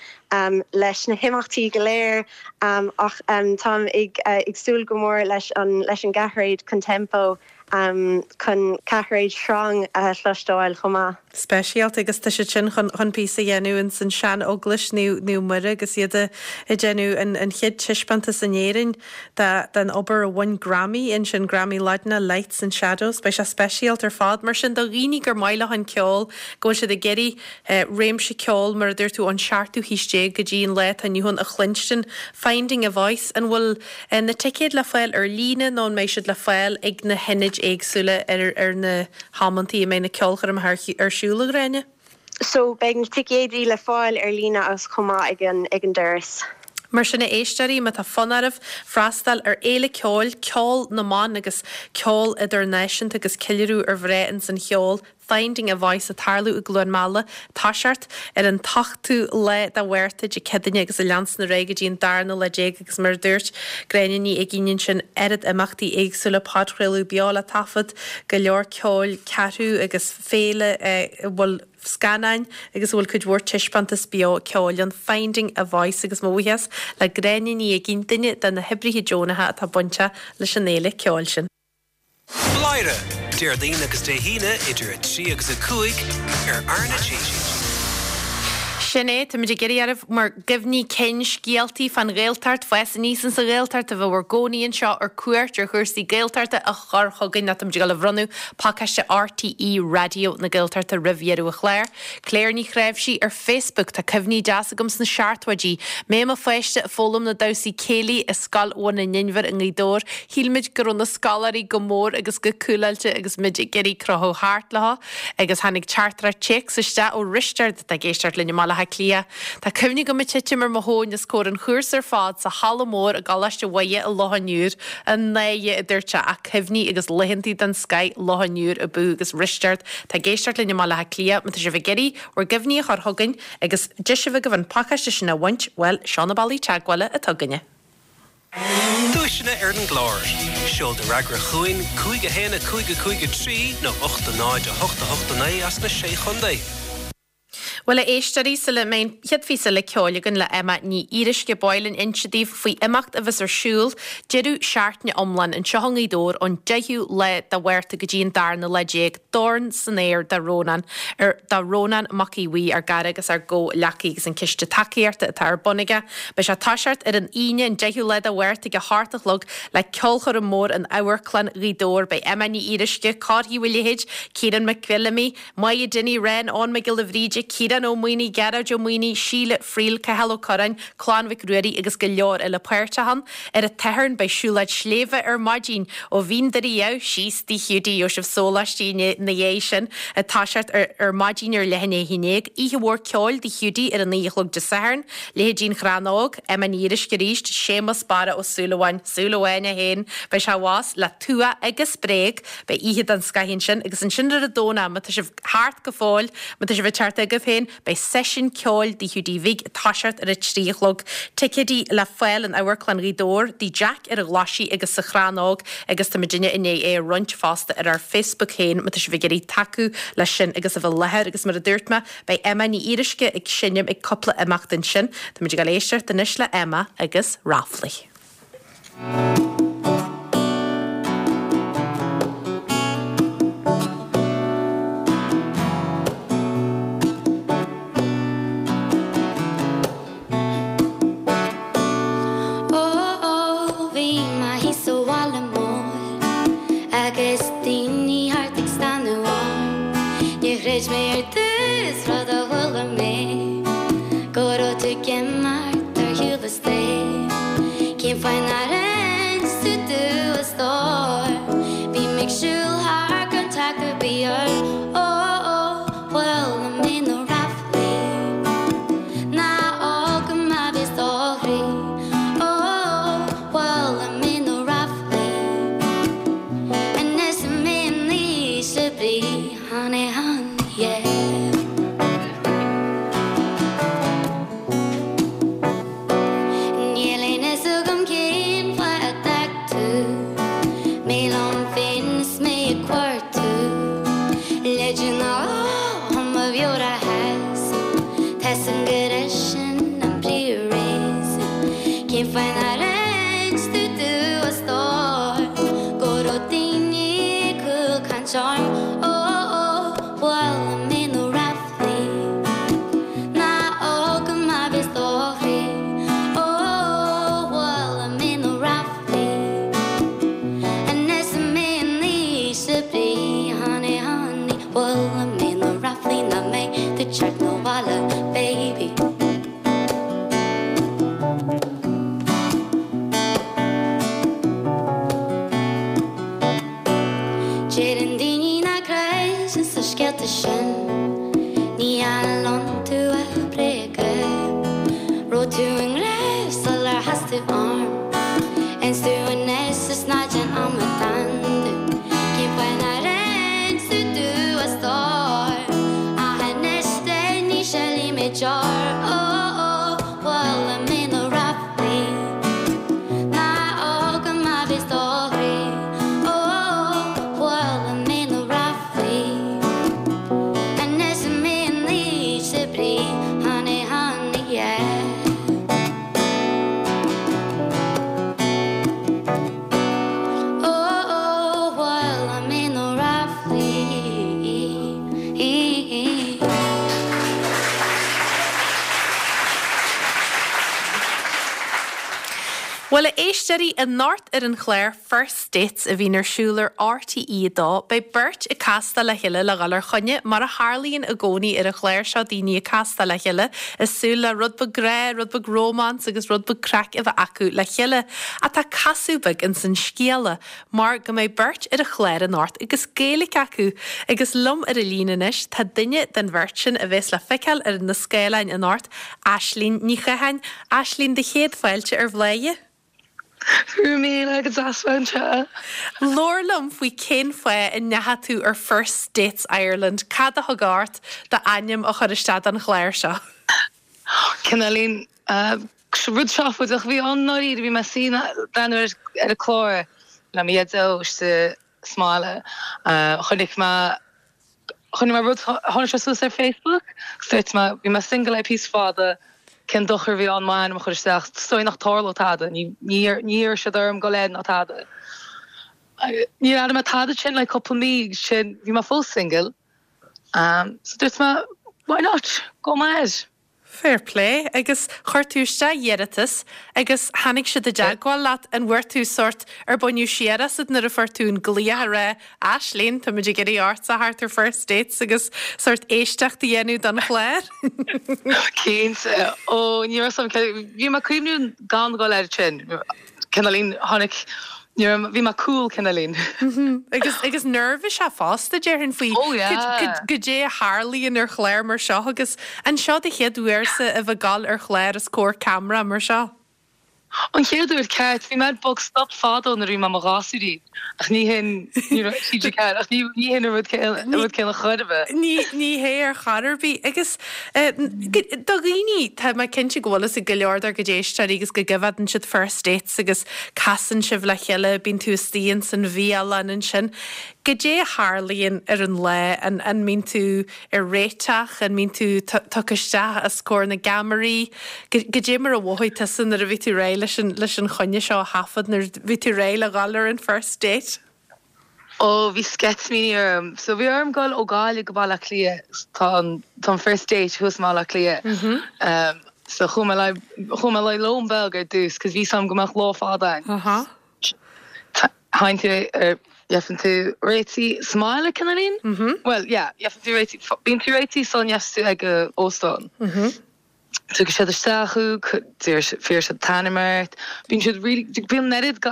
leis na himeachtaí go léir ach táim ag súil go mór leis an leis an gceathairéad Contempo chun ceathairéad sreang a chloisteáil chomh maith. Speisialta agus tá siad sin chun chun píosa a dhéanamh ins an sean eaglais Naomh Muire agus iad ag déanamh an an chéad taispeántas in Éirinn de den obair a bhain Grammy ansin, Grammy Laidine, Lights and Shadows. Beidh sé speisialta ar fad. Mar sin do dhaoine gur maith leo an ceol, go bhfuil siad ag iarraidh réimse ceoil, mar a dúirt tú, ón seachtú haois déag go dtí an lá atá inniu ann a chluinstin, Finding a Voice, an bhfuil na ticéid le fáil ar líne nó an mbeidh siad le fáil ag na hionaid éagsúla ar ar na hamantaí a mbeidh na ceolchoirmeacha ar siúl, a Ghráinne? So beidh na ticéidí le fáil ar líne agus chomh maith ag an ag an doras. Mar sin a éisteoirí, má tá fonn oraibh freastal ar fhéile ceoil, Ceol na mBan agus ceol idirnáisiúnta agus ceiliúradh ar mhná ins an cheol, Finding a Voice ag tarlú i gCluain Meala, toiseacht ar an t-ochtú lá de Mhárta, Dé Céadaoine agus ag leanstan ar aghaidh go dtí an darna lá déag agus mar a dúirt Gráinne Ní Uigínn ansin, oiread imeachtaí éagsúla, podchraoladh beo le taifead, go leor ceoil, ceathrú agus féile a bhfuil scannáin agus a bhfuil cuid mhór taispeántas beo ceoil ann, Finding a Voice agus mo bhuíochas le Gráinne Ní Uigínn, duine de na hoibrithe deonacha atá bainteach leis an fhéile ceoil sin. Bladhaire, Déardaoin agus Dé hAoine idir 3 agus 5 ar R na G. Sin é, táimid ag iarraidh oraibh bhur gcuimhní cinn, scéaltaí fán Ghaeltacht, fás aníos insa Ghaeltacht, a bheith bhur gcónaí anseo ar cuairt ar chúrsaí Gaeltachta a chur chugainn nó táimid ag dul a bhronnadh pacáiste RTÉ Raidió na Gaeltachta roimh dheireadh an chláir. Claire Ní Chnáimhsí ar Facebook, Tá cuimhní deas agam sna seachtóidí. Mé i mo pháiste ag foghlaim na damhsaí céilí i Scoil Bhun an Inbhir i nGaoth Dobhair. Shíl muid go raibh na scoláirí go mór agus go cúláilte agus muid ag iarraidh crochadh thart leo. Agus tháinig teachtaireacht téacs isteach ó Risteard atá ag éisteacht linn i mBaile Átha Cliath. Tá cuimhne agam ag titim ar mo thóin os comhair an chúrsa ar fad sa halla mór i gColáiste Mhuire i Loch an Iúir. An náire, a dúirt sé, ach cuimhní agus laethantaí den scoith Loch an Iúir ab fhiú agus Risteard atá ag éisteacht linn i mBaile Átha Cliath, má tá sibh ag iarraidh bhur gcuimhní a chur chugainn agus deis a bheith agaibh an pacáiste sin a bhaint, bhuel, seo na bealaí teagmhála atá againne. Duaiseanna ar an gclár. Seol do fhreagra chugainn, 5 1 5 5 3 nó 8 0 8 8 9 as na Sé Chontae. Bhuel, a éisteoirí, sula mbeidh an chéad phíosa eile ceoil againn le Emma Ní Fhíoruisce, ba mhaith linn inse daoibh faoi imeacht a bheas ar siúl deireadh seachtaine iomlán anseo i nGaoth Dobhair ón 10ú lá de Mhárta go dtí an darna lá déag, Dorn san Aer do Rónán, ar, do Rónán Mac Aodha Bhuí, ár gcara agus ár gcomhghleacaí agus an ciste tacaíochta atá ar bun aige. Beidh sé ag toiseacht ar an Aoine, an 10ú lá de Mhárta ag a hocht a chlog le ceolchoirm mór in Amharclann Ghaoth Dobhair. Beidh Emma Ní Fhíoruisce, Cárthaigh Uí Leithéid, Ciarán Mac Fheilimí, Moya Dinny, Ren, Eoin Mac Giolla Bhríde, Ciarán Ó Maonaigh, Gearóid Ó Maonaigh, Síle Friel, Cathal Ó Curráin, Clann Mhic Ruairí agus go leor eile páirteach ann. Ar an tSatharn beidh siúlóid sléibhe ar maidin ó Bhinn Doire Dhamh síos Tigh Hiúdaí. Gheobhaidh sibh sóláistí ina dhiaidh sin ag toiseacht ar ar maidin ar leath i ndiaidh a haon déag. Oíche mhór ceoil Tigh Hiúdaí ar a naoi a chlog Dé Sathairn. Leithéidí An Chrann Óg, Emma Ní Fhíoruisce arís, Séamus Barra Ó Súilleabháin, Súil Amháin é féin, beidh sé abhus le Tua agus Bréag. Beidh oíche den scoith ansin agus ansin ar an Domhnach, má tá sibh thart go fóill, má tá sibh ag teacht agaibh féin, beidh seisiún ceoil Tigh Hiúdaí Bhig ag toiseacht ar a trí a chlog. Ticéidí le fáil in Amharclann Ghaoth Dobhair, Tigh Jack ar an Ghlaisigh agus sa Chrann Óg agus tá muidinne i ndiaidh é a roinnt fosta ar ár Facebook féin má tá sibh ag iarraidh tacú leis sin agus a bheith i láthair agus mar a dúirt mé, beidh Emma Ní Fhíoruisce ag seinm ag cúpla imeacht ansin. Táimid ag dul éisteacht anois le Emma agus Ráflaí. Cén fáth nár inis tú domh a stór Go raibh daoine ag cúlchaint orm Ó ó bhuail mé na ráflaí Ná fhága mé bheith do chroí Ó ó bhuail mé na ráflaí Anois mé in ísle brí Honey honey bhuail mé na ráflaí Nach mbeidh tú ag teacht 'na bhaile baby. Deireann daoine nach gcreideann sna scéalta sin, ní fheil iontu ach bréaga. Raibh tú i ngrá sular chas tú orm, is tú anois is ná déan amadán domh. Cén fáth nár inis tú domh a stór? Ach anois ní shilfidh mé deoir, ó ó, bhuail mé na ráflaí. Ná fhága mé bheith do chroí, ó ó, bhuail mé na ráflaí. Anois mé in ísle brí, honey, honey, yeah. Ó ó, bhuail mé na ráflaí. Bhuel, a éisteoirí, anocht ar an chlár First Dates a bhíonn ar siúl ar RTÉ 2, beidh beirt ag castáil le chéile le dhul ar choinne, mar a tharlaíonn i gcónaí ar an chlár seo, daoine ag castáil le chéile, ag súil le rud beag grá, rud beag rómáns agus rud beag craic a bheith acu le chéile. Ach tá casadh beag ins an scéala. mar go mbeidh beirt ar an chlár anocht agus Gaeilge acu, agus liom ar an líne anois tá duine den bheirt sin a bheas le feiceáil ar na scáileáin anocht, Aislinn Ní Chatháin. Aislinn, do chéad fáilte ar Bhladhaire. Go raibh míle go deas bheith anseo. Labhair liom faoi cén fáth a ndeachaigh tú ar First Dates Ireland, cad a thug ort d'ainm a chur isteach don chlár seo? Cineáilín rud seafóideach a bhí ann i ndáiríre. Bhí mé ag suí ag breathnú ar an chlár le mo dhaideo istigh sa mbaile. Chonaic mé chonaic mé rud tháinig sé suas ar Facebook agus dúirt mé bhí mé single le píosa fada cén dochar a bhí ann m'ainm a chur isteach is dóigh nach dtarlódh tada ní ní iarrfaidh siad orm dul air ná tada. Níor airigh mé tada ansin le cúpla mí agus sin bhí mé fós single. So dúirt mé, why not, gabhfaidh mé air. Fair play. Agus chuir tú isteach iarratas agus tháinig siad i dteagmháil leat. An bhfuair tú sórt, ar baineadh siar asat nuair a fuair tú an glaoch a rá, Aislinn, táimid ag iarraidh ortsa a theacht ar First Dates agus sórt éisteacht a dhéanamh don chlár? Cinnte. Ó, ní raibh a fhios agam, bhí mé ag cuimhniú gan dhul air sin. Cineáilín, tháinig, ní raibh, bhí mé cool cineáilín. Agus, agus neirbhíseach fosta, déarfainn, faoi Oh yeah. goidé a tharlaíonn ar chlár mar seo agus an seo do chéad uairse a bheith ag gabháil ar chlár os comhair ceamara mar seo? An chéad uair, ceart, bhí mé ar Bog Stop fadó nuair a bhí mé i mo ghasúirín ach ní hin, ní raibh TG4, ach ní, ní hin an rud céanna, an rud céanna chor ar bith. Ní, ní hé ar chor ar bith. Agus Do dhaoine, tá mé cinnte go bhfuil fhios ag go leor dár gcuid éisteoirí agus go gcoimheádann siad First Dates agus casann sibh le chéile, bíonn tú istigh ins an bhialann ansin. Goidé a tharlaíonn ar an lá? An an mbíonn tú ag réiteach? An mbíonn tú tugtha isteach os comhair na gceamaraí? Goidé mar a mhothaigh tusa nuair a bhí tú réidh leis an leis an choinne seo a thaifead, nuair a bhí tú réidh le dhul ar an First Date? Ó, bhí sceitimíní orm. So bhí orm dul ó Gaillimh go Baile Átha Cliath. Tá an, tá an first date thuas i mBaile Átha Cliath. Um, so chuaigh mé le, chuaigh mé le lón beag ar dtús, cos bhí 'fhios a'm go mbeadh lá fada ann. Uh-huh. Théann tú ar, gheibheann tú réitithe sa mbaile, cineáilín? Mhm. Well, yeah, gheibheann tú réitithe, bíonn tú réitithe sula ndeachas tú ag an óstán. Mhm. Tugann siad isteach thú, fiarfaidh siad t'ainm ort, bíonn siad really, bíonn an oiread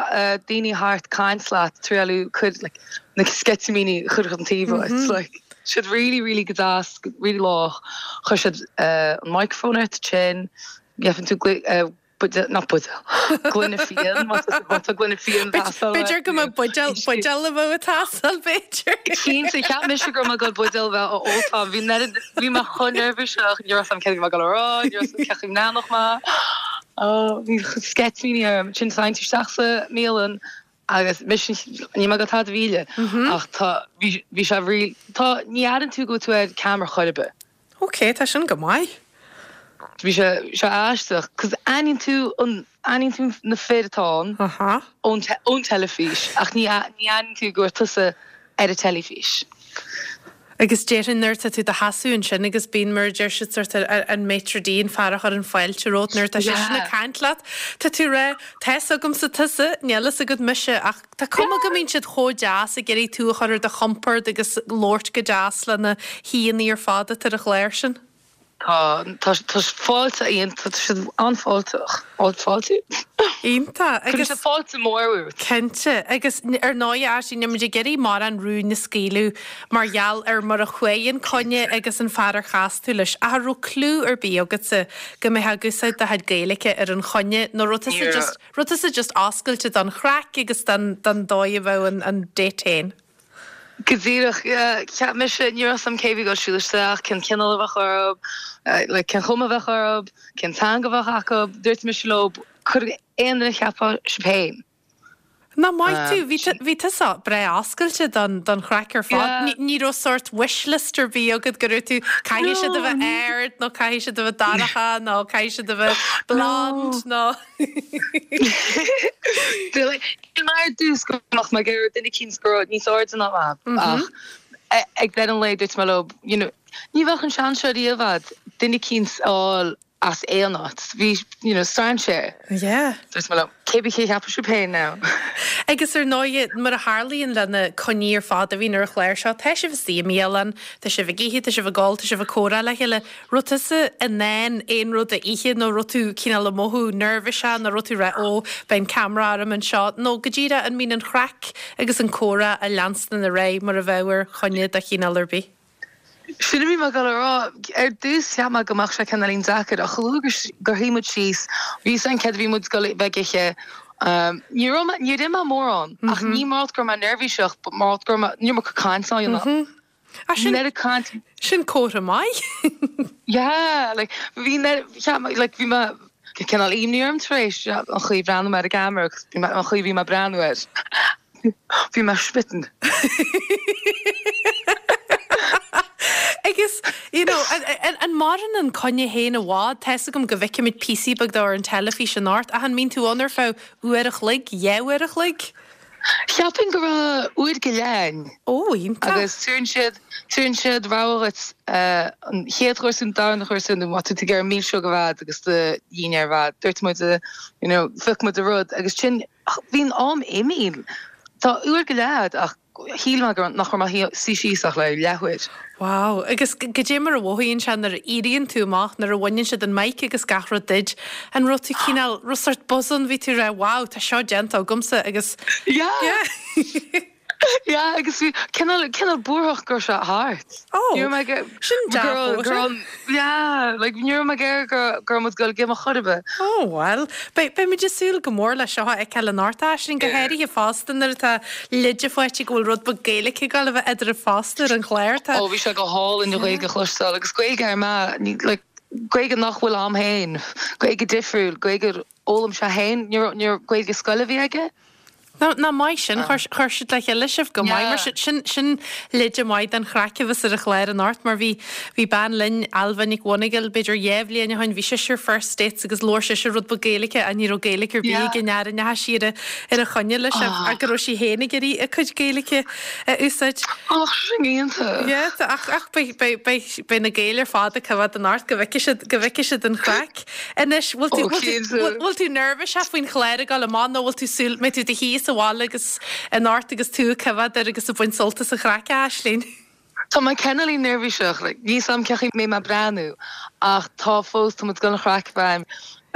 daoine thart caint leat, triáil cur like na sceitimíní a chur chun taobh uait, like siad really really go deas, really lách, chuir siad an microphone ort ansin, gheibheann tú buidéal, not buidéal, gloine fíon, má tá gloine fíon ag teastáil uait. B'fhéidir go mbeadh buidéal, buidéal a bheadh ag teastáil, b'fhéidir. Cinnte, cheap mise go raibh mé ag dul buidéal a bheith á óltáil, bhí an oiread, bhí mé chomh neirbhíseach, ní raibh 'fhios a'm céard a bhí mé ag dul a rá, ní raibh 'fhios a'm cén chaoi a mbreathnódh mé. Oh, bhí sceitimíní orm. Ansin théann tú isteach sa mbialann agus mise, níl mé ag dul tada a mhilleadh, ach tá, bhí, bhí sé really, tá, ní airíonn tú go bhfuil tú ar ceamara chor ar bith. Ok, tá sin go maith. Bhí sé sé aisteach 'cause aithníonn tú an aithníonn tú na fir atá ann ón ón teilifís ach ní ní aithníonn tú go raibh tusa ar an teilifís. Agus déarfainn nuair atá tú i do sheasamh ansin agus bíonn, mar a deir siad, sort an maitre d', an fear a chuireann fáilte romhat nuair atá seisean ag caint leat, tá tú ag rá, tá fhios agamsa tusa, níl fhios agat mise ach tá cuma go mbíonn siad chomh deas ag iarraidh tú a chur ar do chompord agus labhairt go deas le na haíonna ar fad atá ar an chlár sin. Tá, tá, tá fáilte, tá siad an-fháilteach. Fáilte? Iontach. Cuireann siad fáilte mór romhat. Cinnte. Agus ar ndóigh, Aisling, níl muid ag iarraidh mórán rúin a scaoileadh mar gheall ar mar a chuaigh an coinne agus an fear ar chas tú leis. Ach an raibh clue ar bith agatsa go mbeifeá ag úsáid do chuid Gaeilge ar an choinne nó raibh tusa just, raibh tusa just oscailte don chraic agus don, don dóigh a bheadh an, an date féin? Go díreach, yeah. Cheap mise, ní raibh 'fhios a'm cé bhí ag dul siúl isteach, cén cineál a bheadh orthu, like cén chuma a bheadh orthu, cén teanga a bheadh acu. Dúirt mise leo, cuir aon duine a cheapfá sibh féin. Nach maith tú, bhí bhí tusa breá oscailte don don chraic ar fad. Yeah. Ní raibh sórt wish list ar bith agat go raibh tú, caithfidh siad a bheith ard nó caithfidh siad a bheith dorcha nó caithfidh siad a bheith blonde nó. Shíl mé ar dtús go mbeadh mé ag iarraidh duine eicínt go raibh níos airde ná mé ach ag deireadh an lae dúirt mé leo you know ní bheadh an seans seo riamh a'd duine eicínt a fháil as aon áit. Bhí you know strainséir. Yeah. Dúirt mé leo cé bith cé a cheapfadh sibh féin now. Agus ar ndóighe mar a tharlaíonn le na coinní ar fad a bhíonn ar an chlár seo, tá sibh istigh i mbialann, tá sibh ag ithe, tá sibh ag ól, tá sibh ag comhrá le chéile. Raibh tusa in ann aon rud a ithe nó raibh tú cineál ag mothú neirbhíseach nó raibh tú ag rá ó beidh an ceamara orm anseo nó go díreach an mbíonn an chraic agus an comhrá ag leanstan ar aghaidh mar a bheadh ar choinne de chineál ar bith? Sin a bhí mé ag dul a rá. Ar dtús cheap mé go mbeadh sé cineáilín deacair ach chomh luath gur shuigh muid síos, bhí 'fhios a'inn céard a bhí muid ag dul a bheith ag ithe. Ní raibh mé, níor ith mé mórán ach ní mar go raibh mé neirbhíseach but mar go raibh mé, ní raibh mé ag caint á dhéanamh. Ah, sin, sin comhartha maith. Yeah, like, bhí mé, cheap mé, like, bhí mé, cineál imní orm tar éis an chaoi a bhreathnaigh mé ar an gceamara agus bhí mé, an chaoi a bhí mé ag breathnú air. Bhí mé smitten. Agus, you know, an maireann an coinne féin i bhfad? Tá 'fhios agam go bhfeicimid píosaí beag dó ar an teilifís anocht, ach an mbíonn tú ann ar feadh uair a chloig, dhá uair a chloig? Cheapfainn go raibh uair go leith ann. Ó, iontach. Agus tugann siad, tugann siad rogha dhuit an chéad chúrsa nó an darna chúrsa nó má tá tú ag iarraidh milseog a bheith agus do dhinnéar a bheith. Dúirt muid, you know, phioc muid an rud agus sin, bhí an am imithe. Tá uair go leith a'd ach shíl mé go raibh, nach raibh mé ag suí síos ach le leathuair. Wow. Agus goidé mar a mhothaíonn sé nuair a éiríonn tú amach, nuair a bhaineann siad an mic agus gach rud duit, an raibh tú cineál, raibh sort buzz ann, bhí tú ag rá wow, tá seo déanta agamsa agus Yeah. Yeah. Yeah, agus bhí cineál, cineál buarthach go raibh sé thart. Oh, Ní raibh mé ag, sin go raibh, go raibh, yeah, like ní raibh mé ag iarraidh go, go raibh muid ag dul ag imeacht chor ar bith. Oh well, beidh, beidh muid ag súil go mór le seo a fheiceáil anocht, Aisling, go háirithe fosta nuair atá leide faighte go bhfuil rud beag Gaeilge ag dul a bheith eadraibh fosta ar an chlár. Tá. Ó bhí sé go hálainn an Ghaeilge a chloisteáil agus Gaeilge ar mbeadh, ní, like, Gaeilge nach bhfuil a'm féin, Gaeilge difriúil, Gaeilge ar fhoghlaim sé féin, ní raibh, ní raibh, Gaeilge scoile a bhí aige. Ná, nach maith sin, chuir, chuir siad le chéile sibh go maith mar sin, sin, sin leide maith den chraic a bheas ar an chlár anocht mar bhí, bhí bean linn, Ailbhe Nic Mhonagail, b'fhéidir dhá bhliain ó shin, bhí sise ar First Dates agus labhair sise rud beag Gaeilge ach ní raibh Gaeilge ar bith ag an fhear a ndeachaigh sí ar a, ar a choinne leis ach go raibh sí féin ag iarraidh a cuid Gaeilge a úsáid. Ach sin iontach. Yeah, ach ach beidh beidh beidh beidh na Gaeil ar fad ag coimhéad anocht go bhfeicfidh siad go bhfeicfidh siad an chraic. Anois, bhfuil tú bhfuil tú bhfuil tú neirbhíseach faoin chlár ag dul amach nó bhfuil tú súil mbeidh tú i do shuí sa bhaile agus anocht agus tú ag coimhéad air agus ag baint sult as an chraic, a Aisling? Tá mé cineáilín neirbhíseach, like, níl 's a'm cén chaoi mbeidh mé ag breathnú ach tá fós, tá muid ag dul an chraic a bheith a'm.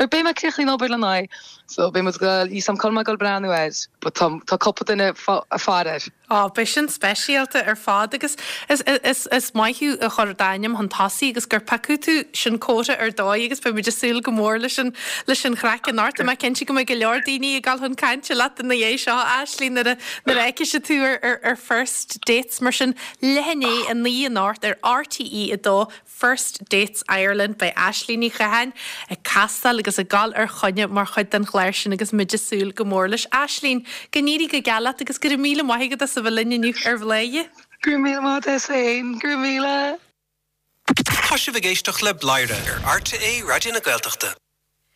Or beidh mé críochnaithe an obair le n-aghaidh, so beidh muid ag dul, níl 's a'm cá bhfuil mé ag dul breathnú air, but tá, tá cúpla duine ag faire air. Á, beidh sin speisialta ar fad agus is, is, is maith thú a chur d'ainm chun tosaigh agus gur piocadh tú, sin comhartha ar dóigh agus beidh muid ag súil go mór leis an, leis an chraic anocht. Tá mé cinnte go mbeidh go leor daoine ag dul chun cainte leat ina dhiaidh seo, a Aisling, nuair a, nuair a fheicfidh siad tú ar, ar, ar First Dates. Mar sin, leath i ndiaidh 9 anocht ar RTÉ 2, First Dates Ireland, beidh Aisling Ní Chatháin ag castáil agus ag dul ar choinne mar chuid den chlár sin agus muid ag súil go mór leis. Aisling, go n-éirí go geal leat agus go raibh míle maith agat as a bheith linn inniu ar Bhladhaire. Go raibh míle maith agat féin, go raibh míle. Tá sibh ag éisteacht le Bladhaire ar RTÉ Raidió na Gaeltachta.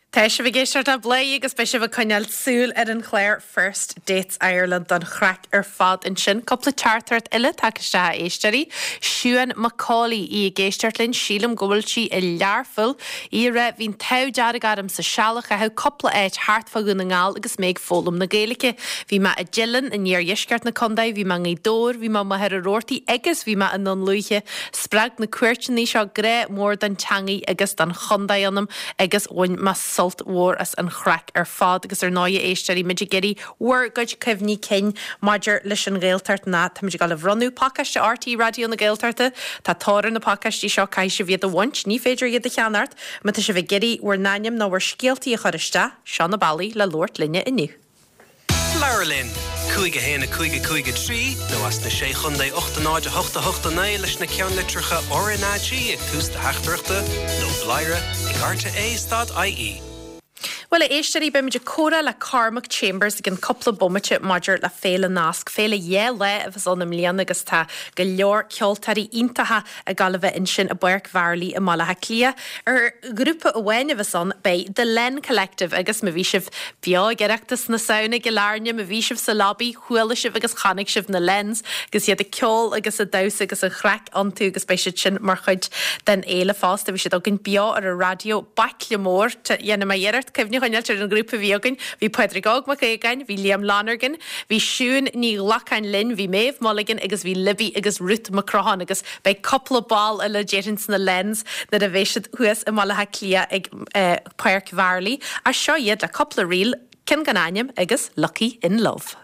Tá sibh ag éisteacht le Bladhaire agus beidh sibh ag coinneáil súil ar an chlár First Dates Ireland don chraic ar fad ansin. Cúpla teachtaireacht eile tagtha isteach a éisteoirí. Siún McCauley, í ag éisteacht linn, sílim go bhfuil sí i Learpholl. Í ag rá, bhí an t-ádh dearg orm sa seal a chaitheamh cúpla áit thart fá Dhún na nGall agus mé ag foghlaim na Gaeilge. Bhí mé i dTeileann in iardheisceart na contae, bhí mé i nGaoth Dobhair, bhí mé i Machaire Rabhartaigh agus bhí mé i nDún Lúiche. Spreag na cuairteanna seo grá mór don teangaidh agus don chontae ionam agus bhain mé sult mhór as an chraic ar fad agus ar ndóigh a éisteoirí, muid ag iarraidh bhur gcuid cuimhní cinn maidir leis an Ghaeltacht ná táimid ag dul a bhronnadh pacáiste RTÉ Raidió na Gaeltachta. Tá tóir ar na pacáistí seo, caithfidh sibh iad a bhaint, ní féidir iad a cheannacht. Má tá sibh ag iarraidh bhur n-ainm nó bhur scéaltaí a chur isteach, seo na bealaí le labhairt linne inniu. Labhair linn! 5 1 5 5 3 nó as na Sé Chontae 8 0 8 8 9 leis na ceannlitreacha RnaG ag tús do theachtaireachta nó bladhaire ag rte stad ie. Bhuel, a éisteoirí, beimid ag comhrá le Cormac Chambers i gcionn cúpla bomaite maidir le Féile Nasc, féile 2 lá a bheas ann i mbliana agus tá go leor ceoltóirí iontacha ag gabháil a bheith ansin i bPáirc Mharlaí i mBaile Átha Cliath. Ar ghrúpa amháin a bheas ann, beidh The Len Collective agus má bhí sibh beo ag Oireachtas na Samhna i gCill Airne, má bhí sibh sa lobby, chuala sibh agus chonaic sibh na Lens agus iad ag ceol agus ag damhsa agus an chraic iontu agus beidh siad sin mar chuid den fhéile fosta. Bhí siad againn beo ar an raidió, baicle mór, dhéanfaidh mé iarracht cuimhne a choinneáilt ar an ghrúpa a bhí againn, bhí Pádraig Óg Mac Aogáin, bhí Liam Lonergan, bhí Siún Ní Ghlacáin linn, bhí Méabh Mulligan agus bhí Libby agus Ruth Mac Crotháin agus Beidh cúpla ball eile déarfainn sna Lens nuair a bheidh siad thuas i mBaile Átha Cliath ag Páirc Mharlaí. Ach seo iad le cúpla ríl, ceann gan ainm agus Lucky in Love.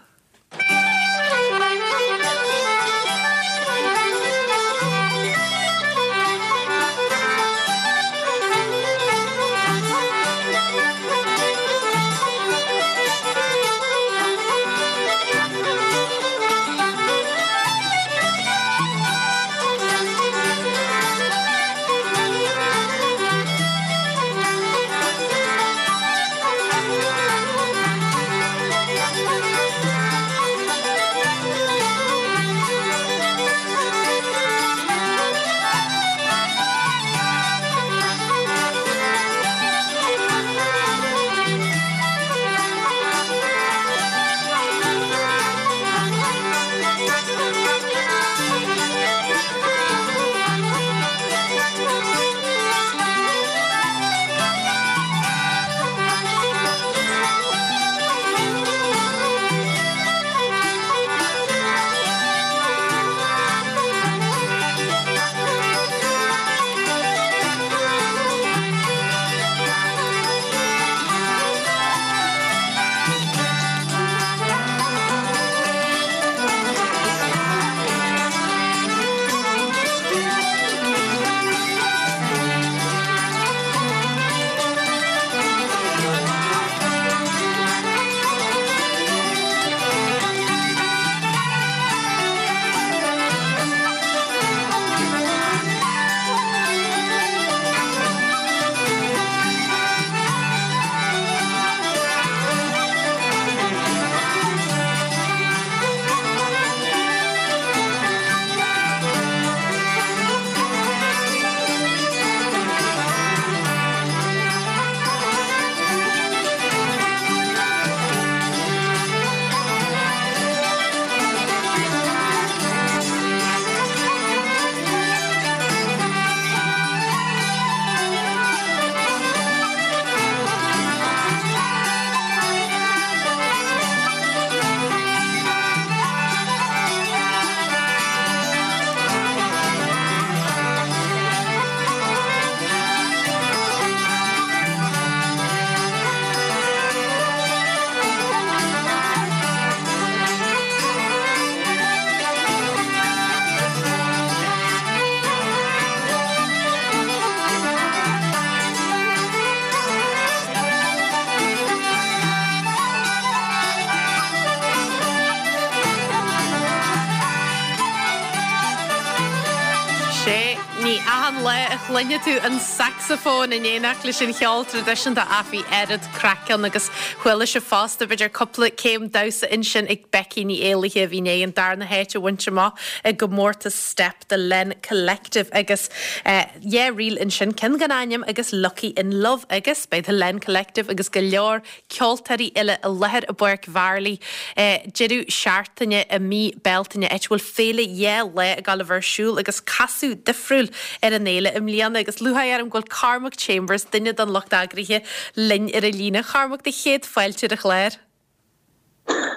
a chluinfidh tú an sacsafón in éineacht leis an cheol traidisiúnta ach bhí oiread craic ann agus chuala sibh fosta b'fhéidir cúpla céim damhsa ansin ag Becky Ní Éallaithe a bhí i ndiaidh an darna háit a bhaint amach i gcomórtas Steip The Len Collective agus yeah ríl ansin ceann gan ainm agus Lucky in Love agus beidh The Len Collective agus go leor ceoltóirí eile i láthair i bPáirc Mharlaí deireadh seachtaine i mí Bealtaine, áit a bhfuil féile dhá lá ag dul a bheith ar siúl agus casadh difriúil ar an fhéile i mbliana agus lúcháir orm go bhfuil Cormac Chambers, duine den lucht eagraithe, linn ar an líne. A Chormaic, do chéad fáilte ar an chlár.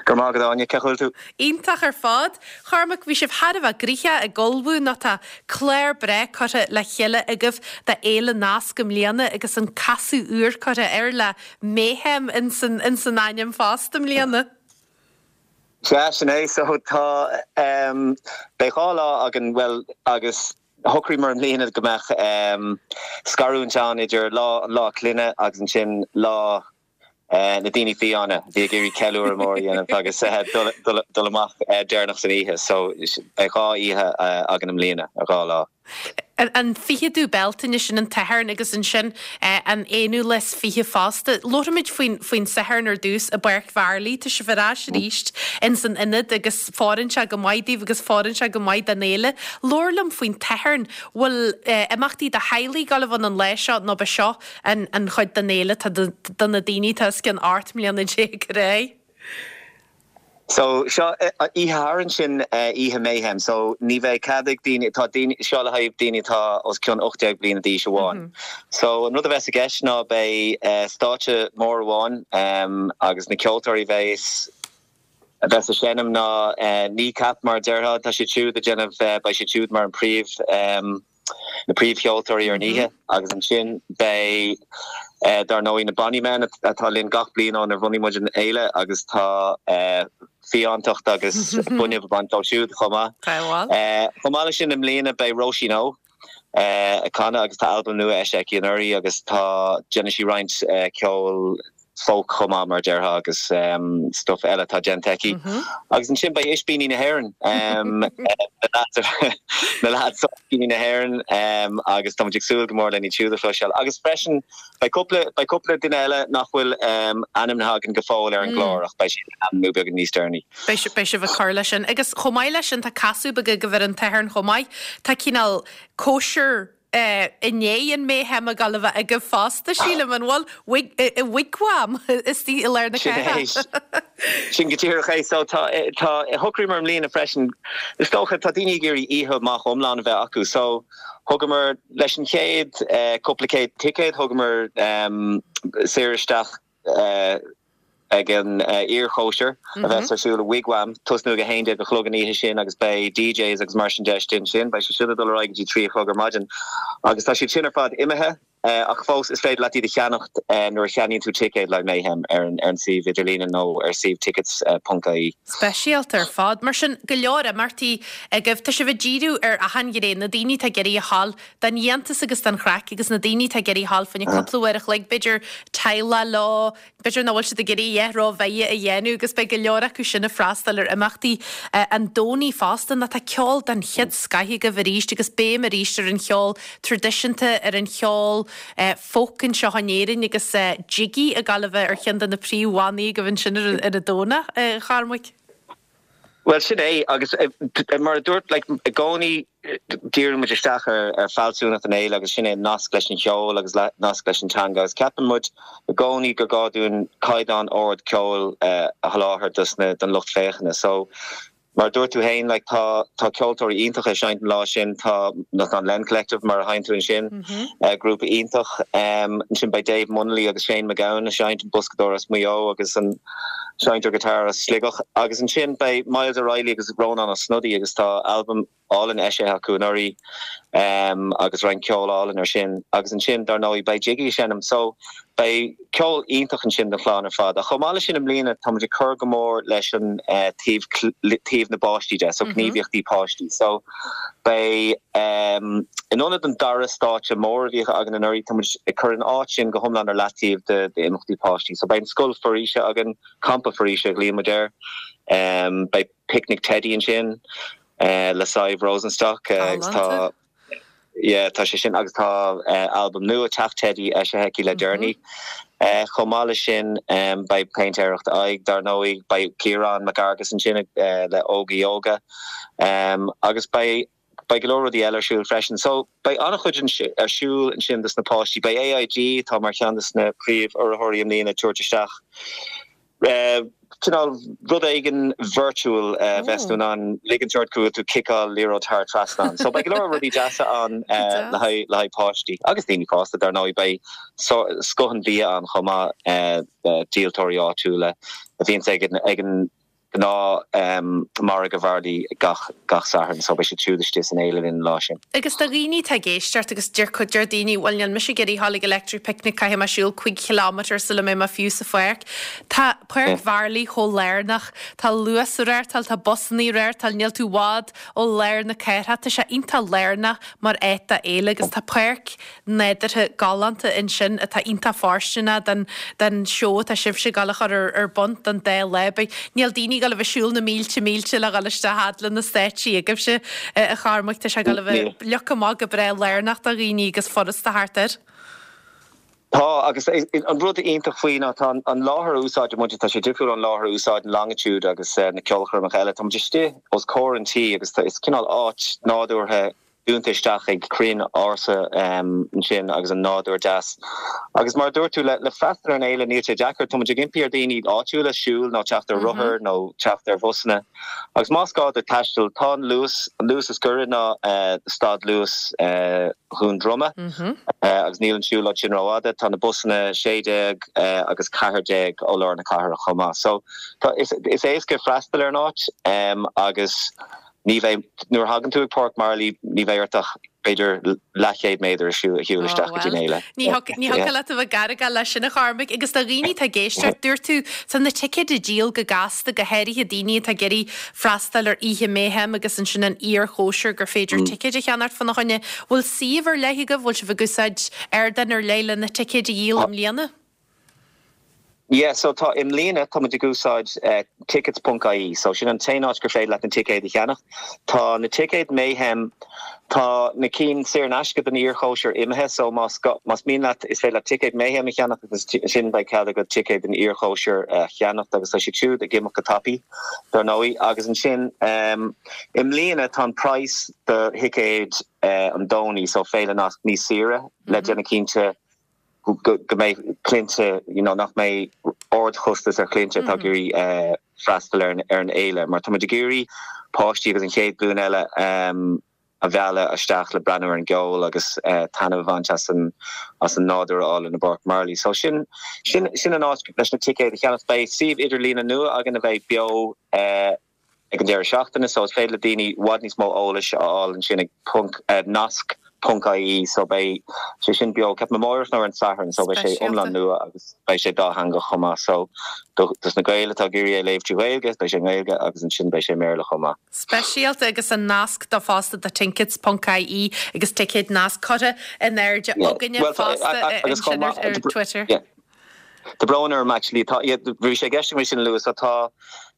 Go raibh maith agat Áine, cén chaoi a bhfuil tú? Iontach ar fad. Chormaic, bhí sibh thar a bheith gnoitheach ag ullmhú nó tá clár breá curtha le chéile agaibh do Fhéile Nasc i mbliana agus an casadh úr curtha air le Mayhem ins an ainm fosta i mbliana. Sea, sin é. So tá, beidh dhá lá againn, bhuel, agus shocraíomar i mbliana go mbeadh scarúint ann idir lá, an Lá Clainne agus ansin lá na daoine fiáine a bhí ag iarraidh ceiliúradh mór a dhéanamh agus dul amach deireanach san oíche. So beidh dhá oíche againn i mbliana, dhá lá. An 20ú Bealtaine, sin an tSatharn agus ansin an 21ú fosta. Labharfaimid faoin faoin Satharn ar dtús i bPáirc Mharlaí. Tá sibh ar ais arís ins an ionad agus fóireann sé go maith daoibh agus fóireann sé go maith don fhéile. Labhair liom faoin tSatharn. Bhfuil imeachtaí do theaghlaigh ag dul a bheith ann an lá seo nó b'é seo an an chuid den fhéile atá do na daoine atá os cionn 18 mbliana ar aghaidh? So, seo, oíche Shathairn sin oíche Mayhem, so ní bheidh cead ag daoine, tá daoine, seo le haghaidh daoine atá os cionn 18 bliana d'aois amháin. So, an rud a bheas i gceist ná beidh stáitse mór amháin agus na ceoltóirí a bheas, a bheas ag seinm ná Kneecap mar a déarfá, tá siad siúd ag déanamh, beidh siad siúd mar an príomh, na príomhcheoltóirí ar an oíche agus ansin beidh dar ndóigh na Bonny Men atá linn gach bliain ónar bhunaigh muid an fhéile agus tá fiántacht agus fuinneamh ag baint dóibh siúd chomh maith. Chomh maith leis sin i mbliana beidh Róisín Ó ag canadh agus tá albam nua eisithe aici anuraidh agus tá déanann sí roinnt ceoil folk chomh maith mar a déarfá agus stuff eile atá déanta aici. Agus ansin beidh Ispíní na hÉireann, na lads ó Ispíní na hÉireann agus tá muid ag súil go mór lena iad siúd a chloisteáil. Agus freisin beidh cúpla, beidh cúpla duine eile nach bhfuil ainmnithe againn go fóill ar an gclár ach beidh siad le hainmniú beagán níos deireanaí. Beidh sibh, beidh sibh ag cur leis sin. Agus chomh maith leis sin tá casadh beag agaibh ar an tSatharn chomh maith. Tá cineál cóisir i ndiaidh an Mayhem ag dul a bheith agaibh fosta, sílim, an bhfuil? I Wigwam istigh i lár na cathrach. Sin go díreach é. So tá, tá, shocraíomar i mbliana freisin, is dócha, tá daoine ag iarraidh oíche amach iomlán a bheith acu. So thugamar, leis an chéad cúpla céad ticéad, thugamar saor isteach, ag an iarchóisir a bheas ar siúl i Wigwam, tosnú ag 11 a chlog an oíche sin agus beidh DJs agus mar sin de istigh ansin. Beidh sé sin ag dul ar aghaidh go dtí 3 a chlog ar maidin agus tá siad sin ar fad imithe ach fós is féidir leat iad a cheannacht nuair a cheannaíonn tú ticéad le Mayhem ar an suíomh idirlíne nó ar suíomh tickets ponc ie. Speisialta ar fad. Mar sin, go leor imeachtaí agaibh. Tá sibh ag díriú ar achan ghné, na daoine atá ag iarraidh a ghabháil don fhiántas agus don chraic agus na daoine atá ag iarraidh a ghabháil fá choinne cúpla uair a chloig, b'fhéidir teaghlach leo, b'fhéidir nach bhfuil siad ag iarraidh a dhath rómhaith a dhéanamh agus beidh go leor acu sin ag freastal ar imeachtaí an Domhnaigh fosta nó tá ceol den chéad scoith agaibh arís agus béim arís ar an cheol traidisiúnta, ar an cheol folk anseo in Éirinn agus Jiggy ag gabháil a bheith ar cheann de na príomhbhannaí agaibh ansin ar an Domhnach, a Chormaic. Bhuel, sin é, agus mar a dúirt, like, i gcónaí díríonn muid isteach ar ar fealsúnacht an fhéile agus sin é an nasc leis an cheol agus nasc leis an teanga agus ceapann muid i gcónaí gur gá dúinn caighdeán ard ceoil a sholáthar dos na don lucht féachana. So, mar a dúirt tú féin, like, tá tá ceoltóirí iontacha ag seinnt an lá sin, tá an Len Collective mar a sheinn tú ansin, grúpa iontach. Ansin beidh Dave Munnelly agus Shane MacGowan ag seinnt, an boscadóir as Maigh Eo agus an seinnteoir guitar as Sligeach. Agus ansin beidh Myles O'Reilly agus Rónán Ó Snodaigh agus tá albam álainn eisithe acu anuraidh agus roinnt ceol álainn ar sin. Agus ansin, dar ndóigh, beidh Jiggy ag seinm. So, beidh ceol iontach ansin don chlann ar fad. Ach chomh maith leis sin i mbliana, tá muid ag cur go mór leis an taobh, taobh na bpáistí de, so gníomhaíochtaí páistí. So, beidh, in ionad an dara stáitse mór a bhíodh againn anuraidh, tá muid ag cur an áit sin go hiomlán ar leataobh d'imeachtaí páistí. So beidh an scoil foraoise againn, campa foraoise a ghlaonn muid air. Beidh picnic teidí ansin le Sadhbh Rosenstock agus tá. yeah, tá sé sin agus tá albam nua Teach Teidí eisithe aici le deireanaí. Chomh maith leis sin beidh péintéireacht aghaidh dar ndóigh, beidh Ciarán Mac Fhearghais ansin le Óga Yoga agus beidh beidh go leor rudaí eile ar siúl freisin. So beidh an-chuid ar siúl ansin dos na páistí. Beidh AIG, atá mar cheann dos na príomh-urraitheoirí i mbliana, ag tabhairt isteach cineál rud éigin virtual a bheas tú in ann ligint ort go bhfuil tú ag ciceáil liathróid thar trasnán. So beidh go leor rudaí deasa ann le haghaidh le haghaidh páistí agus daoine fásta dar ndóigh. Beidh scoth an bhia ann chomh maith, díoltóirí áitiúla a bhíonns ag an ag an gnáth margadh Mharlaí gach gach Satharn so beidh siad siúd istigh san fhéile linn an lá sin. Agus do dhaoine atá ag éisteacht agus deir cuid deir daoine bhuel níl mise ag iarraidh a ghabháil ag Electric Picnic caithfidh mé siúl 5 chileámeter sula mbeidh mé fiú sa pháirc. Tá Páirc Mharlaí chomh lárnach, tá Luas ag reáchtáil, tá busannaí ag reáchtáil, níl tú i bhfad ó lár na cathrach, tá sé iontach lárnach mar áit do fhéile agus tá páirc nádúrtha galánta ansin atá iontach fóirsteanach don don seó atá sibhse ag dul a chur ar ar bun don dá lá. Beidh níl daoine ag dul a bheith ag siúl na mílte mílte le dhul isteach fhad le na stáitsí agaibhse a Chormaic. Tá sé ag dul a bheith leagtha amach go breá lárnach do dhaoine agus furasta theacht air. Tá, agus an rud iontach faoi ná tá an láthair a úsáideann muid, tá sé difriúil ón láthair a úsáideann Longitude agus na ceolchoirmeacha eile. Tá muid istigh os comhair an tí agus is cineál áit nádúrtha dúnta isteach ag crainn ársa ansin agus an nádúr deas. Agus mar a dúirt tú, le freastal ar an fhéile níl sé deacair, tá muid ag impí ar daoine áitiúla siúl nó teacht ar rothar nó teacht ar bhusanna. Agus más gá duit taisteal, tá an Luas, an Luas is gaire ná stad Luas Dhún Droma agus níl an siúlóid sin rófhada. Tá na busanna 16 agus 14 ó lár na cathrach chomh maith. So tá, is éasca freastal ar an áit agus. Ní bheidh, nuair a thagann tú ag Páirc Mharlaí, ní bheidh ort ach b'fhéidir leathchéad méadar a shiúl isteach go dtí an fhéile. Ní thiocfadh leat a bheith gar ag leis sin a Chormaic. Agus do dhaoine atá ag éisteacht, dúirt tú, tá na ticéid á díol go gasta, go háirithe daoine atá ag iarraidh freastal ar oíche Mayhem agus ansin an iarchóisir gur féidir ticéid a cheannacht fána choinne. Bhfuil suíomh ar leith agaibh? Bhfuil sibh ag úsáid ardán ar leith le na ticéid a dhíol i mbliana? Yeah, so tá, i mbliana tá muid ag úsáid tickets ponc ie, so sin an t-aon áit gur féidir leat na ticéid a cheannach. Tá na ticéid Mayhem, tá na cinn saor in aisce don iarchóisir imithe, so más más mian leat is féidir leat ticéad Mayhem a cheannach agus ansin beidh cead agat ticéad don iarchóisir a cheannacht agus tá siad siúd ag imeacht go tapaidh, dar ndóigh. Agus ansin i mbliana tá an praghas do thicéid an Domhnaigh, so Féile Nasc níos saoire le déanamh cinnte go mbeidh cliaint, you know, nach mbeidh ardchostas ar chliaint atá ag iarraidh freastal ar an fhéile, mar tá muid ag iarraidh páistí agus an chéad ghlúin eile a mhealladh isteach le breathnú ar an gceol agus taitneamh a bhaint as an as an nádúr álainn i bPáirc Marlaí. So sin sin sin an áit leis na ticéid a cheannach. Beidh suíomh idirlíne nua againn a bheidh beo ag an deireadh seachtaine so is féidir le daoine i bhfad níos mó eolais a fháil ansin ag ponc nasc ponc ie so beidh sé sin beo ceapaim amáireach nó ar an Satharn so beidh sé iomlán nua agus beidh sé dátheangach chomh maith so do dos na Gaeil atá ag iarraidh é a léamh trí Ghaeilge beidh sé i nGaeilge agus ansin beidh sé i mBéarla chomh maith. Speisialta agus an nasc do fosta do tickets ponc ie agus ticéid nasc curtha in airde againne fosta ansin ar Twitter. Tá brón orm actually, tá, yeah, bhí sé i gceist agam é sin a lua, so tá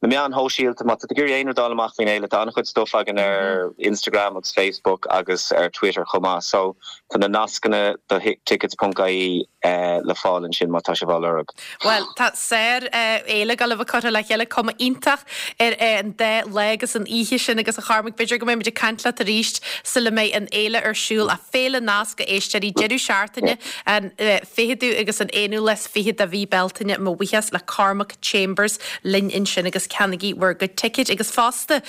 na meáin shóisialta, má tá tú ag iarraidh aon rud a fháil amach faoin fhéile, tá an-chuid stuff againn ar Instagram agus Facebook agus ar Twitter chomh maith, so tá na nascanna do tickets ponc ie le fáil ansin má tá sibh á lorg. Bhuel, tá sár fhéile ag gabháil a bheith curtha le chéile, cuma iontach ar an dá lá agus an oíche sin agus a Chormaic, b'fhéidir go mbeidh muid ag caint leat arís sula mbeidh an fhéile ar siúl, ach Féile Nasc a éisteoirí, deireadh seachtaine an 20ú agus an 21ú lá de mhí Bealtaine. Mo bhuíochas le Cormac Chambers linn ansin agus ceannaigí bhur gcuid ticéid agus fosta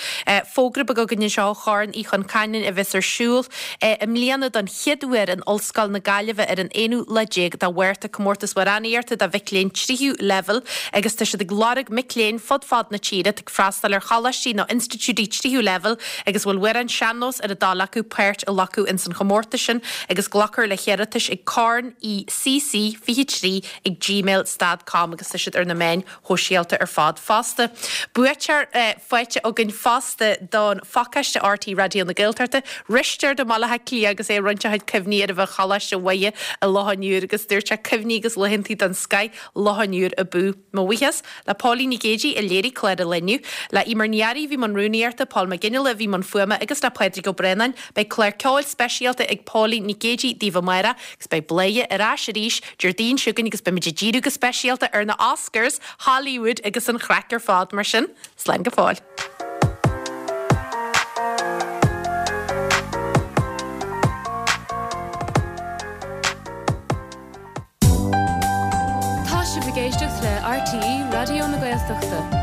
fógra beag againn anseo ó Chorn Uí Chon Caineáin a bheas ar siúl i mbliana don chéad uair in Ollscoil na Gaillimhe ar an aonú lá déag de Mhárta, comórtas amhránaíochta do mhic léinn tríú leibhéal agus tá siad ag lorg mic léinn fud fad na tíre atá ag freastal ar choláistí nó institiúidí tríú leibhéal agus a bhfuil amhráin sean-nós ar a dtoil acu páirt a ghlacadh ins an chomórtas sin agus glacfar le hiarratais ag corn ecc 23 ag gmail. gmail stad com agus tá siad ar na meáin shóisialta ar fad fosta. Buaiteoir faighte againn fosta don phacáiste RTÉ Raidió na Gaeltachta, Risteard i mBaile Átha Cliath agus é ag roinnt a chuid cuimhní ar a bheith Choláiste Mhuire i Loch an Iúir agus dúirt sé cuimhní agus laethantaí den scoith Loch an Iúir abú. Mo bhuíochas le Póilín Nic Géidigh a léirigh clár an lae inniu, le Eimear Ní Fhearraigh a bhí i mbun rúnaíochta, Paul McGinley a bhí i mbun fuaime agus le Pádraig Ó Braonáin. Beidh clár ceoil speisialta ag Póilín Nic Géidigh daoibh amárach agus beidh Bladhaire ar ais arís Déardaoin seo chugainn agus beimid ag díriú go speisialta ar na Oscars, Hollywood agus an chraic ar fad mar sin, slán go fóill. Tá sibh ag éisteacht le RTÉ Raidió na Gaeltachta.